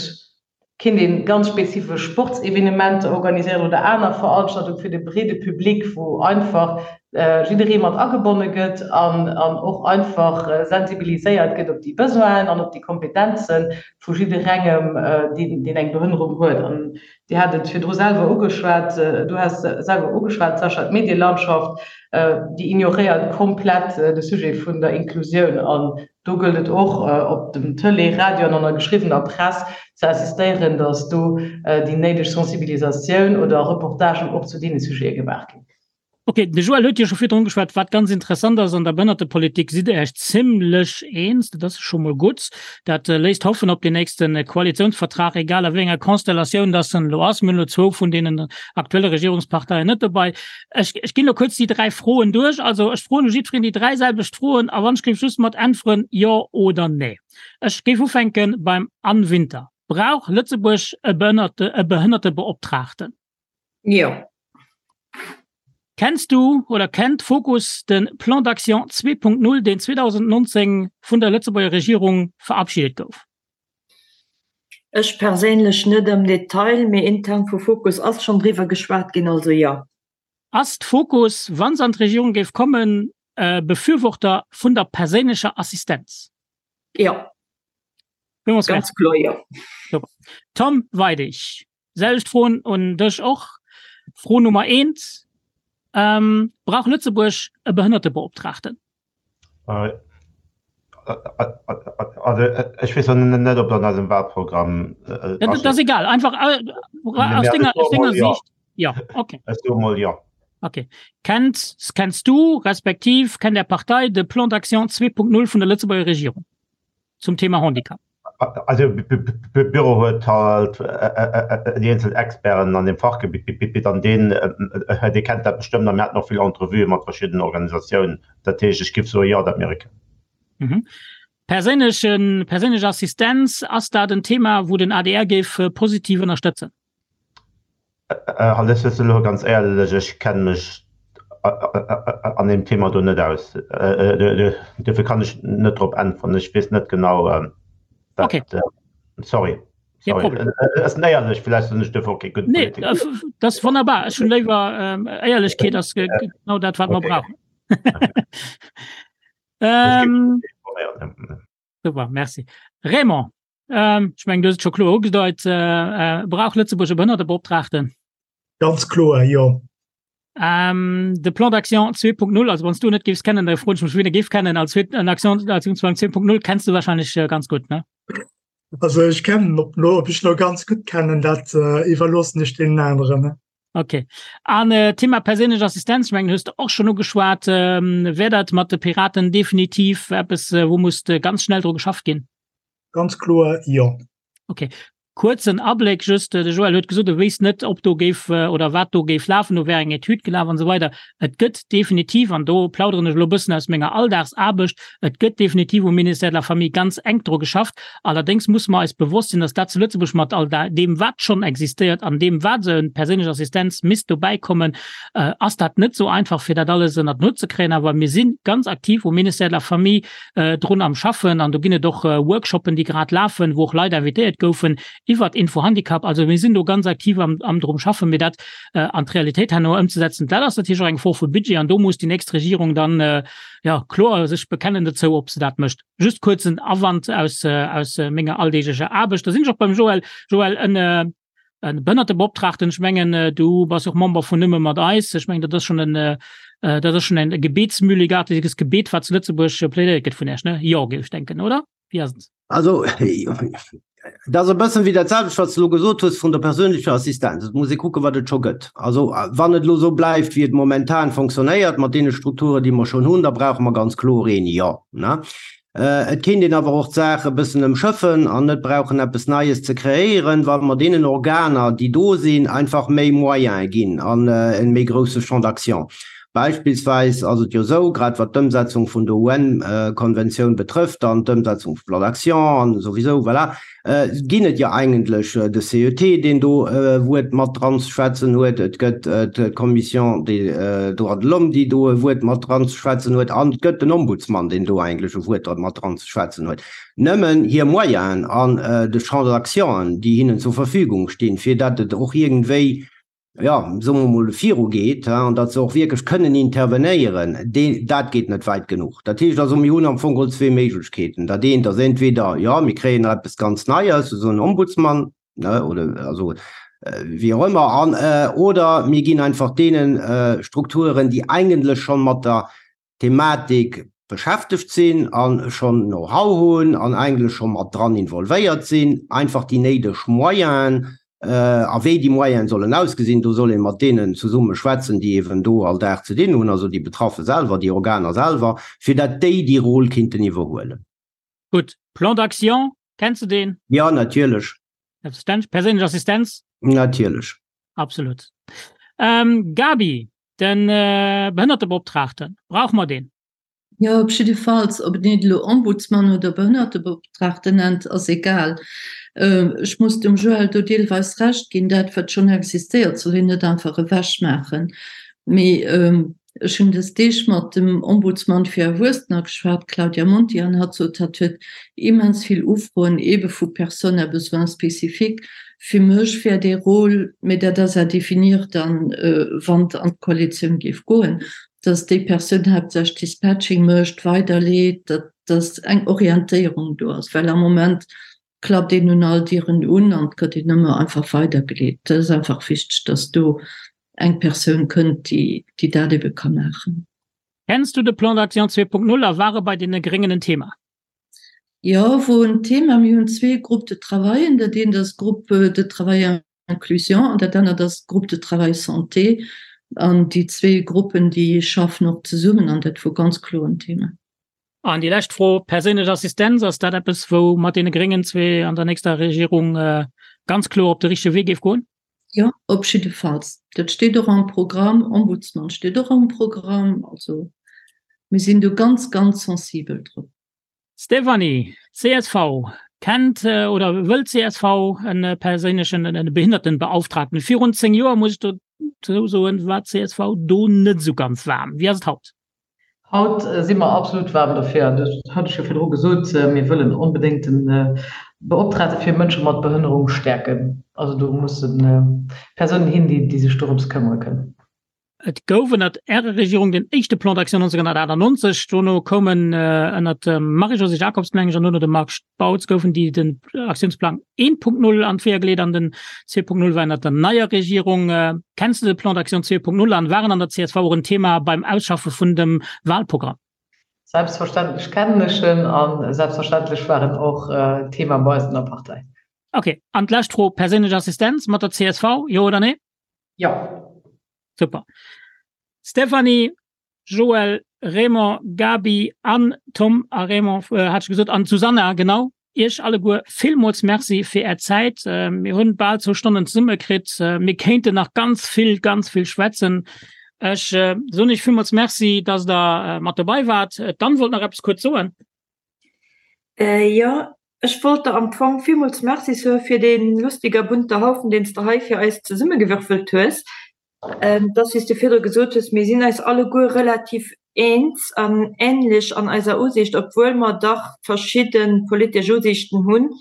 Kéint een ganz spezifesch Sportsevenementer organiséieren oder aner Veranstaltung fir de breede Public, wou einfach jidderee mat agebonne gëtt an och einfach sensibiliséiert gëtt op déi Besoinen an op déi Kompetenze vu jidderengem, deen eng Behënnerung huet. An Dir hat et virdru selwer ugeschwat, du has selwer ugeschwat, Sascha, d'Medielandschaft, déi ignoréiert komplett de Sujet vun der Inklusioun. An Do gëllt et och, op dem Tëlee, Radio an an der geschriwwener Press ze insistéieren, datt do déi néideg Sensibilisatioun oder Reportagen och zu deene Sujete gemaach ginn. Ok, de Joël huet jo scho virdrun geschwat. Wat ganz interessant ass, an der Behënnertepolitik sidd Der Iech zimlech eens. Dat ass scho mol gutt. Dat léisst hoffen op deen nächste Koalitionsvertrag, egal a wéi enger Konstellatioun dass en elo ass. Mir hunn elo zwou vun deenen aktuelle Regierungsparteien net dobei. Ech, ech ginn elo kuerz déi 3 Froen duerch. Also ech froen u jiddwereen déi 3 selwecht Froen a wann ech géif just mat äntweren Jo oder Nee. Ech géif ufänke beim Anne Winter. Brauch Lëtzebuerg e Behënnerte, e Behënnertebeoptraagten? Jo. Kenns du oder kennt Fokus de Plan d'action 2.0, deen 2019 vun der Lëtzebuerger Regierung verabschiedet gouf? Ech perséinlech net am Detail, mee intern vu Fokus ass schonn driwwer geschwat ginn, also jo. Ass d'Fokus, wa se an d'Regierung géif kommen, e Befürworter vun der perséinlecher Assistenz? Jo. Ganz kloer jo. Super. Tom Weidig, selwecht Froen un dech och. Fro Nummer eent, Brauch Lëtzebuerg e Behënnertebeoptraagten? Also ech weess net, ob dat an eisem Wahlprogramm Dat ass egal, einfach aus denger, aus denger Sicht. Ja, okay. Ech soe mol jo. Okay. Kennt, kenns du respektiv kennt Är Partei de Plan d'action 2.0 vun der Lëtzebuerger Regierung zum Thema Handicap? Also Büro huet halt déi eenzel Experten an dem Fachgebitt an deen dee kennt dat bestëmmt a mir haten och vill Entrevuë mat verschiddenen Organisatiounen. Dat heescht, ech giff soe jo, dat mir e kennen. Perséinlechen, perséinlech Assistenz, ass dat en Thema, wou den adr géif positiv ënnerstëtzen? Halt ech elo ganz éierlech, ech kenne mech. an deem Thema do net aus. Dofir kann ech net drop äntweren. Ech weess net genau, wat. Okay. Sorry. Kee Sorry. Problem. Et ass éierlech, vläicht sinn ech dofir och kee gudde Nee, Politiker. dat ass wonnerbar. Ech hunn léiwer Éierlechkeet ass genau dat, wat mer Okay. brauchen. Ech géif Ähm, informéieren. Super, merci. Raymond, ähm, ech mengen, du hues et scho kloer ugedeit, äh, äh, brauch Lëtzebuerg e Behënnertebeoptraagten? Ganz kloer, jo. Ähm, de Plan d'action 2.0, also wann s du net géifs kennen, da froen ech mech, wien e géif kennen. Als en Action, Aktionsplan 2.0 kenns du wahrscheinlech äh, ganz gutt, ne? Also ech kennen, ob lo, ob ech lo ganz gutt kennen, dat äh, iwwerloossen ech deenen aneren. Ne? Okay. An äh, Thema perséinlech Assistenz, ech mengen, hues de och schonn ugeschwat, ähm, wär dat mat de Piraten definitiv eppes, äh, wou muss äh, ganz schnell dru geschafft ginn? Ganz kloer jo. Okay. Kuerzen Abléck just, de Joël huet gesot, e wéisst net, ob do géif oder wat do géif lafen, do wär eng Etüd gelaf an esou weider. Et gëtt definitiv, an do plauderen ech elo e bëssen aus menger Alldagsaarbecht, et gëtt definitiv um Ministère de la Famille ganz enk dru geschafft. Allerdéngs musse mer eis bewosst sinn, dass dat zu Lëtzebuerg mat all deem, wat schonn existéiert an deem, wat esou eng perséinlech Assistenz misst dobäikommen, ass dat net esou einfach, fir dat alles ënnert den Hutt ze kréien. Awer mir si ganz aktiv um Ministère de la Famille drun am Schaffen an do ginn et och Workshoppen, déi grad lafen, wou och Leit invitéiert goufen iwwert Infohandicap. Also mir sinn do ganz aktiv am, am drum schaffen, mir dat an d'Realitéit herno ëmzesetzen. Dat ass natierlech och eng Fro vu Budget an do muss déi nächst Regierung dann, jo, kloer sech bekennen dozou, ob se dat mécht. Just kuerzen Awand aus, aus menger alldeeglecher Aarbecht. Da sinn ech och beim Joël. Joël, en E Behënnertebeoptraagten, ech mengen, du bass och Member vun Nëmme mat eis. Ech mengen, dat ass schonn en, dat ass schonn en gebetsmühlegartiges Gebet, wat zu Lëtzebuerg plädéiert gëtt vun Iech, ne? Jo, géif ech denken, oder? Wéi ass et? Also, dat ass e bëssen wéi dat selwecht, wat s de elo gesot hues vun der perséinlecher Assistenz. Et muss ee kucken, wat et scho gëtt. Also, wann et elo esou bleift, wéi et momentan fonctionnéiert, mat deene Strukturen, déi mer schonn hunn, da brauche mer ganz kloer een, jo, ne? Et kéint een awer och d'Saach e bëssen ëmschëffen an net brauchen eppes Neies ze kreéieren, wa mer deenen Organer, déi do sinn, einfach méi Moyene ginn an e méi grousse Champ d'action. Beispillsweis ass et jo esou, grad wat d'Ëmsetzung vun der UN-Konventioun betrëfft an d'Ëmsetzung vum Plan d'action an esouwisou, voilà, ginn et jo eigentlech de CET, deen do e Wuert mat dran ze schwätzen huet, et gëtt d'Commission des droits de l'homme, déi do e Wuert mat dran ze schwätzen huet, an et gëtt den Ombudsman, deen do eigentlech e Wuert mat dran ze schwätzen huet. Nëmmen hir Moyenen an de Champ d'actionen, déi hinnen zur Verfügung stinn, fir datt et och iergendwéi jo, soe mer emol, virugeet, an datt se och wierklech kënnen intervenéieren, dee, dat geet net wäit genuch. Dat heescht also, mir hunn am Fong geholl zwee Méiglechkeeten. Dat eent ass entweder, jo, mir kréien nach eppes ganz Neies, esou en Ombudsman, ne, oder also wéi och ëmmer, an oder mir ginn einfach deene Strukturen, déi eigentlech scho mat der Thematik beschäftegt sinn a schonn Know-how hunn an eigentlech scho mat dran involvéiert sinn, einfach déi néideg Moyenen, a wéi déi Moyene sollen ausgesinn, do soll ee mat deenen zesumme schwätzen, déi eeben do all Dag ze dinn hunn, also déi Betraffe selwer, déi Organer selwer, fir dat déi déi Rôle kinnten iwwerhuelen. Gutt. Plan d'action, kenns de deen? Jo, natierlech. Selbstverständlech. Perséinlech Assistenz? Natierlech. Absolut. Gaby, Den Behënnertebeoptraagten, brauche mer deen? Jo, op jiddefalls. Ob een et elo Ombudsman oder Behënnertebeoptraagten nennt, ass egal. Ech muss dem Joël do deelweis Recht ginn, dat wat schonn existéiert, soll een net einfach ewechmaachen. Mee ech hunn dës Deeg mat dem Ombudsman fir Erwuessener geschwat, Claudia Monti, an hatt sot, hatt huet immens vill Ufroen eebe vu Personnes à besoins spécifiques, Fir mech wär dee Rôle, mee dat ass à définir dann, wann et an d'Koalitioun géif goen, dass déi Persoun haaptsächlech Dispatching mécht, weiderleet, datt dass eng Orientéierung do ass, well am Moment klappt een un all Dieren un an et gëtt een ëmmer einfach weidergeleet. Dat ass einfach wichteg, dass do eng Persoun kënnt, déi déi dat ebe ka maachen. Kenns du de Plan d'action 2.0 a war e bei deene Gréngen en Thema? Jo, wor en Thema. Mir hunn zwee Groupes de travaillen. Dat eent ass Groupe de travail inclusion an dat anert ass Groupe de travail santé. An déi zwee Gruppen, déi schaffen och zesummen an dat wor ganz kloer en Thema. An déi lescht Fro, Perséinlech Assistenz, ass dat eppes, wou mat deene Gréngen zwee an der nächster Regierung ganz kloer op de richtege Wee géif goen? Jo, op jiddefalls. Dat steet och am Programm, Ombudsman steet och am Programm. Also mir sinn do ganz, ganz sensibel drop. Stéphanie, csv, Kennt oder wëllt csv e perséinlechen, e Behindertenbeauftragten? Virun 10 Joer, muss ech do. soen, war d'CSV do net esou ganz waarm. Wéi ass et haut? Haut si mer absolut waarm derfir, an dat hat ech jo virdru gesot, mir wëllen onbedéngt de Beoptragte fir Mënsche mat Behënnerung stäerken. Also do musse Persounen hin, déi sech dorëms këmmere kënnen. Et gouf ënnert Ärer Regierung den éischte Plan d'action 1998. Dono koumen ënnert dem Marie-Josée Jacobs, meng ech, an dono dem Marc Spautz goufen déi den Aktiounsplang 1.0 an d'Weeër geleet an den 2.0 war ënnert der neier Regierung. Kenns de de Plan d'action 2.0 an war en an der csv och en Thema beim Ausschaffe vun dem Wahlprogramm? Selbstverständlech kennen ech en a selbstverständlech war en och Thema bei eis an der Partei. Ok, an d'lescht Fro, Perséinlech Assistenz mat der csv, jo oder nee? Jo. Super. Stéphanie, Joël, Raymond, Gaby an Tom a Raymond hat ech gesot an d'Susanna, genau. Iech alleguer villmools Merci fir Är Zäit. Mir hunn bal zwou Stonnen zesumme kritt. Mir kéinten nach ganz vill, ganz vill schwätzen. Ech soen Iech villmools Merci, dass Der mat dobei waart. D'Anne wollt nach eppes kuerz soen. Jo, ech wollt der am Fong villmools Merci soe fir dee lustiger bunter Haufen, deen s de hei fir eis zesummegewürfelt hues. Et ass, wéi s de virdru gesot hues, mir sinn eis alleguer relativ eens an änlech an eiser Usiicht, obwuel mer dach verschidde politesch Usiichten hunn,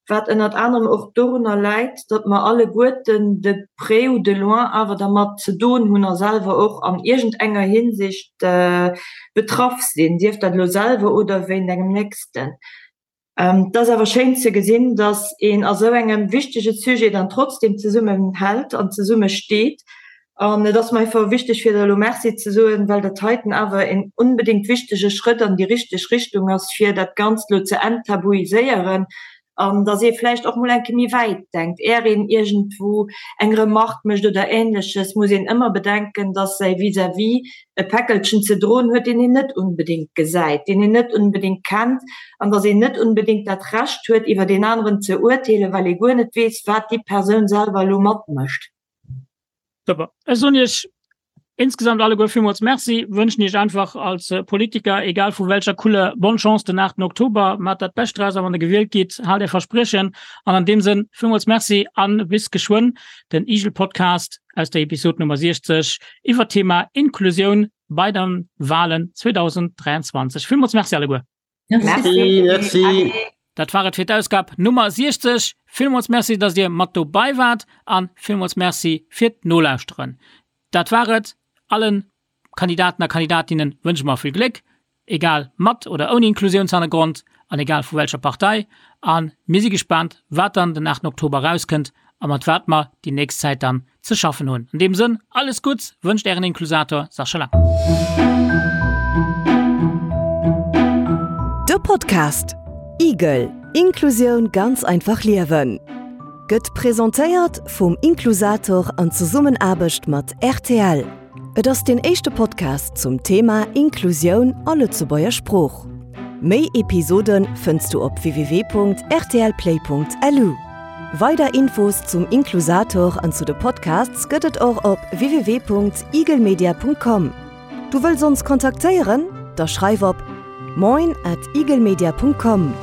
wat ënnert anerem och dorunner läit, datt mer alleguerten de près ou de loin awer dermat ze doen hunn a selwer och an iergendenger Hinsicht betraff sinn, sief dat elo selwer oder wéint engem Nächsten. Et ass awer schéin ze gesinn, datt een a sou engem wichtege Sujet dann trotzdem zesummen hält an zesumme steet. An et ass mer einfach wichteg fir der elo Merci ze soen, well dat heiten awer een onbedéngt wichtege Schrëtt an déi richteg Richtung ass, fir dat Ganzt elo ze enttabuiséieren an datt ee vläicht och mol eng Kéier méi wäit denkt. Är een iergendwou eng Remarque mécht oder Ähnleches, muss een ëmmer bedenken, datt säi Vis-à-vis e Päckelchen ze droen huet, deen een net unbedéngt gesäit, deen een net unbedéngt kennt, an datt een net unbedéngt dat Recht huet, iwwer deen aneren ze urteelen, well ee guer net weess, wat déi Persoun selwer elo matmécht. Super. Ech soen Iech insgesamt alleguer villmools Merci, wënschen Iech einfach als Politiker, egal vu welcher Couleur, bonne Chance den 8 Oktober. Maacht dat Bescht draus a wann Der gewielt gitt, haalt Är Verspriechen. An an deem Sënn, villmools Merci a bis geschwënn. Den IGEL-Podcast aus der Episod Nummer 60 iwwer d'Thema Inklusioun bei den Walen 2023. Villmools Merci alleguer. Merci. Merci. Dat war et fir d'Ausgab Nummer 60. Villmools Merci, dass Dir mat dobei waart an villmools Merci fir d'Nolauschteren. Dat war et. Allen Kandidaten a Kandidatinnen wënsche mer vill Gléck, egal mat oder ouni Inklusiounshannergrond an egal vu welcher Partei. A mir si gespaant, wat dann den 8 Oktober erauskënnt a mat wat mer déi nächst Zäit dann ze schaffen hunn. An deem Sënn, alles Gutts wënscht Ären Inklusator Sascha Lang. De Podcast Igel, Inklusioun ganz einfach liewen gëtt presentéiert vum Inklusator an Zesummenaarbecht mat rtl. Et ass deen éischte Podcast zum Thema Inklusioun a Lëtzebuerger Sprooch. Méi Episode fënns du op www.rtlplay.lu. Weider Infos zum Inklusator an zu de Podcasts gëtt et och op www.igelmedia.com. Du wëlls ons kontaktéieren? Da schreif op moin at igelmedia.com.